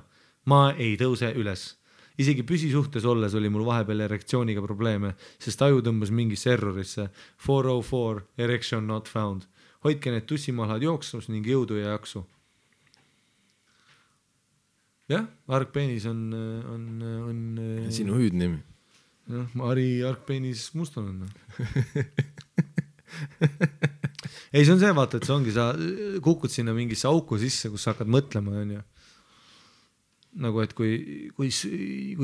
ma ei tõuse üles. Isegi püsisuhtes olles oli mul vahepeal erektsiooniga probleeme, sest aju tõmbas mingisse errorisse 404 erection not found. Hoidke need tussimalad jooksus ning jõudu ja jaksu. Jah, argpeenis on sinu hüüdnimi. Ari argpeenis Mustonen. Ei, see on see, vaata, et see ongi, sa kukud sinna mingisse auku sisse, kus sa hakkad mõtlema, on ju. Nagu, et kui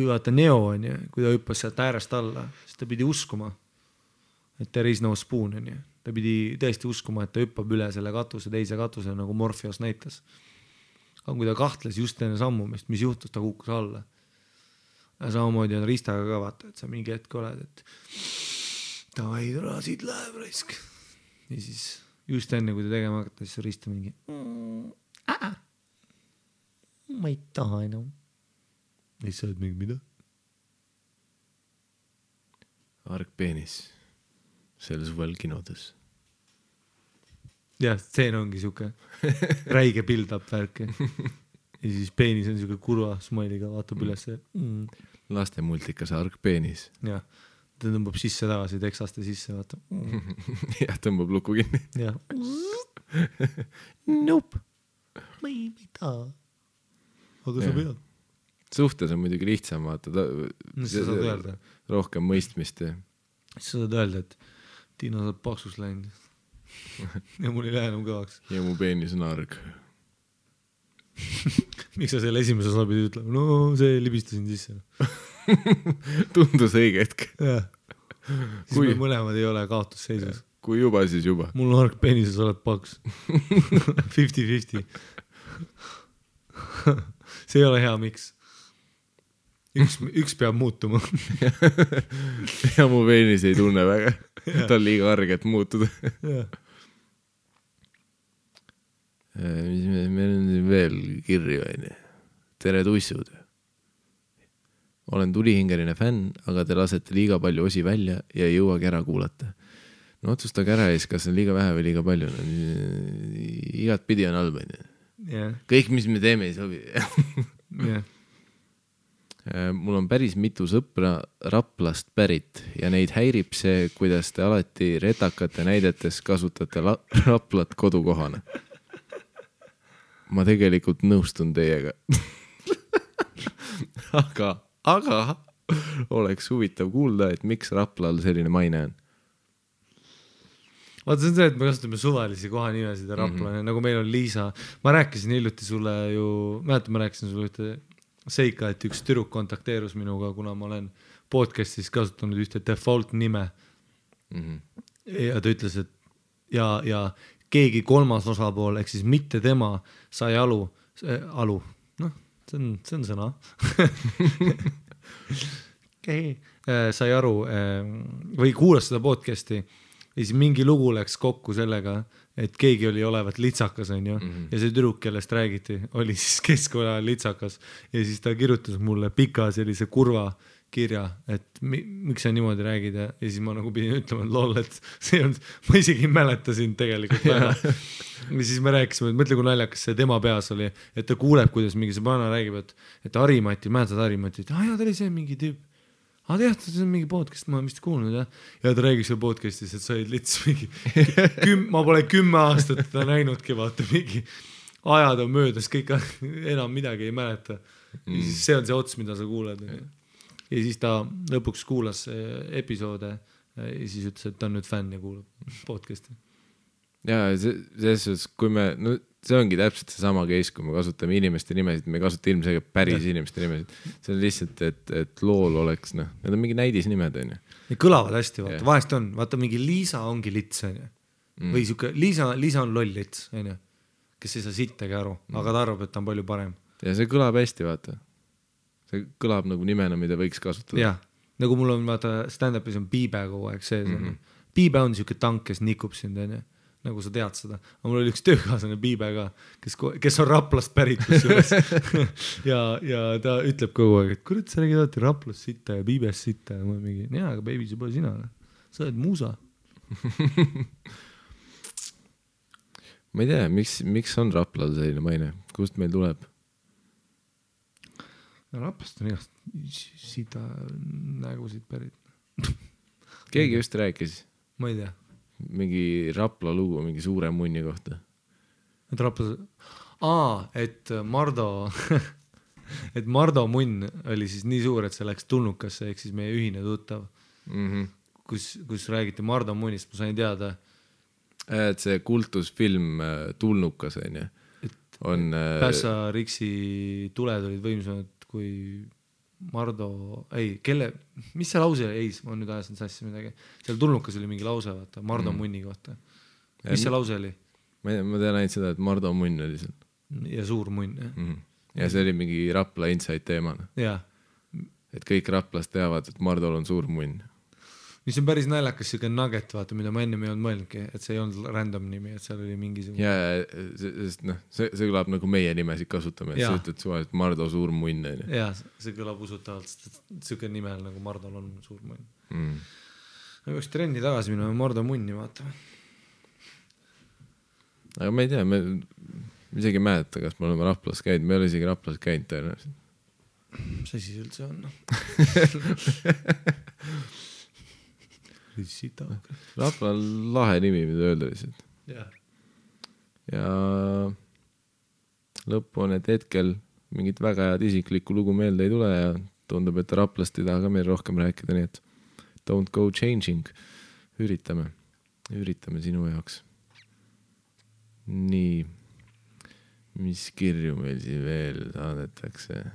vaata Neo, on ju, kui ta hüppas sealt äärest alla, siis ta pidi uskuma, et there is no spoon, on ju. Ta pidi tõesti uskuma, et ta hüppab üle selle katuse, teise katuse, nagu Morpheus näitas. Aga kui ta kahtles just enne sammumist, mis juhtus, ta kukkus alla. Ja samamoodi on Ristaga ka vaata, et sa mingi hetk oled, et davai, tule, siit läheb raisk. Ja siis just enne, kui ta tegema hakata, siis Rista mingi ma ei taha enam. Ja siis sa oled mingi mida? Argpeenis selle suvel kinodes. Jah, stseen ongi siuke räige build-up värk. Ja siis peenis on siuke kurva smailiga, vaatab üles. Laste multikas Argpeenis. Jah, ta tõmbab sisse tagasi, teksaste sisse, vaatab. Jah, tõmbab luku kinni. Jah. Nope. Ma ei taha. Aga sa pead. Suhtes on muidugi lihtsam, vaata. Sa saad öelda. Rohkem mõistmist. Sa saad öelda, et Tiina saad paksus läinud. Ja mul ei lähe enam kõvaks. Ja mu peenis on arg. Miks sa selle esimese osa pidi ütlema? No see libistasin sisse. Tundus õige hetk. Jah. Siis me mõlemad ei ole kaotusseisus. Kui juba, siis juba. Mul on arg peenises, oled paks. 50-50. See ei ole hea, miks? Üks peab muutuma. Ja mu peenis ei tunne väga. Ta on liiga arg, et muutuda. Meil on veel kirju, tere tussud. Olen tulihingeline fänn, aga te lasete liiga palju osi välja ja ei jõuagi ära kuulata. No otsustage ära ees, kas on liiga vähe või liiga palju. Igat pidi on halb. Kõik, mis me teeme, ei sobi. Mul on päris mitu sõpra Raplast pärit ja neid häirib see, kuidas te alati retakate näidetes kasutate Raplat kodukohana. Ma tegelikult nõustun teiega. aga oleks huvitav kuulda, et miks Raplal selline maine on. Vaata, see on see, et me kasutame suvalisi kohanimesid ja Rapla, nagu meil on Liisa. Ma rääkisin hiljuti sulle ju, ma rääkisin sulle ühte seika, et üks tüdruk kontakteerus minuga, kuna ma olen podcastis kasutanud ühte default nime. Ja ta ütles, et ja keegi kolmas osapool, ehk siis mitte tema, sai alu, noh, see on sõna. Sai aru või kuulas seda podcasti ja siis mingi lugu läks kokku sellega, et keegi oli olevat litsakas, on ju, ja see tüdruk, kellest räägiti, oli siis keskkoja litsakas ja siis ta kirjutas mulle pika sellise kurva kirja, et miks sa niimoodi räägid ja siis ma nagu pidin ütlema, et lol, et see on, ma isegi mäletasin tegelikult väga. Ja siis me rääkisime, et mõtle, kui naljakas see tema peas oli, et ta kuuleb, kuidas mingi see pana räägib, et Harimati, mäletad Harimati, et ta oli see mingi tüüp. Aga jah, see on mingi podcast, ma olen vist kuulnud, jah. Ja ta räägib seal podcastis, et sa olid lits mingi, ma pole 10 aastat ta näinudki, vaata mingi ajad on möödas, kõik enam midagi ei mäleta. Ja siis see on see ots, mida sa kuuled. Ja siis ta lõpuks kuulas episoode ja siis ütles, et ta on nüüd fänn ja kuulab podcasti. Ja selles suhtes, kui me, no see ongi täpselt see sama case, kui me kasutame inimeste nimesid, me ei kasuta ilmselgelt päris inimeste nimesid. See on lihtsalt, et lool oleks, noh, need on mingi näidisnimed, on ju. Ja kõlavad hästi, vaata, vahest on, vaata mingi Liisa ongi lits, on ju. Või siuke, Liisa on loll lits, on ju, kes ei saa sittagi aru, aga ta arvab, et ta on palju parem. Ja see kõlab hästi, vaata. See kõlab nagu nimena, mida võiks kasutada. Jah, nagu mul on, vaata, stand-upis on Piibe kogu aeg sees. Piibe on siuke tank, kes nikub sind, on ju. Nagu sa tead seda. Aga mul oli üks töökaaslane Piibe ka, kes on Raplast pärit. ja ta ütleb kogu aeg, et kurat, sa räägid alati Raplast sitta ja Piibest sitta. Ja ma mingi, jaa, aga baby, see pole sina. Sa oled muusa. Ma ei tea, miks on Raplal selline maine? Kust meil tuleb? Raplast on igast sita nägusid pärit. Keegi just rääkis. Ma ei tea. Mingi Rapla lugu, mingi suure munni kohta. Et Rapla... et Mardo... et Mardo munn oli siis nii suur, et see läks Tulnukasse, ehk siis meie ühine tuttav. Kus räägiti Mardo munnist, ma sain teada. Et see kultusfilm Tulnukas, on ju. On... Pässa Riksi tuled olid võimsamad kui Mardo, mis see lause oli? Ma nüüd ajasin sassi midagi. Seal Tulnukas oli mingi lause, vaata, Mardo munni kohta. Mis see lause oli? Ma tean ainult seda, et Mardo munn oli seal. Ja suur munn, jah. Ja see oli mingi Rapla inside teemana. Jah. Et kõik Raplast teavad, et Mardol on suur munn. Mis on päris naljakas siuke nugget, vaata, mida ma enne ei olnud mõelnudki, et see ei olnud random nimi, et seal oli mingisugune... Ja, sest noh, see kõlab nagu meie nimesid kasutame, et sa ütled suva, et Mardo suur munn. Ja, see kõlab usutavalt, siuke nimel nagu Mardol on suur munn. Ma peaks trenni tagasi minema Mardo munni vaatama. Aga ma ei tea, me isegi mäleta, kas me oleme Raplas käinud, me ei ole isegi Raplas käinud tõenäoliselt. Mis asi üldse on? Rapla on lahe nimi, mida öelda lihtsalt. Ja lõppu on, et hetkel mingit väga head isiklikku lugu meelde ei tule ja tundub, et Raplast ei taha ka meil rohkem rääkida, nii et don't go changing. Üritame sinu jaoks. Nii, mis kirju meil siin veel saadetakse?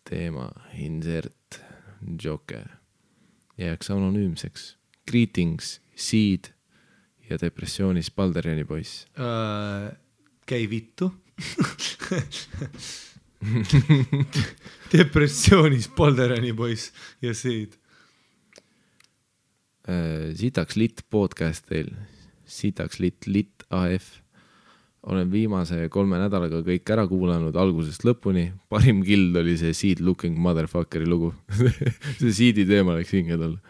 Teema, insert, Joker. Jääks anonüümseks. Greetings, Seed ja depressioonis Balderjani poiss. Käi vittu. Depressioonis Balderjani poiss ja Seed. Sitaks lit podcast teil. Sitaks lit AF. Olen viimase 3 nädalaga kõik ära kuulanud algusest lõpuni. Parim kild oli see Seed Looking Motherfuckeri lugu. See Seedi teema läks hinge talle.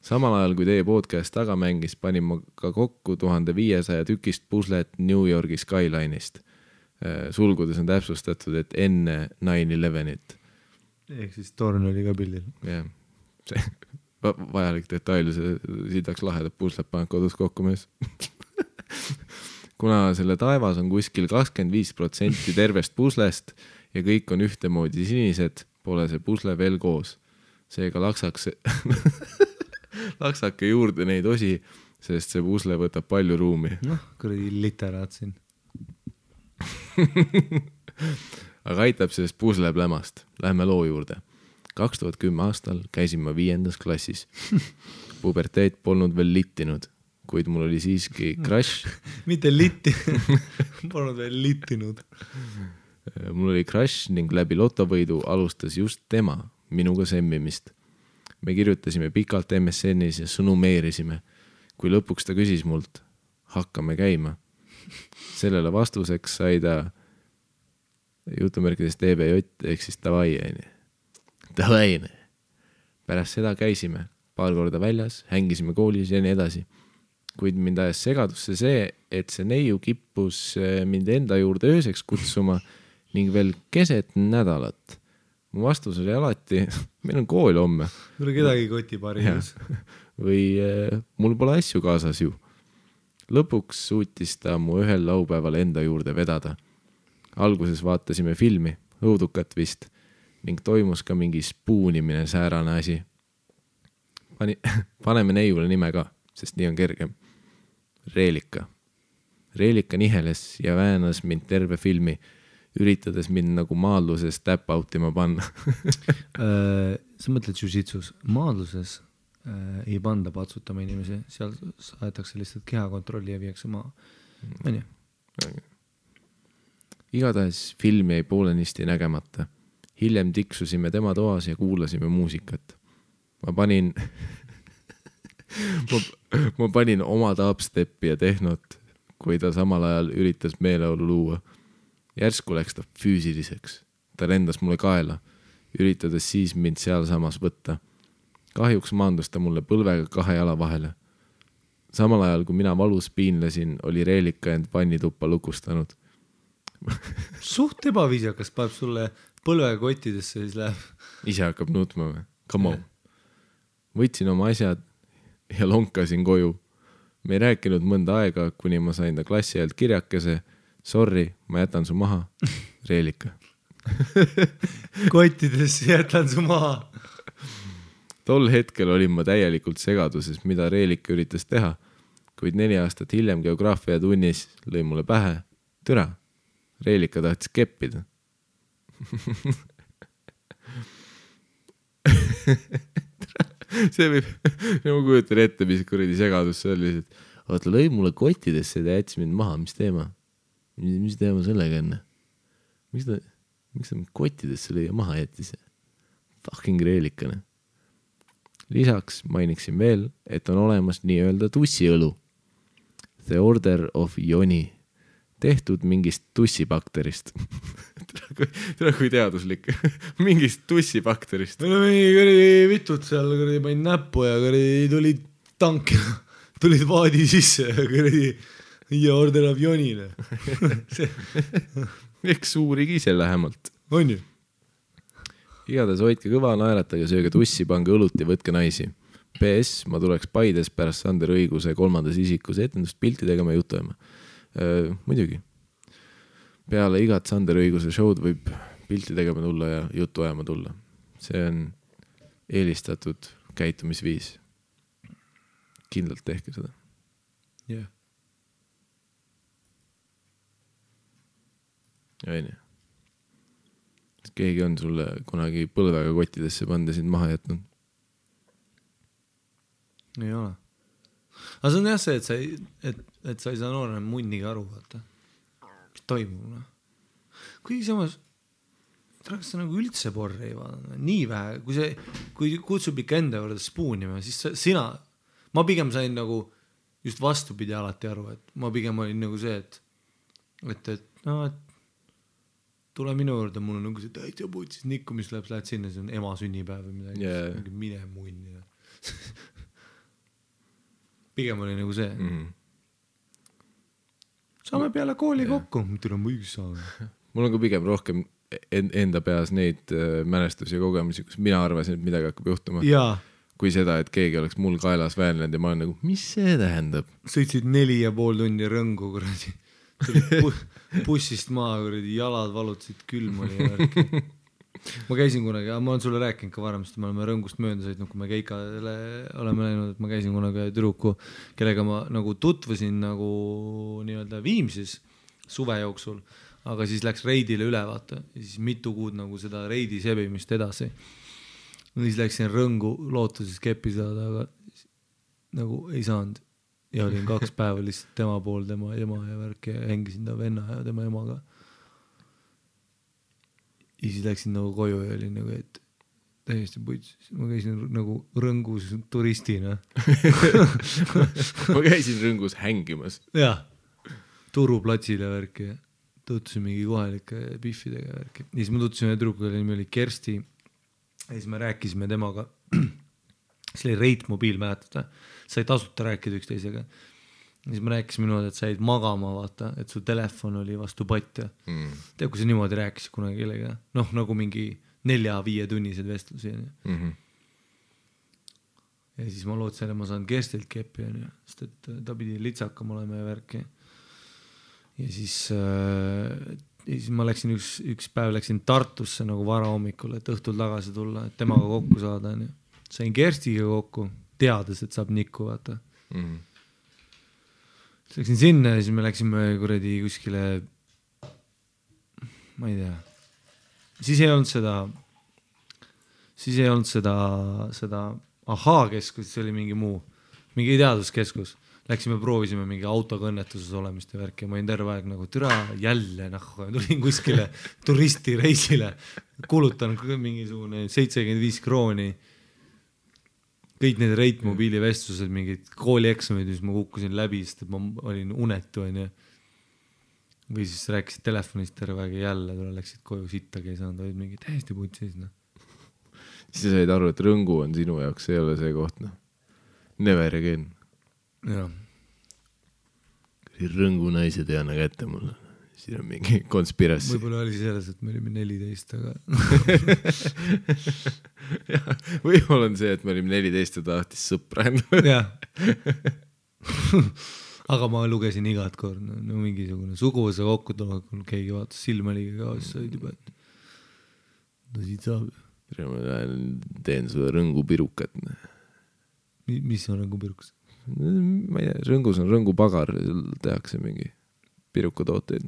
Samal ajal, kui teie podcast taga mängis, panin ma ka kokku 1500 tükist puslet New Yorgi Skyline'ist. Sulgudes on täpsustatud, et enne 9/11-it. Ehk siis torn oli ka pildil. Jah, see vajalik detail, see Sitaks lahedad puslet paned kodus kokku mees. Kuna selle taevas on kuskil 25% tervest puslest ja kõik on ühtemoodi sinised, pole see pusle veel koos. Seega laksake juurde neid osi, sest see pusle võtab palju ruumi. Noh, kuradi literaat siin. Aga aitab sellest pusle plämast. Lähme loo juurde. 2010 aastal käisin ma 5. klassis. Puberteet polnud veel littinud. Kuid mul oli siiski crush. Mitte litti, polnud veel littinud. Mul oli crush ning läbi lotovõidu alustas just tema minuga semmimist. Me kirjutasime pikalt MSN-is ja sõnumeerisime. Kui lõpuks ta küsis mult, hakkame käima. Sellele vastuseks sai ta jutumärkides TBJ ehk siis davai. Pärast seda käisime paar korda väljas, hängisime koolis ja nii edasi. Kuid mind ajas segadusse see, et see neiu kippus mind enda juurde ööseks kutsuma ning veel keset nädalat. Mu vastus oli alati, meil on kool homme. Tule kedagi kotipaarius. Või mul pole asju kaasas ju. Lõpuks suutis ta mu ühel laupäeval enda juurde vedada. Alguses vaatasime filmi, õudukat vist, ning toimus ka mingi spuunimine säärane asi. Paneme neiule nime ka, sest nii on kergem. Reelika. Reelika niheles ja väänas mind terve filmi, üritades mind nagu maadluses tap-outima panna. Sa mõtled jiu-jitsus, maadluses ei panda patsutama inimesi, seal saetakse lihtsalt kehakontrolli ja viiakse maa. On ju? Igatahes film jäi poolenisti nägemata. Hiljem tiksusime tema toas ja kuulasime muusikat. Ma panin oma dubstepi ja tehnot, kui ta samal ajal üritas meeleolu luua. Järsku läks ta füüsiliseks. Ta lendas mulle kaela, üritades siis mind seal samas võtta. Kahjuks maandus ta mulle põlvega 2 jala vahele. Samal ajal, kui mina valus piinlesin, oli Reelika end vannituppa lukustanud. Suht ebaviisakas paneb sulle põlvega kottidesse, siis läheb. Ise hakkab nutma või? Come on. Võtsin oma asjad ja lonkasin koju. Me ei rääkinud mõnda aega, kuni ma sain ta klassi ajalt kirjakese. Sorry, ma jätan su maha. Reelika. Kottidesse jätan su maha. Tol hetkel olin ma täielikult segaduses, mida Reelika üritas teha, kuid 4 aastat hiljem geograafia tunnis lõi mulle pähe. Türa, Reelika tahtis keppida. See võib, ma kujutan ette, mis kuradi segadus see oli, et vaata, lõi mulle kottidesse ja jättis mind maha, mis teema? Mis teema sellega enne? Miks ta kottidesse lõi ja maha jättis? Fucking Reelikane. Lisaks mainiksin veel, et on olemas nii-öelda tussiõlu. The Order of Ioni. Tehtud mingist tussibakterist. Tere kui teaduslik. Mingist tussibakterist. Meil on mingi kõrdi vitud seal, kõrdi panin näppu ja kõrdi tulid tank ja tulid vaadi sisse ja kõrdi ja Order of Ionile. Eks uurigi ise lähemalt. On ju? Igatahes hoidke kõva, naeratage, sööge tussi, pange õlut ja võtke naisi. PS, ma tuleks Paides pärast Sander Õiguse 3. isikus etendust pilti tegema ja juttu ajama. Muidugi. Peale igat Sander Õiguse show'd võib pilti tegema tulla ja juttu ajama tulla. See on eelistatud käitumisviis. Kindlalt tehke seda. Jah. Ja nii. Keegi on sulle kunagi põlvega kottidesse panda sind maha jätnud? Ei ole. Aga see on jah see, et sa ei saa noorena munnigi aru, vaata. Mis toimub? Kuigi samas, kas sa nagu üldse porri ei vaadanud? Nii vähe, kui kutsub ikka enda juurde spuunima, siis ma pigem sain nagu just vastupidi alati aru, et ma pigem olin nagu see, et tule minu juurde, mul on nagu see täitsa putsis nikku, mis lähed sinna, see on ema sünnipäev või midagi, yeah. Mine munni. Pigem oli nagu see. Saame peale kooli kokku, mida on võiks saada. Mul on ka pigem rohkem enda peas neid mälestusi ja kogemusi, kus mina arvasin, et midagi hakkab juhtuma. Jaa. Kui seda, et keegi oleks mul kaelas väänlenud ja ma olen nagu, mis see tähendab? Sõitsid 4,5 tundi rõngu, kuradi. Bussist maa, kuradi, jalad valutasid külm oli ja ma käisin kunagi, ma olen sulle rääkinud ka varem, sest me oleme rõngust mööda sõitnud, kui me Keikale oleme läinud, et ma käisin kunagi tüdruku, kellega ma nagu tutvusin nagu nii-öelda Viimsis suve jooksul, aga siis läks reidile üle, vaata, ja siis mitu kuud nagu seda reidi sebimist edasi. Ja siis läksin rõngu lootuses keppi saada, aga nagu ei saanud. Ja olin 2 päeva lihtsalt tema pool, tema ema ja värk ja hängisin ta venna ja tema emaga. Ja siis läksin nagu koju ja olin nagu, et täiesti puits. Ma käisin nagu rõngus turistina. Ma käisin rõngus hängimas. Jah, turuplatsile värk ja tuttusin mingi kohalike biffidega värk. Ja siis ma tuttusime tüdrukuga, nimi oli Kersti. Ja siis me rääkisime temaga. See oli Reit mobiil, mäletada. Sai tasuta rääkida üksteisega. Ja siis me rääkisime niimoodi, et said magama, vaata, et su telefon oli vastu patja. Tead, kui sa niimoodi rääkisid kunagi kellega. Noh, nagu mingi 4-5 tunnised vestlusi. Ja siis ma lootsin, et ma saan Kerstilt keppi, sest et ta pidi litsakam olema ja värki. Ja siis ma läksin üks päev läksin Tartusse nagu vara hommikul, et õhtul tagasi tulla, et temaga kokku saada. Sain Kerstiga kokku, teades, et saab nikku, vaata. läksin sinna ja siis me läksime kuradi kuskile, ma ei tea, siis ei olnud seda Ahhaa-keskus, see oli mingi teaduskeskus. Läksime, proovisime mingi autoga õnnetuses olemist ja värki ja ma olin terve aeg nagu türa jälle tulin kuskile turistireisile, kulutan mingisugune 75 krooni, kõik need Reit mobiilivestlused, mingid koolieksamid, mis ma kukkusin läbi, sest et ma olin unetu onju. Või siis rääkisid telefonist terve aeg ja jälle läksid koju sittagi ei saanud, olid mingi täiesti putsis Siis said aru, et Rõngu on sinu jaoks, ei ole see koht Never again. Jah. Rõngu naised ei anna kätte mulle. Siin on mingi konspirassi. Võib-olla oli selles, et me olime 14, aga võib-olla on see, et me olime 14 ja tahtis sõpra jah. Aga ma lugesin igat kord, no mingisugune suguvõsa kokku tulekul, keegi vaatas silmaliga ka, siis said juba, et no siit saab. Ma teen sulle Rõngu pirukat. Mis on Rõngu pirukas? Ma ei tea, Rõngus on Rõngu pagar, tehakse mingi pirukatooteid.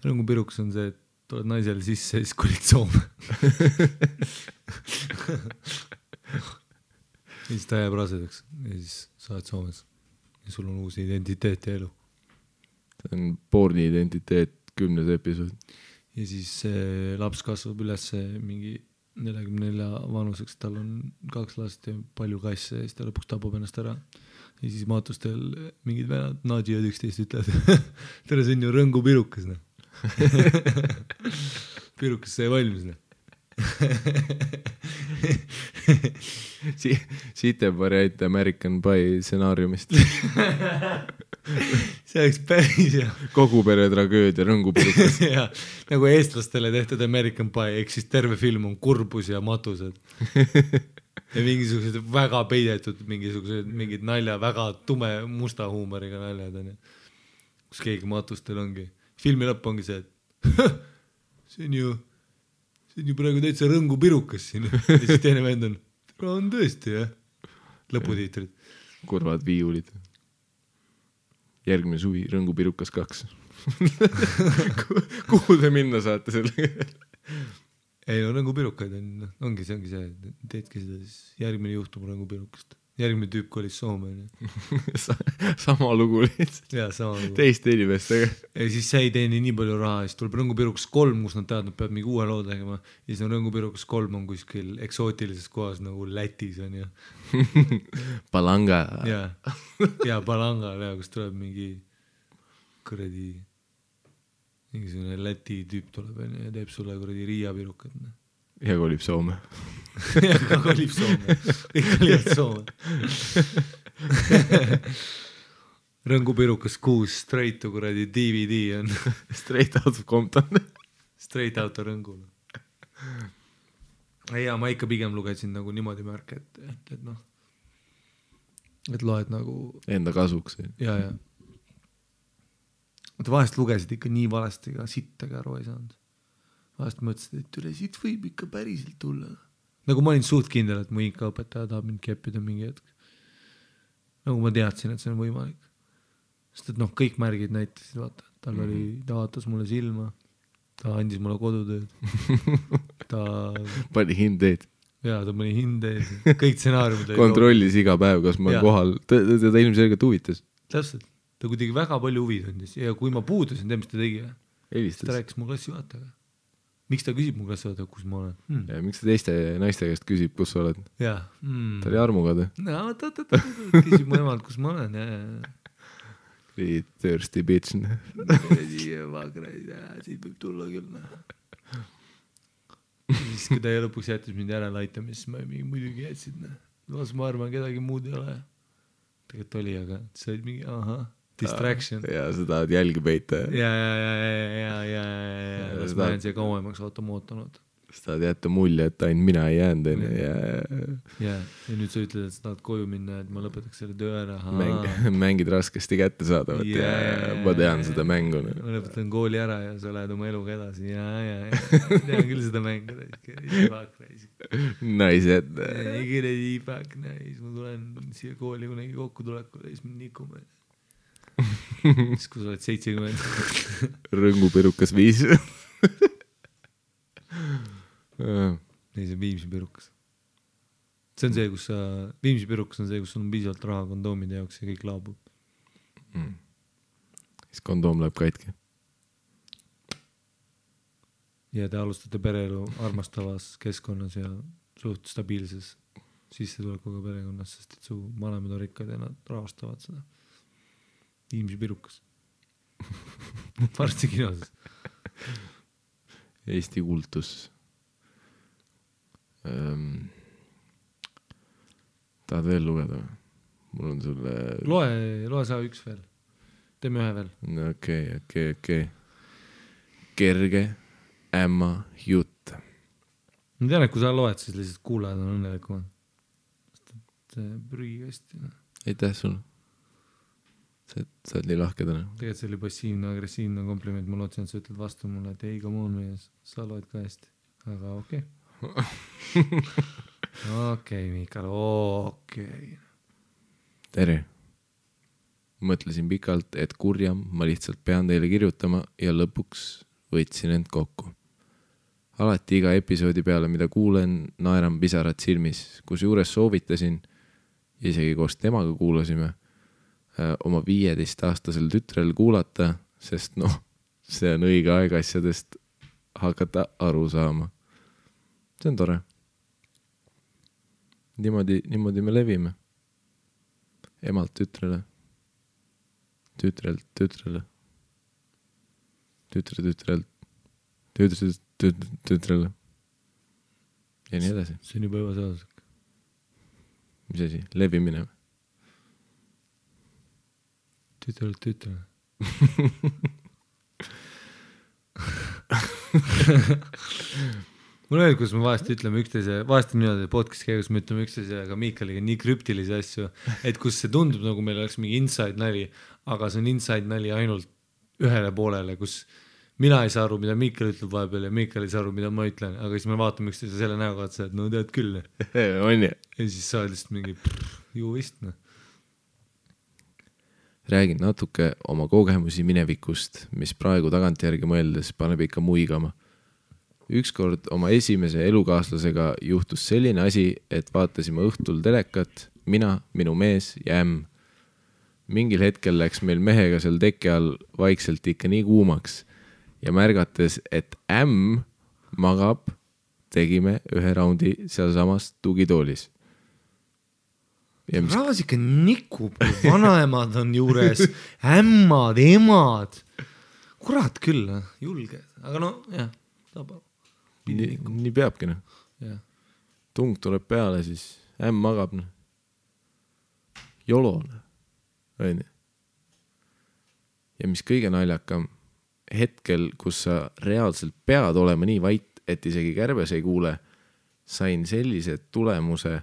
Rõngu pirukas on see, et tuled naisele sisse ja siis kolid Soome. Ja siis ta jääb rasedaks ja siis saad Soomes ja sul on uus identiteet ja elu. See on porni identiteet 10. episood. Ja siis laps kasvab üles mingi 44 vanuseks, tal on 2 last ja palju kasse ja siis ta lõpuks tapab ennast ära. Ja siis maatustel mingid venad Nadja 11 ütlevad, tere, see on ju Rõngu pirukas. Pirukas sai valmis. Siit on variant American Pie stsenaariumist. See oleks päris hea. Kogu pere tragöödia Rõngu pirukas. Ja, nagu eestlastele tehtud American Pie, ehk siis terve film on kurbus ja matused. Ja mingisugused väga peidetud, mingid nalja, väga tume musta huumoriga naljad on. Kus keegi matustel ongi. Filmi lõpp ongi see, et see on ju praegu täitsa Rõngu pirukas siin. Ja siis teine vend on tõesti, jah. Lõputiitrid. Kurvad viiulid. Järgmine suvi Rõngu pirukas 2. Kuhu te minna saate sellega? Ei no Rõngu pirukaid ongi see, teedki seda, siis järgmine juhtub Rõngu pirukast. Järgmine tüüp kolis Soome. Sama lugu lihtsalt. Jaa, sama lugu. Teiste inimestega. Ja siis see ei teeni nii palju raha, siis tuleb Rõngu pirukas 3, kus nad teavad, nad peavad mingi uue loo tegema. Ja siis on Rõngu pirukas 3 on kuskil eksootilises kohas nagu Lätis on ja. Palanga. Ja Palanga, kus tuleb mingi kuradi mingisugune Läti tüüp tuleb ja teeb sulle kuradi Riia pirukat. Ja kolib Soome. Ja kolib Soome. Kõik olid Soome. Rõngu pirukas 6 straight to kuradi DVD on. Straight out of Compton. Straight out of Rõngul. Ja ma ikka pigem lugesin nagu niimoodi märke, et noh, et loed nagu enda kasuks. Ja. Mutta vahest lugesid ikka nii valesti ka sittagi aru ei saanud. Vahest mõtlesid, et üle siit võib ikka päriselt tulla. Nagu ma olin suht kindel, et mu ikka õpetaja tahab mind keppida mingi hetk. Nagu ma teadsin, et see on võimalik. Sest et noh, kõik märgid näitasid, vaata. Ta vaatas mulle silma, ta andis mulle kodutööd. Pani hindeid. Jaa, ta pani hindeid. Kõik stsenaariumid. Kontrollis iga päev, kas ma olen kohal. Ta ilmselgelt huvitas. Täpselt. Ta kuidagi väga palju huvi tundis. Ja kui ma puudusin, mis ta tegi. Helistas. Ta rääkis mu klassijuhatajaga. Miks ta küsib mu klassijuhatajaga, kus ma olen? Ja miks ta teiste naiste käest küsib, kus sa oled? Jaa. Ta oli armugad. Küsib mu emalt, kus ma olen. Thirsty bitch. Siit võib tulla küll. Siis kui ta lõpuks jättis mind järele aitama, siis ma muidugi jätsid. Ma arvan, kedagi muud ei ole. Tegelikult oli, aga see oli mingi distraction. Ja sa tahad jälgi peita. Ja. Las ma jään siia kauemaks automootanud. Sa tahad jätta mulje, et ainult mina ei jäänud. Ja nüüd sa ütled, et sa tahad koju minna, et ma lõpetaks selle töö ära. Mängid raskesti kätte saadavat ja ma tean seda mängu. Ma lõpetan kooli ära ja sa lähed oma eluga edasi. Ja. Tean küll seda mängu. Naised. Igile iipak, ma tulen siia kooli kunagi kokku tulekule ja siis me nikume. siis kui sa oled 70. Rõngupirukas 5. ei, see Viimsi pirukas. See on see, kus sa, Viimsi pirukas on see, kus sul on piisavalt raha kondoomide jaoks ja kõik laabub. Siis kondoom läheb katki. Ja te alustate pereelu armastavas keskkonnas ja suht stabiilses sissetulekuga perekonnas, sest et su vanemad on rikkad ja nad rahastavad seda. Viimsi pirukas. Varsti kinoses. Eesti kultus. Tahad veel lugeda? Mul on sulle... Loe sa üks veel. Teeme ühe veel. Okei. Kerge ämma jutt. Ma tean, et kui sa loed, siis lihtsalt kuulajad on õnnelikumad. See prügi hästi. Aitäh sulle. Sa oled nii lahke täna. Tegelikult see oli passiivne-agressiivne kompliment. Ma lootsin, et sa ütled vastu mulle, et ei, come on mees, sa loed ka hästi. Aga okei. Okei, Miikal, okei. Tere. Mõtlesin pikalt, et kurjam ma lihtsalt pean teile kirjutama ja lõpuks võtsin end kokku. Alati iga episoodi peale, mida kuulen, naeran pisarad silmis, kus juures soovitasin, isegi koos temaga kuulasime, oma 15-aastasel tütrel kuulata, sest see on õige aeg asjadest hakata aru saama. See on tore. Niimoodi me levime. Emalt tütrele. Tütrelt tütrele. Tütrele. Ja nii edasi. See on juba ebaseaduslik. Mis asi? Levimine. Tütrele. Mul on, kus me vahest ütleme üksteise, vahest on niimoodi podcast käigus, me ütleme üksteise, aga Miikaliga nii krüptilisi asju, et kus see tundub, nagu meil oleks mingi inside nali, aga see on inside nali ainult ühele poolele, kus mina ei saa aru, mida Miikal ütleb vahepeal ja Miikal ei saa aru, mida ma ütlen, aga siis me vaatame üksteise selle näoga, et no tead küll. On ja siis sa oled lihtsalt mingi ju vist. Räägin natuke oma kogemusi minevikust, mis praegu tagantjärgi mõeldes paneb ikka muigama. Ükskord oma esimese elukaaslasega juhtus selline asi, et vaatasime õhtul telekat, mina, minu mees ja ämm. Mingil hetkel läks meil mehega seal teke all vaikselt ikka nii kuumaks ja märgates, et ämm magab, tegime ühe raundi seal samas tugitoolis. Rahvas ikka nikub, vanaemad on juures, ämmad, emad. Kurat küll, julge. Aga jah, tabab. Nii peabki. Yeah. Tung tuleb peale, siis ämm magab. Jolone. Ja mis kõige naljakam, hetkel, kus sa reaalselt pead olema nii vait, et isegi kärbes ei kuule, sain sellise tulemuse,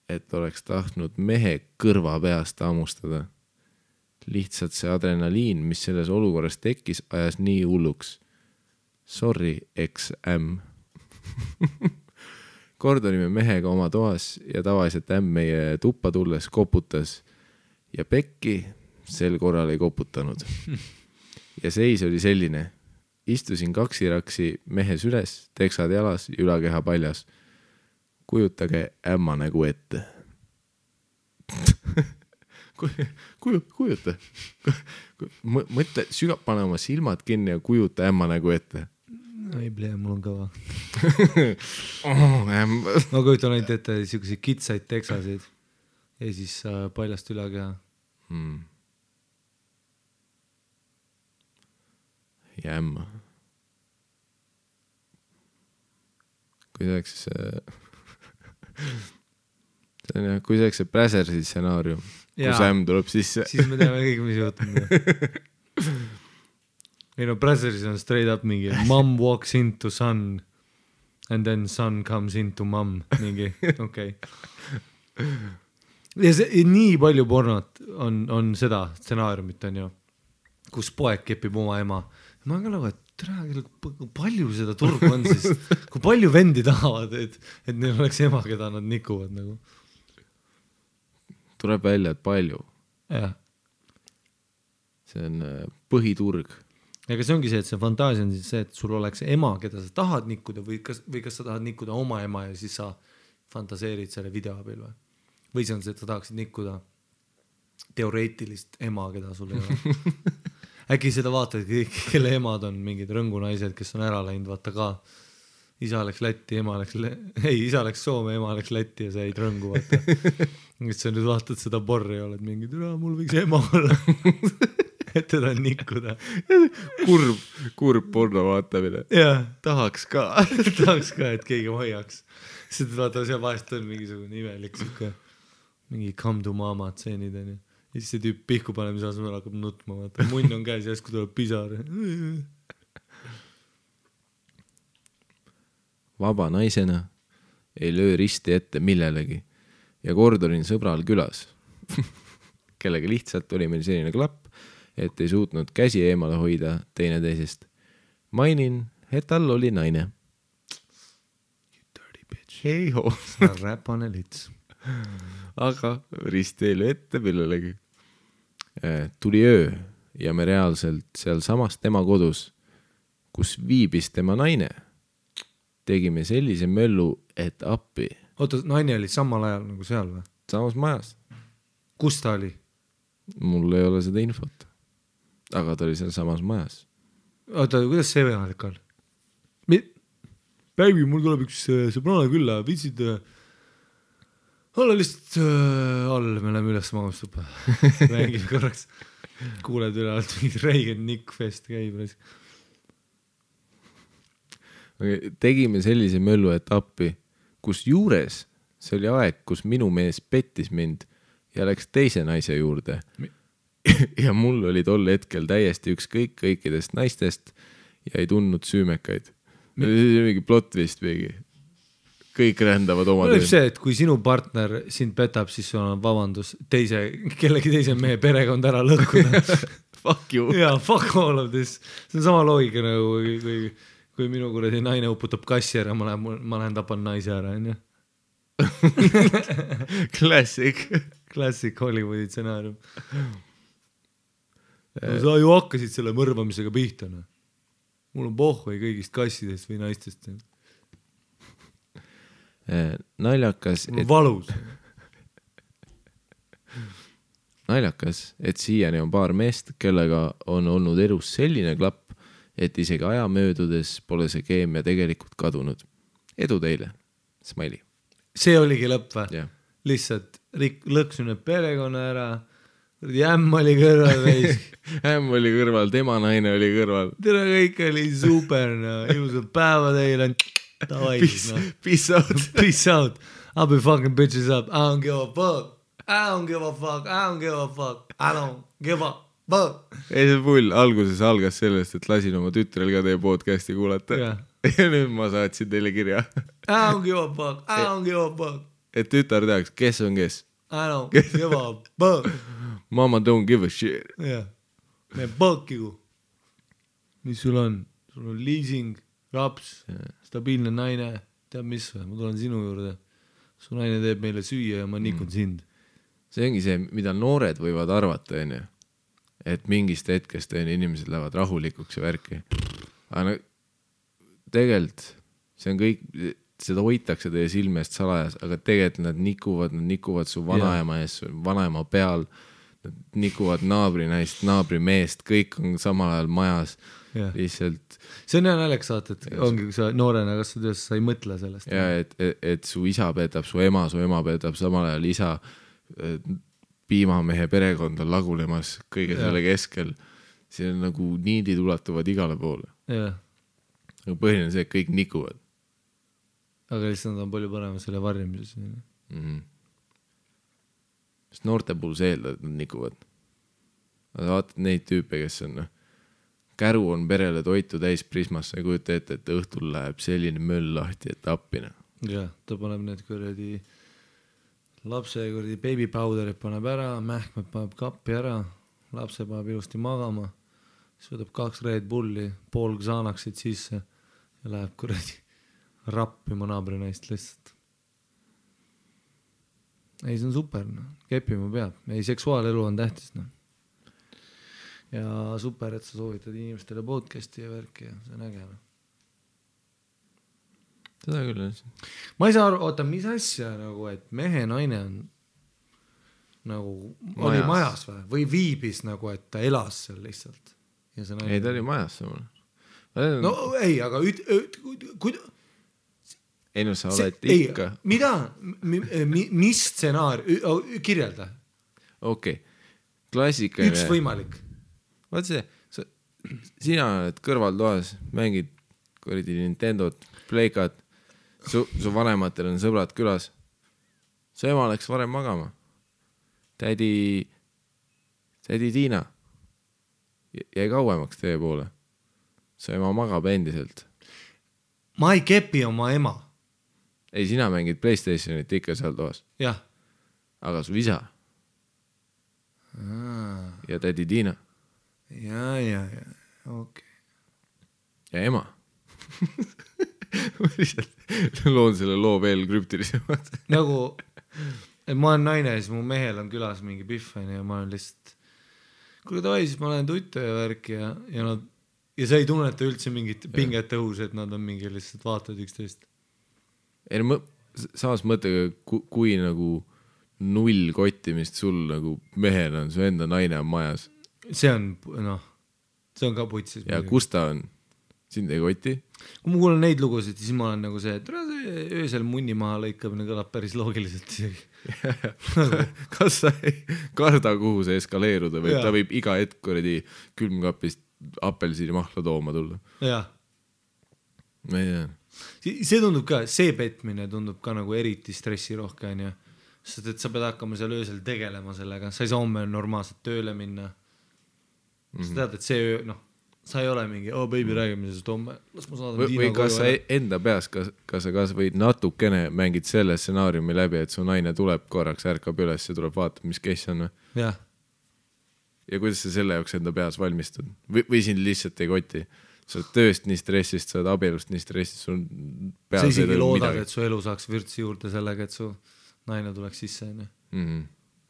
et oleks tahtnud mehe kõrva peast hammustada. Lihtsalt see adrenaliin, mis selles olukorras tekkis, ajas nii hulluks. Sorry, ex-ämm. Kord olime mehega oma toas ja tavaliselt ämm meie tuppa tulles koputas ja pekki sel korral ei koputanud. Ja seis oli selline. Istusin kaksiraksi mehes üles, teksad jalas ja ülakeha paljas. Kujutage ämma nägu ette. Kujuta. Mõtle, pane oma silmad kinni ja kujuta ämma nägu ette. Ei plee, mul on kõva. Ma kujutan ainult ette selliseid kitsaid teksasid ja siis paljast ülakeha. Ja ämma. Kui see oleks see Brazersi stsenaarium, kus ämm tuleb sisse. Siis me teame kõik, mis juhtum. Ei no, Brazersis on straight up mingi mom walks into son and then son comes into mom. Mingi, okei. Ja see, nii palju pornot on seda stsenaariumit on ju, kus poeg kepib oma ema. Ma olen ka nagu, et palju seda turgu on siis, kui palju vendi tahavad, et neil oleks ema, keda nad nikuvad nagu. Tuleb välja, et palju. Jah. see on põhiturg. Aga see ongi see, et see fantaasia on siis see, et sul oleks ema, keda sa tahad nikkuda või kas sa tahad nikkuda oma ema ja siis sa fantaseerid selle video abil või see on see, et sa tahaksid nikkuda teoreetilist ema, keda sul ei ole. Äkki seda vaatad kõik, kelle emad on mingid rõngunaised, kes on ära läinud, vaata ka isa läks Lätti, isa läks Soome, ema läks Lätti ja sa jäid rõngu, vaata. Siis sa nüüd vaatad seda porri ja oled mingi, mul võiks ema olla. Et teda nikkuda. Kurb porno vaatamine. Tahaks ka, et keegi hoiaks. Seda vaata, seal vahest on mingisugune imelik mingi come to mama tseenid on ju. Ja siis see tüüp pihku panemise asemel hakkab nutma, vaata. Munn on käes ja jäsku tuleb pisar. Vaba naisena ei löö risti ette millelegi ja kord olin sõbral külas, kellega lihtsalt oli meil selline klapp, et ei suutnud käsi eemale hoida teineteisest. Mainin, et tal oli naine. You dirty bitch. Hei ho. Räpane lits. Aga risti ei löö ette millelegi. Tuli öö ja me reaalselt seal samas tema kodus, kus viibis tema naine. Tegime sellise möllu, et appi. Oota, naine oli samal ajal nagu seal või? Samas majas. Kus ta oli? Mul ei ole seda infot. Aga ta oli seal samas majas. Oota, kuidas see võimalik on? Baby, mul tuleb üks sõbrana külla, vitsid olla lihtsalt all, me läheme üles magustuppa. Mängime korraks. Kuuled üle alt mingid Reigen Nick Fest käib. Tegime sellise möllu etappi, kus juures see oli aeg, kus minu mees pettis mind ja läks teise naise juurde. Ja mul oli tol hetkel täiesti ükskõik kõikidest naistest ja ei tundnud süümekaid. Mingi plot vist mingi. Kõik rändavad oma töö. See, et kui sinu partner sind petab, siis sul on vabandus kellegi teise mehe perekond ära lõhkuda. Fuck you. Jaa, fuck all of this. See on sama loogika nagu kui minu kuradi naine uputab kassi ära, ma lähen tapan naise ära, on ju? Classic Hollywoodi stsenaarium. Sa ju hakkasid selle mõrvamisega pihta. Mul on pohvai kõigist kassidest või naistest. Naljakas, valus. Naljakas, et siiani on paar meest, kellega on olnud elus selline klapp, et isegi aja möödudes pole see keemia tegelikult kadunud. Edu teile. Smiley. See oligi lõpp või? Yeah. Lihtsalt lõksun need perekonna ära. Ämm oli kõrval veis. Ämm oli kõrval, tema naine oli kõrval. Tere, kõik oli super. Ilusad päeva teile. Peace out. Peace out. I'll be fucking bitches up. I don't give a fuck. I don't give a fuck. I don't give a fuck. I don't give a ei, see pull alguses algas sellest, et lasin oma tütrel ka teie podcasti kuulata. Ja nüüd ma saatsin teile kirja. I don't give a fuck. I don't give a fuck. Et tütar teaks, kes on kes. I don't give a fuck. Mama don't give a shit. Jah. Me fuck you. Mis sul on? Sul on leasing, raps, stabiilne naine. Tead mis või? Ma tulen sinu juurde. Su naine teeb meile süüa ja ma nikun sind. See ongi see, mida noored võivad arvata, enne. Et mingist hetkest inimesed lähevad rahulikuks ja värki. Aga tegelikult see on kõik, seda hoitakse teie silme eest salajas, aga tegelikult nad nikuvad su vanaema ees, vanaema peal, nad nikuvad naabrinaist, naabrimeest, kõik on samal ajal majas. Lihtsalt. See on hea naljakas saata, et ongi, kui sa noorena kasvad üles, sa ei mõtle sellest. Ja, et su isa peetab, su ema peetab samal ajal isa piimamehe perekond on lagunemas kõige selle keskel. See on nagu niidid ulatuvad igale poole. Aga põhiline see, et kõik nikuvad. Aga lihtsalt nad on palju parem selle varjamises. Sest noorte puhul see eeldab, et nad nikuvad. Aga vaatad neid tüüpe, kes on käru on perele toitu täis prismasse ja kujuta ette, et õhtul läheb selline möll lahti, et appina. Ja, ta paneb need kuradi lapse kuradi baby powderit paneb ära, mähkmed paneb kappi ära, lapse paneb ilusti magama, siis võtab 2 Red Bulli, pool Xanaxit sisse ja läheb kuradi rappima naabrinaist lihtsalt. Ei, see on super, no. Kepima peab. Ei, seksuaalelu on tähtis, no. ja super, et sa soovitad inimestele podcast'i ja värki ja see on äge. Seda küll jah. Ma ei saa aru, oota, mis asja nagu, et mehe naine on nagu oli majas või viibis nagu, et ta elas seal lihtsalt. Ja see naine... Ei, ta oli majas samal. No ei, aga ei no sa oled ikka. Mida? Mis stsenaar? Kirjelda. Okei. Klassikaline. Üks võimalik. Vaat see, sina oled kõrvaltoas, mängid kuradi Nintendot, Playkat, su vanematel on sõbrad külas. Su ema läks varem magama. Tädi Tiina jäi kauemaks teie poole. Su ema magab endiselt. Ma ei kepi oma ema. Ei, sina mängid PlayStationit ikka seal toas. Jah. Aga su isa. Ja tädi Tiina. Ja, okei. Ja ema. Ma lihtsalt loon selle loo veel krüptilisemad. Nagu, et ma olen naine, siis mu mehel on külas mingi pihven ja ma olen lihtsalt kuule tavai, siis ma olen tuttu ja värk ja sa ei tunneta üldse mingit pinget õhus, et nad on mingi lihtsalt vaatavad üksteist. Ei, samas mõttega, kui nagu null kottimist sul nagu mehel on, su enda naine on majas. See on ka putsis. Ja kus ta on? Sind ei koti? Kui ma kuulen neid lugusid, siis ma olen nagu see, et öösel munni maha lõikamine kõlab päris loogiliselt isegi. Kas sa ei karda, kuhu see eskaleeruda või ta võib iga hetk kuradi külmkapist apelsini mahla tooma tulla? Jah. Ma ei tea. See tundub ka, see petmine tundub ka nagu eriti stressirohke, on ju. Sest et sa pead hakkama seal öösel tegelema sellega, sa ei saa homme normaalselt tööle minna. Sa tead, et see öö, sa ei ole mingi, baby, räägime sest homme, las ma saadan Tiina koju. Või kas sa enda peas, kas sa võid natukene mängid selle stsenaariumi läbi, et su naine tuleb korraks, ärkab üles ja tuleb vaatama, mis kes on? Jah. Ja kuidas sa selle jaoks enda peas valmistud? Või sind lihtsalt ei koti? Sa oled tööst nii stressist, sa oled abielust nii stressist, sul peas sa isegi loodad, et su elu saaks vürtsi juurde sellega, et su naine tuleks sisse.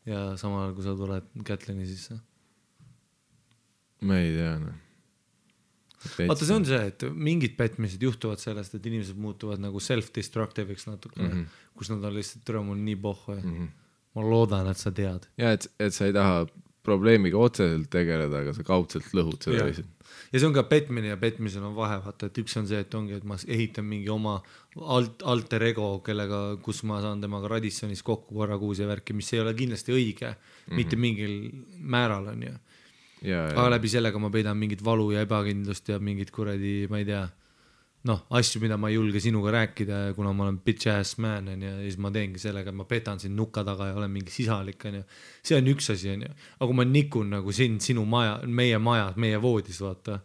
Ja samal ajal, kui sa tuled Kätlini sisse. Ma ei tea, Vaata, see on see, et mingid petmised juhtuvad sellest, et inimesed muutuvad nagu self-destructive'iks natuke, kus nad on lihtsalt türa mul nii pohhu ja ma loodan, et sa tead. Ja, et sa ei taha probleemiga otseselt tegeleda, aga sa kaudselt lõhud seda lihtsalt. Ja see on ka petmine ja petmisel on vahe, vaata, et üks on see, et ongi, et ma ehitan mingi oma alter ego, kellega, kus ma saan temaga Radissonis kokku korra kuus ja värki, mis ei ole kindlasti õige, mitte mingil määral on ju. Aga läbi sellega ma peidan mingit valu ja ebakindlust ja mingit kuradi, ma ei tea, asju, mida ma ei julge sinuga rääkida, kuna ma olen bitch ass man ja siis ma teengi sellega, et ma petan sind nukka taga ja olen mingi sisalik. See on üks asi. Aga kui ma nikun nagu sinu maja, meie voodis, vaata,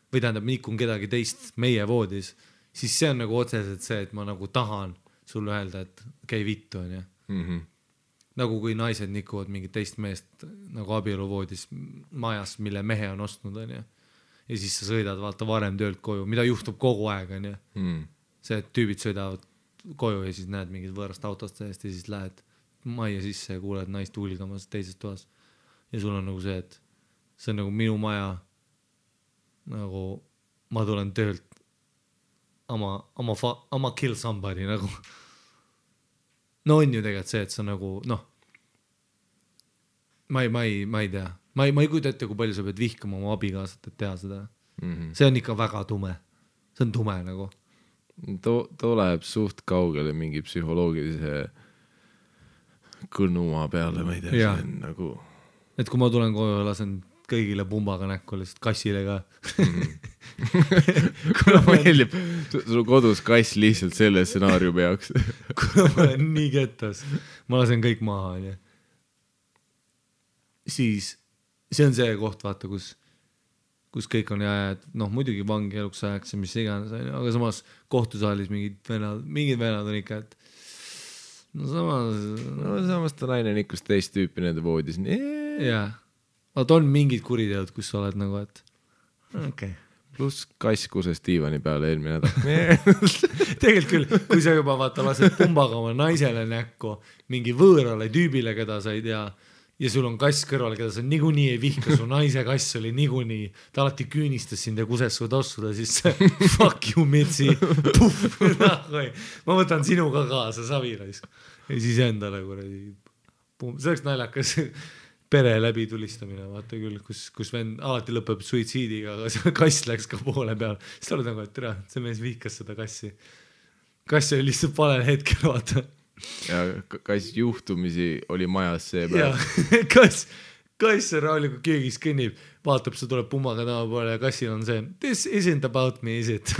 või tähendab, nikun kedagi teist meie voodis, siis see on nagu otseselt see, et ma nagu tahan sulle öelda, et käi vittu. Nagu kui naised nikuvad mingit teist meest nagu abieluvoodis majas, mille mehe on ostnud, on ju. Ja siis sa sõidad vaata varem töölt koju, mida juhtub kogu aeg, on ju. See, et tüübid sõidavad koju ja siis näed mingit võõrast autost seest ja siis lähed majja sisse ja kuuled naist hulgamas teises toas. Ja sul on nagu see, et see on nagu minu maja, nagu ma tulen töölt ama kill somebody nagu. No on ju tegelikult see, et sa nagu, ma ei tea. Ma ei kujuta ette, kui palju sa pead vihkama oma abikaasat, et teha seda. See on ikka väga tume. See on tume nagu. Too läheb suht kaugele mingi psühholoogilise kõnuma peale, ma ei tea, see on nagu... Et kui ma tulen koju ja lasen kõigile pumbaga näkku, lihtsalt kassile ka. Kuna meeldib sul kodus kass lihtsalt selle stsenaariumi jaoks. Kuna ma olen nii kettas, ma lasen kõik maha. Siis see on see koht, vaata, kus kõik on jääd, muidugi vangi eluks ajaks ja mis iganes, aga samas kohtusaalis mingid venad on ikka, et samas ta naine on ikka teist tüüpi nende voodis. Jaa. Vaat on mingid kuriteod, kus sa oled nagu, et okei. Pluss kass kuses diivani peale eelmine nädal. Tegelikult küll, kui sa juba vaata lased pumbaga oma naisele näkku, mingi võõrale tüübile, keda sa ei tea, ja sul on kass kõrval, keda sa niikuinii ei vihka, su naise kass oli niikuinii, ta alati küünistas sind ja kuses su tossuda, siis fuck you, Mitsi, puff, ma võtan sinu ka kaasa, savirais. Ja siis endale kuradi, see oleks naljakas pere läbi tulistamine, vaata küll, kus vend alati lõpeb suitsiidiga, aga see kass läks ka poole peal. Siis oled nagu, et tere, see mees vihkas seda kassi. Kass oli lihtsalt valel hetkel, vaata. Ja kass juhtumisi oli majas see päev. Kass rahulikult köögis kõnnib, vaatab, see tuleb pummaga taha poole ja kassil on see, this isn't about me, is it?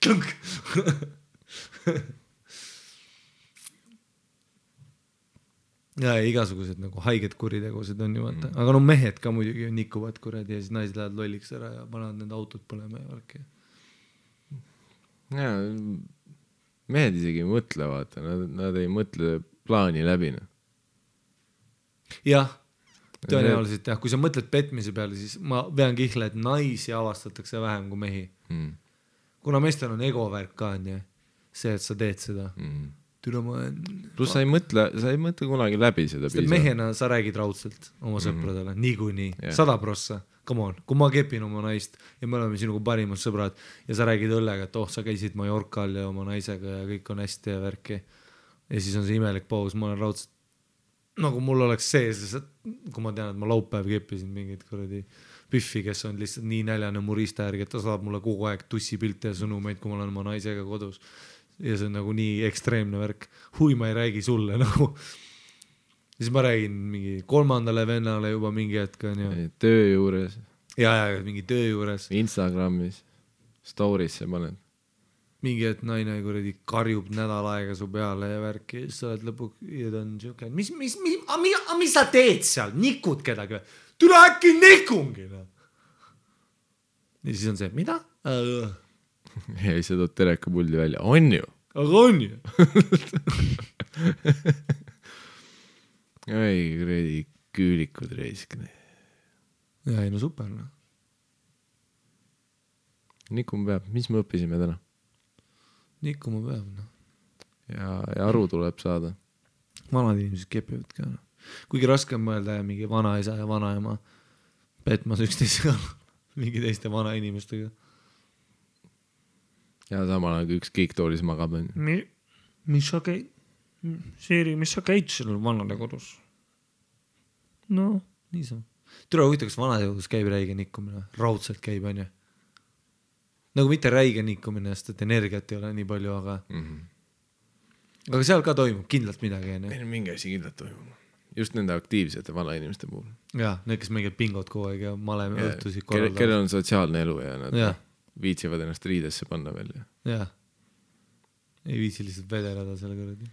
Klunk. Ja igasugused nagu haiged kuritegused on ju vaata, aga no mehed ka muidugi nikuvad kuradi ja siis naised lähevad lolliks ära ja panevad need autod põlema ja värki. Ja, mehed isegi ei mõtle, vaata, nad ei mõtle plaani läbi. Jah, tõenäoliselt jah, kui sa mõtled petmise peale, siis ma vean kihla, et naisi avastatakse vähem kui mehi. Kuna meestel on egovärk ka, on ju, see, et sa teed seda. Plus sa ei mõtle kunagi läbi seda piisavalt. Mehena sa räägid raudselt oma sõpradele, niikuinii, 100%, come on, kui ma kepin oma naist ja me oleme sinuga parimad sõbrad ja sa räägid õllega, et sa käisid Mallorcal ja oma naisega ja kõik on hästi ja värki ja siis on see imelik paus, ma olen raudselt nagu mul oleks sees, kui ma tean, et ma laupäev keppisin mingid kuradi Püffi, kes on lihtsalt nii näljane murista järgi, et ta saab mulle kogu aeg tussipilte ja sõnumeid, kui ma olen oma naisega kodus. Ja see on nagu nii ekstreemne värk. Hui, ma ei räägi sulle nagu. Siis ma räägin mingi 3. vennale juba mingi hetk. Töö juures. Ja, mingi töö juures. Instagramis. Storisse panen. Mingi hetk naine kuradi karjub nädal aega su peale ja värki. Ja siis sa oled lõpuks ja ta on siuke. Mis sa teed seal? Nikud kedagi? Tule äkki nikungi. Ja siis on see, mida? Ja siis sa tood terekapuldi välja. On ju? Aga on ju? Ei, kuradi küülikud reisk. Ja ei, no super. No. Nikuma peab. Mis me õppisime täna? Nikuma peab. No. Ja aru tuleb saada. Vanad inimesed kepivad ka. No. Kuigi raske on mõelda ja mingi vanaisa ja vanaema petmas üksteisega mingi teiste vana inimestega. Ja samal aeg üks kiiktoolis magab. Mis sa käid? Seeri, mis sa käid sellel vanade kodus? No, nii sa. Tule huvita, kas vanade kodus käib räige nikkumine? Raudselt käib, on ju? Nagu mitte räige nikkumine, sest et energiat ei ole nii palju, aga aga seal ka toimub kindlalt midagi. Meil mingi asi kindlalt toimub. Just nende aktiivsete vana inimeste puhul. Ja, need, kes mingid pingod kogu aeg ja maleme õhtusid korraldavad. Kellel on sotsiaalne elu ja nad viitsivad ennast riidesse panna veel. Jah. Ei viitsi lihtsalt vedeleda selle kõrdi.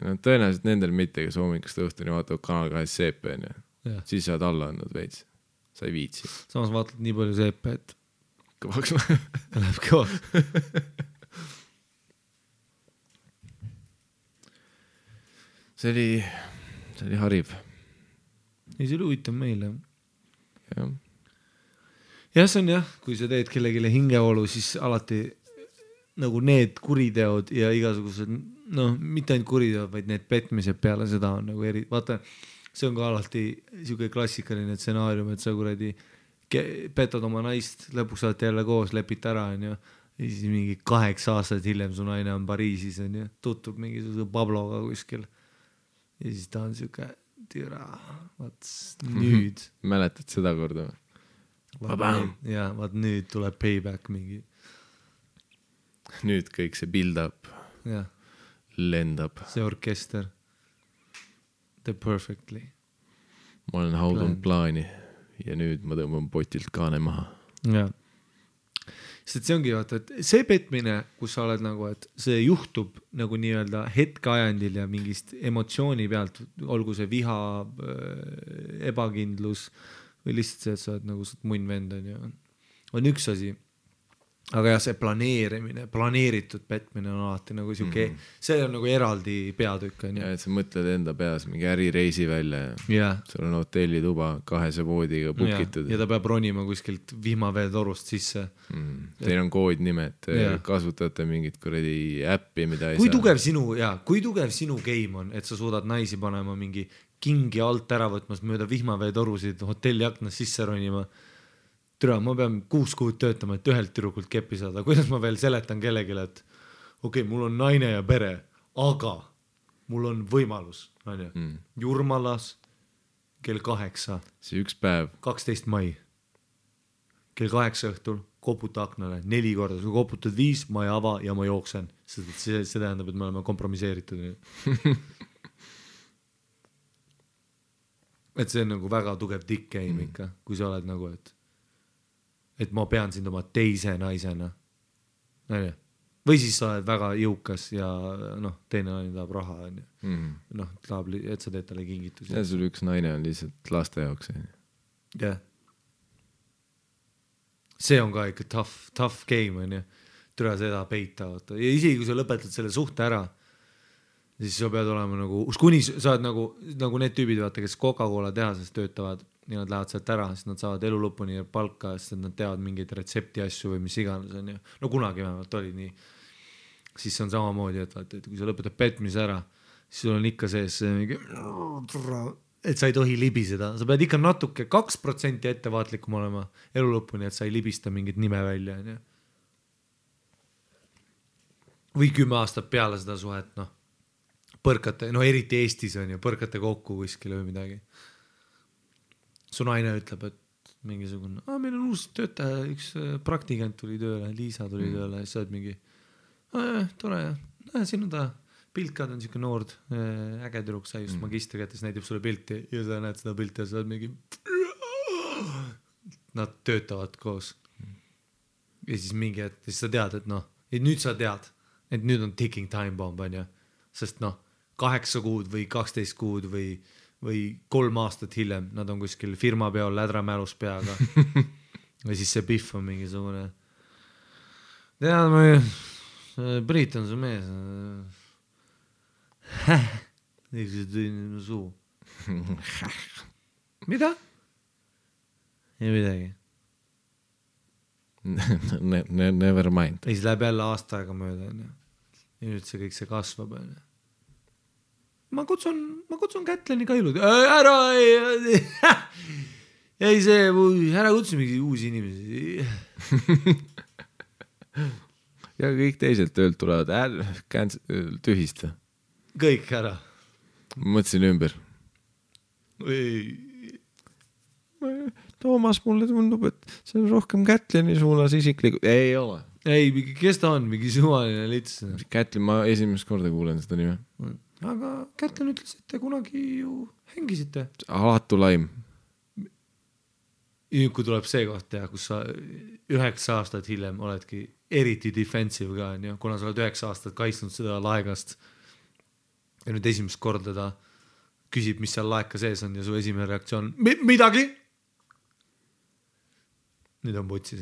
No, tõenäoliselt nendel mitte, kes hommikust õhtuni vaatavad Kanal 2 seepe, siis saad alla andnud veits. Sa ei viitsi. Samas vaatad nii palju seepe, et kõvaks läheb kõvaks. See oli hariv. Ei, see oli huvitav meile. Jah. Ja see on jah, kui sa teed kellegile hingeolu, siis alati nagu need kuriteod ja igasugused, mitte ainult kuriteod, vaid need petmised peale seda on nagu vaata, see on ka alati siuke klassikaline stsenaarium, et sa kuradi petad oma naist, lõpuks olete jälle koos, lepite ära, on ju, ja siis mingi 8 aastat hiljem su naine on Pariisis, on ju, tuttub mingisuguse Pabloga kuskil ja siis ta on siuke türa, nüüd. Mäletad seda korda või? Ja, vaat nüüd tuleb payback mingi. Nüüd kõik see build up ja. Lendab. See orkester. The perfectly. Ma olen haudun plaani ja nüüd ma tõmban potilt kaane maha. Ja. Sest see ongi vaata, et see petmine, kus sa oled nagu, et see juhtub nagu nii-öelda hetkeajandil ja mingist emotsiooni pealt, olgu see viha, ebakindlus või lihtsalt see, et sa oled nagu munn vend on üks asi. aga jah, see planeeritud petmine on alati nagu siuke, see on nagu eraldi peatükk. Ja, et sa mõtled enda peas mingi ärireisi välja ja sul on hotellituba 2 voodiga pukitud. Ja ta peab ronima kuskilt vihmaveetorust sisse. Teil on koodnimed, kasutate mingit kuradi äppi, mida ei kui tugev sinu game on, et sa suudad naisi panema mingi kingi alt ära võtmas mööda vihmaveetorusid hotelli aknas sisse ronima. Türa, ma pean 6 kuud töötama, et ühelt türukult keppi saada. Kuidas ma veel seletan kellegile, et okei, mul on naine ja pere, aga mul on võimalus. Jurmalas kell 8. See üks päev. 12 mai. Kell 8 õhtul koputa aknale 4 korda. Kui koputad 5, ma ei ava ja ma jooksen. See tähendab, et me oleme kompromiseeritud. Et see on nagu väga tugev dick game ikka, kui sa oled nagu, et ma pean sind oma teise naisena. Või siis sa oled väga jõukas ja teine naine tahab raha. Tahab, et sa teed talle kingitusi. Ja sul üks naine on lihtsalt laste jaoks. Jah. See on ka ikka tough game. Türa seda peita. Ja isegi kui sa lõpetad selle suhte ära, siis sa pead olema nagu, kuni sa oled nagu need tüübid, vaata, kes Coca-Cola tehases töötavad ja nad lähevad sealt ära, siis nad saavad elu lõpuni palka, sest nad teavad mingeid retsepti asju või mis iganes on. No kunagi vähemalt oli nii. Siis on samamoodi, et kui sa lõpetad petmise ära, siis sul on ikka sees mingi, et sa ei tohi libiseda. Sa pead ikka natuke 2% ettevaatlikum olema elu lõpuni, et sa ei libista mingit nime välja. Või 10 aastat peale seda suhet, põrkate, eriti Eestis on ju, põrkate kokku kuskile või midagi. Su naine ütleb, et mingisugune, meil on uus töötaja, üks praktikant tuli tööle, Liisa tuli tööle, ja sa oled mingi, tore, siin on ta piltkad on siuke noord, äge tüdruk, sai just magistrikätes, näitab sulle pilti ja sa näed seda pilti ja sa oled mingi, nad töötavad koos. Ja siis mingi, et siis sa tead, et nüüd sa tead, et nüüd on ticking time bomb, on ju, sest 8 kuud või 12 kuud või 3 aastat hiljem, nad on kuskil firma peal lädramälus peaga. Või siis see Biff on mingisugune. Tead, Priit on su mees. Niisuguse tõin suu. Mida? Ei midagi. Never mind. Ja siis läheb jälle aasta aega mööda. Ja nüüd see kõik see kasvab. Ma kutsun Kätleni ka ilud. Ära kutsu mingi uusi inimesi. Ja kõik teised töölt tulevad. Tühista. Kõik ära. Mõtlesin ümber. Toomas, mulle tundub, et see on rohkem Kätleni suunas isiklikult. Ei ole. Ei, kes ta on? Mingi suvaline lits. Kätlin, ma esimest korda kuulen seda nime. Aga Kätlen ütles, et te kunagi ju hängisite. Alatu laim. Kui tuleb see koht, kus sa 9 aastat hiljem oledki eriti defensive ka, kuna sa oled 9 aastat kaitsnud seda laegast ja nüüd esimest korda ta küsib, mis seal laeka sees on ja su esimene reaktsioon midagi? Nüüd on putsis.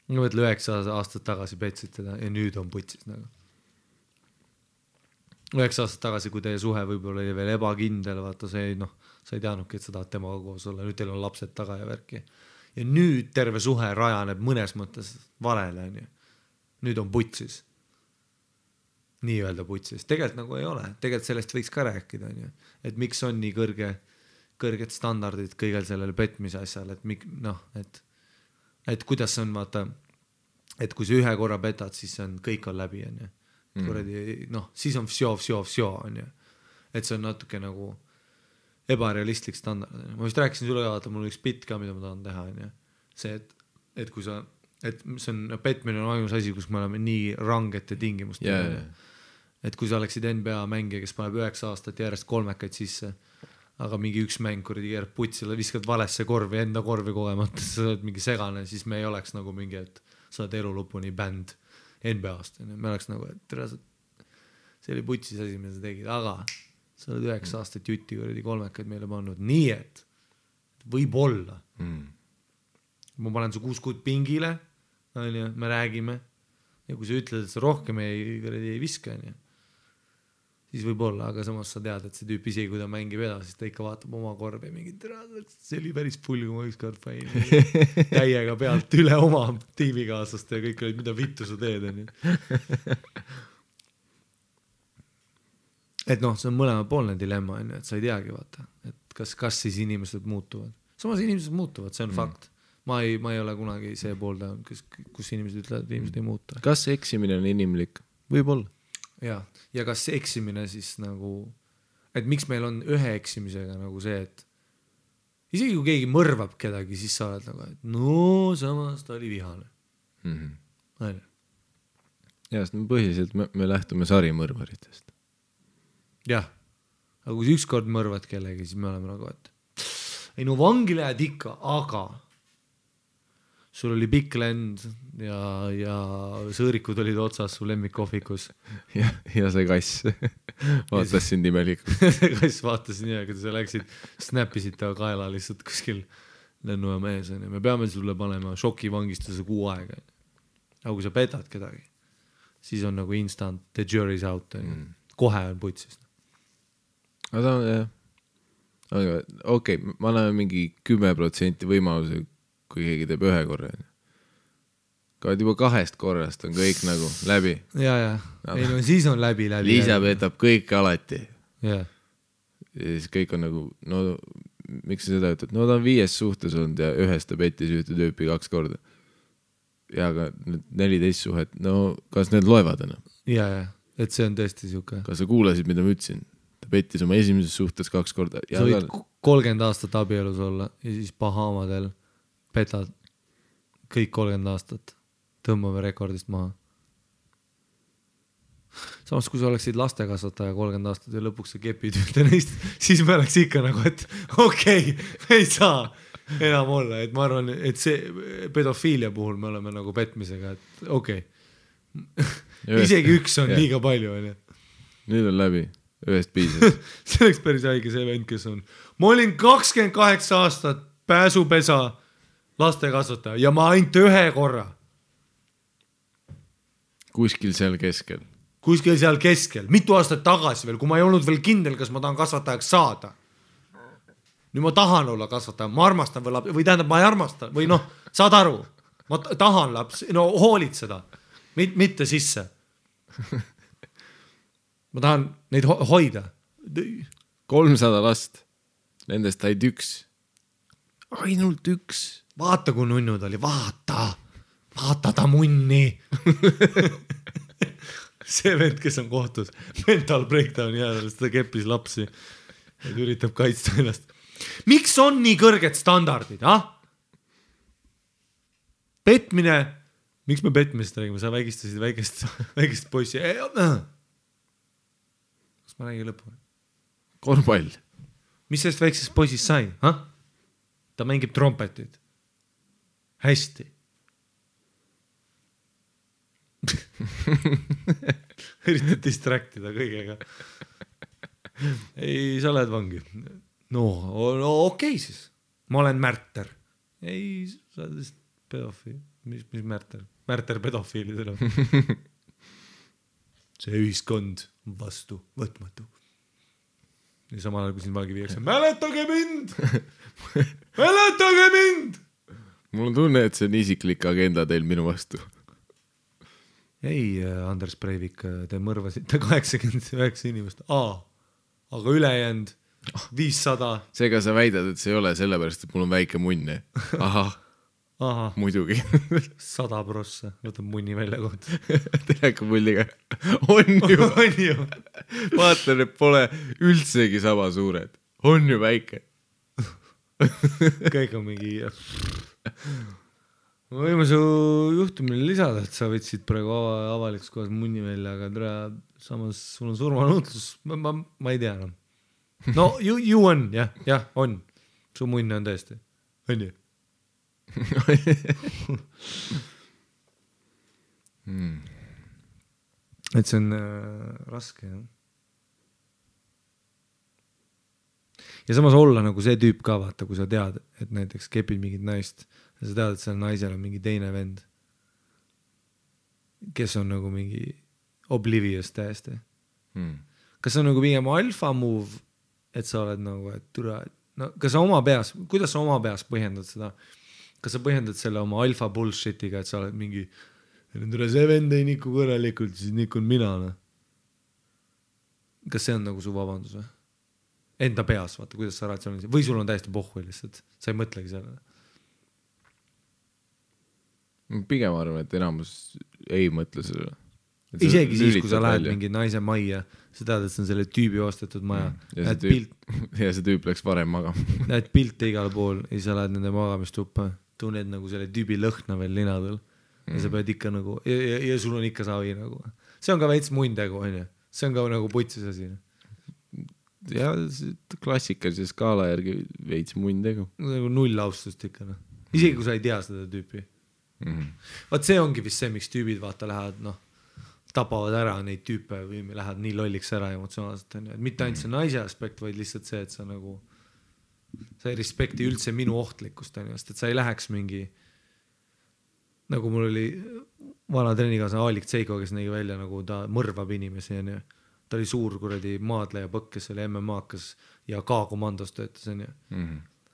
Ma mõtle 9 aastat tagasi petsid teda ja nüüd on putsis. 9 aastat tagasi, kui teie suhe võib-olla oli veel ebakindel, vaata see, sa ei teadnudki, et sa tahad temaga koos olla, nüüd teil on lapsed taga ja värki. Ja nüüd terve suhe rajaneb mõnes mõttes valele. Nüüd on putsis. Nii öelda putsis. Tegelikult nagu ei ole. Tegelikult sellest võiks ka rääkida. Et miks on nii kõrged standardid kõigel sellel petmise asjal, et kuidas see on, vaata, et kui sa ühe korra petad, siis kõik on läbi, siis on vsjo, on ju. Et see on natuke nagu ebarealistlik standard. Ma vist rääkisin sulle ka, mul on üks bitt ka, mida ma tahan teha, on ju. See, et kui sa, et see on, petmine on ainus asi, kus me oleme nii rangete tingimust. Et kui sa oleksid NBA mängija, kes paneb 9 aastat järjest kolmekaid sisse, aga mingi üks mäng kuradi keerab putsile, viskad valesse korvi, enda korvi kogemata, sa oled mingi segane, siis me ei oleks nagu mingi, et sa oled elu lõpuni bänd NBA-ast. Me oleks nagu, et see oli putsis asi, mida sa tegid, aga sa oled 9 aastat jutti kuradi kolmekaid meile pannud. Nii et võib olla. Ma panen su 6 kuud pingile me räägime ja kui sa ütled, et sa rohkem ei viska, siis võib olla, aga samas sa tead, et see tüüp isegi, kui ta mängib edasi, siis ta ikka vaatab oma korvi ja mingi see oli päris pull, kui ma ükskord panin täiega pealt üle oma tiimikaaslaste ja kõik olid, mida vittu sa teed, et noh, see on mõlemapoolne dilemma, et sa ei teagi, vaata, et kas siis inimesed muutuvad. Samas inimesed muutuvad, see on fakt. Ma ei ole kunagi see poolda, kus inimesed ütlevad, et inimesed ei muuta. Kas eksimine on inimlik? Võib-olla. Ja kas eksimine siis nagu, et miks meil on ühe eksimisega nagu see, et isegi kui keegi mõrvab kedagi, siis sa oled nagu, et no samas ta oli vihane. Ja, sest põhiliselt me lähtume sarimõrvaritest. Jah, aga kui ükskord mõrvad kellegi, siis me oleme nagu, et ei no vangi lähed ikka, aga sul oli pikk lend ja sõõrikud olid otsas su lemmikkohvikus. Ja see kass vaatas sind imelikult. See kass vaatas nii, aga sa läksid, snappisid ta kaela lihtsalt kuskil lennujaama ees. Me peame sulle panema šokivangistuse 6 aega. Aga kui sa petad kedagi, siis on nagu instant, the jury's out. Kohe on putsist. Aga okei, ma annan mingi 10% võimaluse, kui keegi teeb 1 korra. Kaad juba 2 korrast on kõik nagu läbi. Ja. Ei no siis on läbi. Liisa petab kõik alati. Ja siis kõik on nagu, no miks sa seda ütled? No ta on 5 suhtes olnud ja 1 ta petis ühte tüüpi 2 korda. Ja aga 14 suhet, no kas need loevad enam? Ja, et see on tõesti siuke. Kas sa kuulasid, mida ma ütlesin? Ta petis oma esimeses suhtes 2 korda. Sa võid 30 aastat abielus olla ja siis Bahamadel petad kõik 30 aastat. Tõmbame rekordist maha. Samas, kui sa oleksid lastekasvataja 30 aastat ja lõpuks sa kepid ühte neist, siis me oleks ikka nagu, et okei, me ei saa enam olla. Et ma arvan, et see pedofiilia puhul me oleme nagu petmisega, et okei. Isegi 1 on liiga palju. Nüüd on läbi. 1 piisab. See oleks päris haige see vend, kes on. Ma olin 28 aastat pääsupesa lastekasvataja ja ma ainult 1 korra. Kuskil seal keskel. Kuskil seal keskel. Mitu aastat tagasi veel, kui ma ei olnud veel kindel, kas ma tahan kasvatajaks saada. Nüüd ma tahan olla kasvataja, ma armastan või tähendab, ma ei armasta või noh, saad aru. Ma tahan laps, no hoolid seda. Mitte sisse. Ma tahan neid hoida. 300 last. Nendest said 1. Ainult 1. Vaata, kui nunnud oli. Vaata ta munni. See vend, kes on kohtus. Mental breakdown jäädest, ta keppis lapsi. Et üritab kaitsta ennast. Miks on nii kõrged standardid? Petmine. Miks me petmist räägime? Sa vägistasid väikest poissi. Kas ma räägin lõpu? Korvpall. Mis sellest väiksest poisist sai? Ta mängib trompetit. Hästi. Üritad distraktida kõigega. Ei, sa oled vangi. No okei siis. Ma olen Märter. Ei, sa oled vist pedofiil. Mis Märter? Märter pedofiilidele. See ühiskond vastu võtmatu. Ja samal ajal, kui siin valgi viiakse. Mäletage mind! Mäletage mind! Mul on tunne, et see on isiklik agenda teil minu vastu. Ei, Anders Breivik, te mõrvasite 89 inimest. Aga ülejäänud 500. Seega sa väidad, et see ei ole sellepärast, et mul on väike munn. Ahah. Muidugi. 100 prossa. Võtab munni välja kohta. Teleka mulliga. On ju. Vaata, need pole üldsegi sama suured. On ju väike. Kõik on mingi... Ma võime su juhtumile lisada, et sa võtsid praegu avalikus kohas munni välja, aga samas sul on surmanuutlus. Ma ei tea enam. No, you on, jah, on. Su munn on tõesti. On ju? Et see on raske, jah. Ja samas olla nagu see tüüp ka, vaata, kui sa tead, et näiteks kepid mingit naist ja sa tead, et seal naisel on mingi teine vend. kes on nagu mingi oblivious täiesti. Kas see on nagu pigem alfa move, et sa oled nagu, et türa, no kas sa oma peas, kuidas sa oma peas põhjendad seda? Kas sa põhjendad selle oma alfa bullshitiga, et sa oled mingi see vend ei niku kõrelikult, siis nikun mina, no? Kas see on nagu su vabandus või? Enda peas, vaata, kuidas sa ratsionaalselt, või sul on täiesti pohhu lihtsalt, sa ei mõtlegi sellele. Pigem arvan, et enamus ei mõtle sellele. Isegi siis, kui sa lähed mingi naise majja, sa tead, et see on selle tüübi ostetud maja. Ja see tüüp läks varem magama. Näed pilte igal pool ja sa lähed nende magamistuppa, tunned nagu selle tüübi lõhna veel linadel ja sa pead ikka nagu, ja sul on ikka savi nagu. See on ka veits mundegu, on ju? See on ka nagu putsis asi. Ja klassikalise skaala järgi veits mundegu. Nagu null austust ikka. No. Isegi kui sa ei tea seda tüüpi. Vaat see ongi vist see, miks tüübid vaata lähevad, noh, tapavad ära neid tüüpe või lähevad nii lolliks ära emotsionaalselt. Et mitte ainult see naise aspekt, vaid lihtsalt see, et sa nagu sa ei respekti üldse minu ohtlikkust, et sa ei läheks mingi nagu mul oli vana treenikaasa Aalik Tseiko, kes nägi välja nagu ta mõrvab inimesi, on ju. Ta oli suur kuradi maadleja põkk, kes oli MMA-kas ja K-komandos töötas, on ju.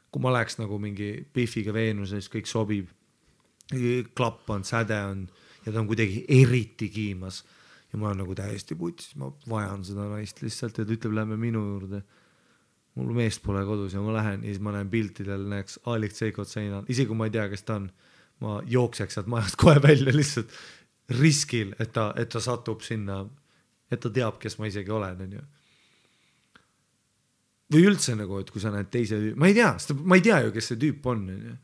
Kui ma läheks nagu mingi Biffiga Veenuses, kõik sobib, klapp on, säde on ja ta on kuidagi eriti kiimas ja ma olen nagu täiesti putis, ma vajan seda naist lihtsalt ja ta ütleb, lähme minu juurde. Mul meest pole kodus ja ma lähen ja siis ma näen piltidel, näeks Aalik Tseikot seinal, isegi kui ma ei tea, kes ta on, ma jookseks sealt majast kohe välja lihtsalt riskil, et ta satub sinna, et ta teab, kes ma isegi olen, on ju. Või üldse nagu, et kui sa näed teise tüüp, ma ei tea ju, kes see tüüp on, on ju.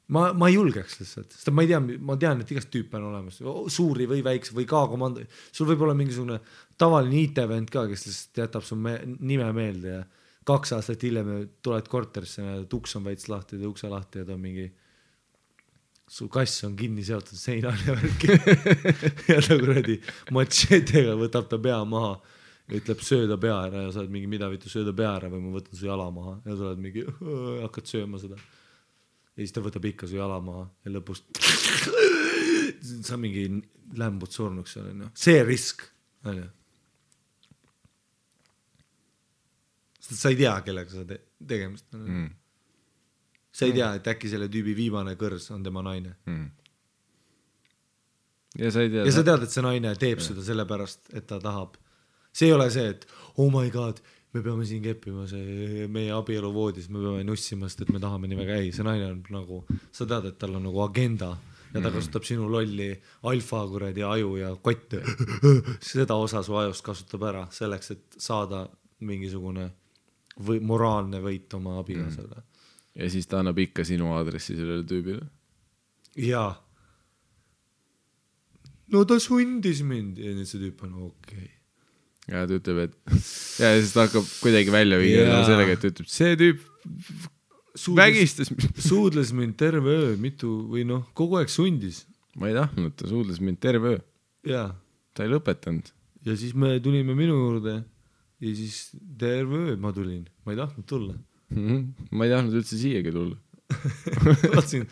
Ma ei julgeks lihtsalt, sest ma tean, et igast tüüpe on olemas, suuri või väikse või K-komando. Sul võib olla mingisugune tavaline IT-vend ka, kes lihtsalt jätab su nime meelde ja 2 aastat hiljem tuled korterisse ja uks on veits lahti ja ukse lahti ja ta on mingi su kass on kinni seotud seinal ja värki ja ta kuradi machetega võtab ta pea maha ja ütleb sööda pea ära ja sa oled mingi mida vitu sööda pea ära või ma võtan su jala maha ja sa oled mingi hakkad sööma seda ja siis ta võtab ikka su jala maha ja lõpus sa mingi lämbud surnuks seal, see risk on ju. Sest sa ei tea, kellega sa tegemist on. Sa ei tea, et äkki selle tüübi viimane kõrs on tema naine. Ja sa tead, et see naine teeb seda sellepärast, et ta tahab. See ei ole see, et oh my god, me peame siin keppima meie abielu voodis, me peame nussima, sest et me tahame nii väga. Ei, see naine on nagu, sa tead, et tal on nagu agenda ja ta kasutab sinu lolli alfa kuradi aju ja kotte. Seda osa su ajust kasutab ära selleks, et saada mingisugune moraalne võit oma abikaasale. Ja siis ta annab ikka sinu aadressi sellele tüübile. Jaa. No ta sundis mind. Ja nüüd see tüüp on okei. Ja ta ütleb, et ja siis ta hakkab kuidagi välja viia sellega, et ütleb, see tüüp vägistas suudles mind terve öö, mitu või noh, kogu aeg sundis. Ma ei tahtnud, ta suudles mind terve öö. Jaa. Ta ei lõpetanud. Ja siis me tulime minu juurde ja siis terve öö ma tulin. Ma ei tahtnud tulla. Ma ei tahtnud üldse siiagi tulla. ma tahtsin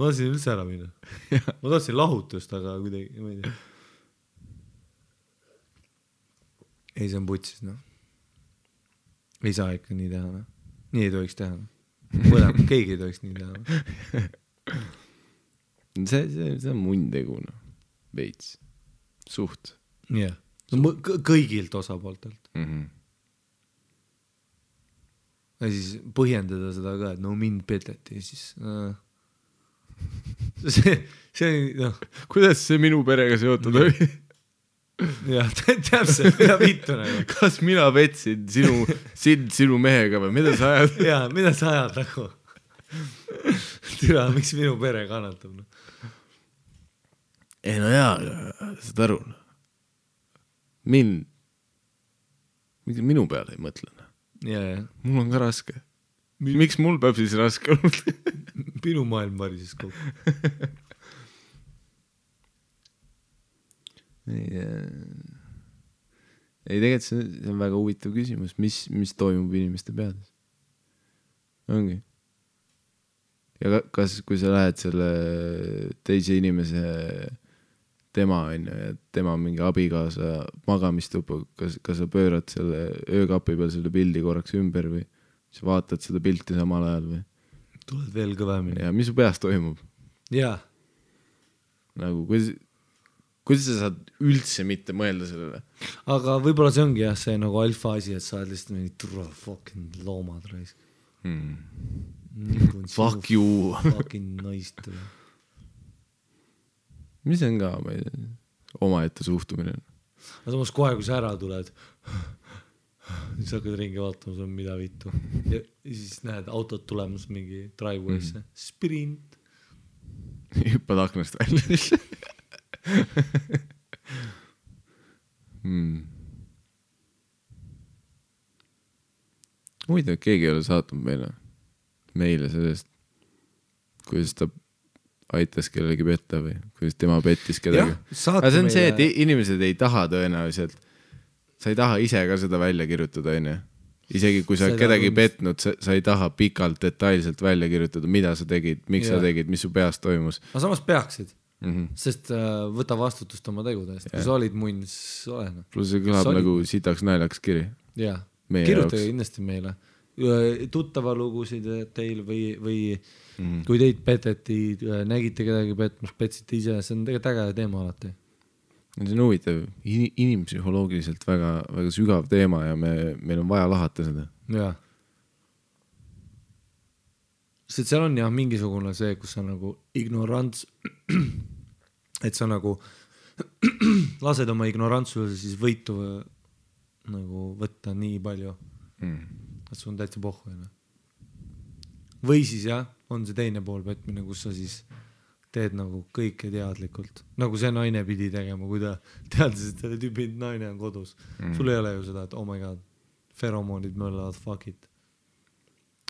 üldse ära minna. Ma tahtsin lahutust, aga kuidagi, ma ei tea. Ei, see on putsis, noh. Ei saa ikka nii teha, noh. Nii ei tohiks teha. Keegi ei tohiks nii teha. See on mundegu, noh. Veits. Suht. Jah. Kõigilt osapooltelt. Ja siis põhjendada seda ka, et no mind peteti ja siis see no. Kuidas see minu perega seotud oli? Jah, täpselt, mida vittu nagu. Kas mina petsin sinu mehega või mida sa ajad? Jaa, mida sa ajad nagu? Türa, miks minu pere kannatab? No? Ei no jaa, saad aru. Minu peale ei mõtle. Yeah. Mul on ka raske. Miks mul peab siis raske olnud? Minu maailm varises kogu. Ei, tegelikult see on väga huvitav küsimus, mis toimub inimeste peades. Ongi. Ja kas, kui sa lähed selle teise tema on ju, ja tema mingi abikaasa magamistupu, kas sa pöörad selle öökapi peal selle pildi korraks ümber või sa vaatad seda pilti samal ajal või? Tuled veel kõvemini. Ja mis su peas toimub? Jaa. Nagu, kuidas sa saad üldse mitte mõelda sellele? Aga võib-olla see ongi jah, see nagu alfa asi, et sa oled lihtsalt mingi turva fucking loomad raisk. Fuck you. Fucking naist. Mis on ka omaette suhtumine? Aga samas kohe, kui sa ära tuled, siis hakkad ringi vaatama, see on mida vittu. Ja siis näed autod tulemas mingi driveway'sse. Sprint. Hüppad aknast välja. Muide, keegi ei ole saatnud meile sellest, kuidas ta aitas kellegi petta või kuidas tema pettis kedagi. Aga see on see, et inimesed ei taha tõenäoliselt, sa ei taha ise ka seda välja kirjutada, on ju. Isegi kui sa kedagi petnud, sa ei taha pikalt detailselt välja kirjutada, mida sa tegid, miks sa tegid, mis su peas toimus. Aga samas peaksid. Sest võta vastutust oma tegudest. Kui sa olid munn, siis olena. Plus see kõlab nagu sitaks naljaks kiri. Jaa, kirjutage kindlasti meile. Tuttava lugusid teil või kui teid peteti, nägite kedagi petmas, petsite ise, see on tegelikult äge teema alati. See on huvitav, inimpsühholoogiliselt väga, väga sügav teema ja meil on vaja lahata seda. Jaa. Sest seal on jah mingisugune see, kus sa nagu ignorants, et sa nagu lased oma ignorantsuse siis võitu nagu võtta nii palju, et sul on täitsa pohhu. Või siis jah, on see teine pool petmine, kus sa siis teed nagu kõike teadlikult. Nagu see naine pidi tegema, kui ta teadis, et selle tüübi naine on kodus. Sul ei ole ju seda, et oh my god, feromoonid möllavad, fuck it.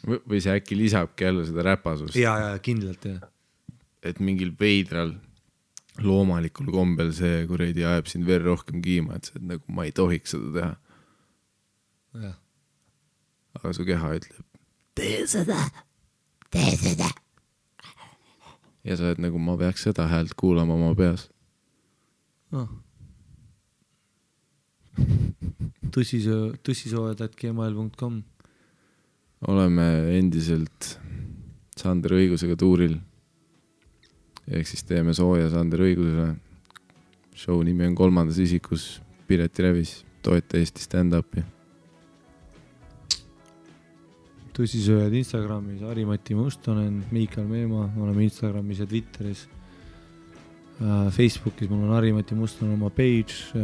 Või see äkki lisabki jälle seda räpasust. Ja, kindlalt, jah. Et mingil veidral loomalikul kombel see kuredi ajab sind veel rohkem kiima, et see, et nagu ma ei tohiks seda teha. Jah. Aga su keha ütleb, tee seda. Ja sa oled nagu, ma peaks seda häält kuulama oma peas. Tussisoojad@gmail.com Oleme endiselt Sander Õigusega tuuril. Ehk siis teeme sooja Sander Õigusele. Show nimi on 3. isikus Pireti Revis. Toeta Eesti stand-upi. Tussisööjad Instagramis, Harimati Mustonen, Miikal Meemaa, oleme Instagramis ja Twitteris. Facebookis mul on Harimati Mustonen oma page.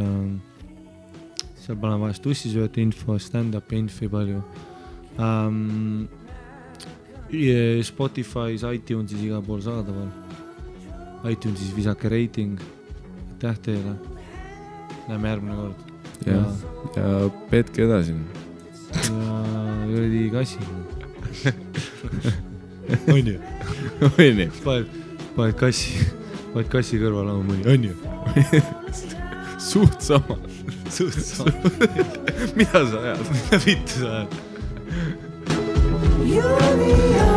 Seal panen vahest tussisööjate info, stand-upi info palju. Spotify's, iTunesis igal pool saadaval. iTunesis visake rating. Aitäh teile. Näeme järgmine kord. Ja petke edasi. Ja jõrdi kassi. On ju? On ju? Paned kassi kõrval oma mõni. On ju? Suht sama. Mida sa ajad? Mida vittu sa ajad? You're the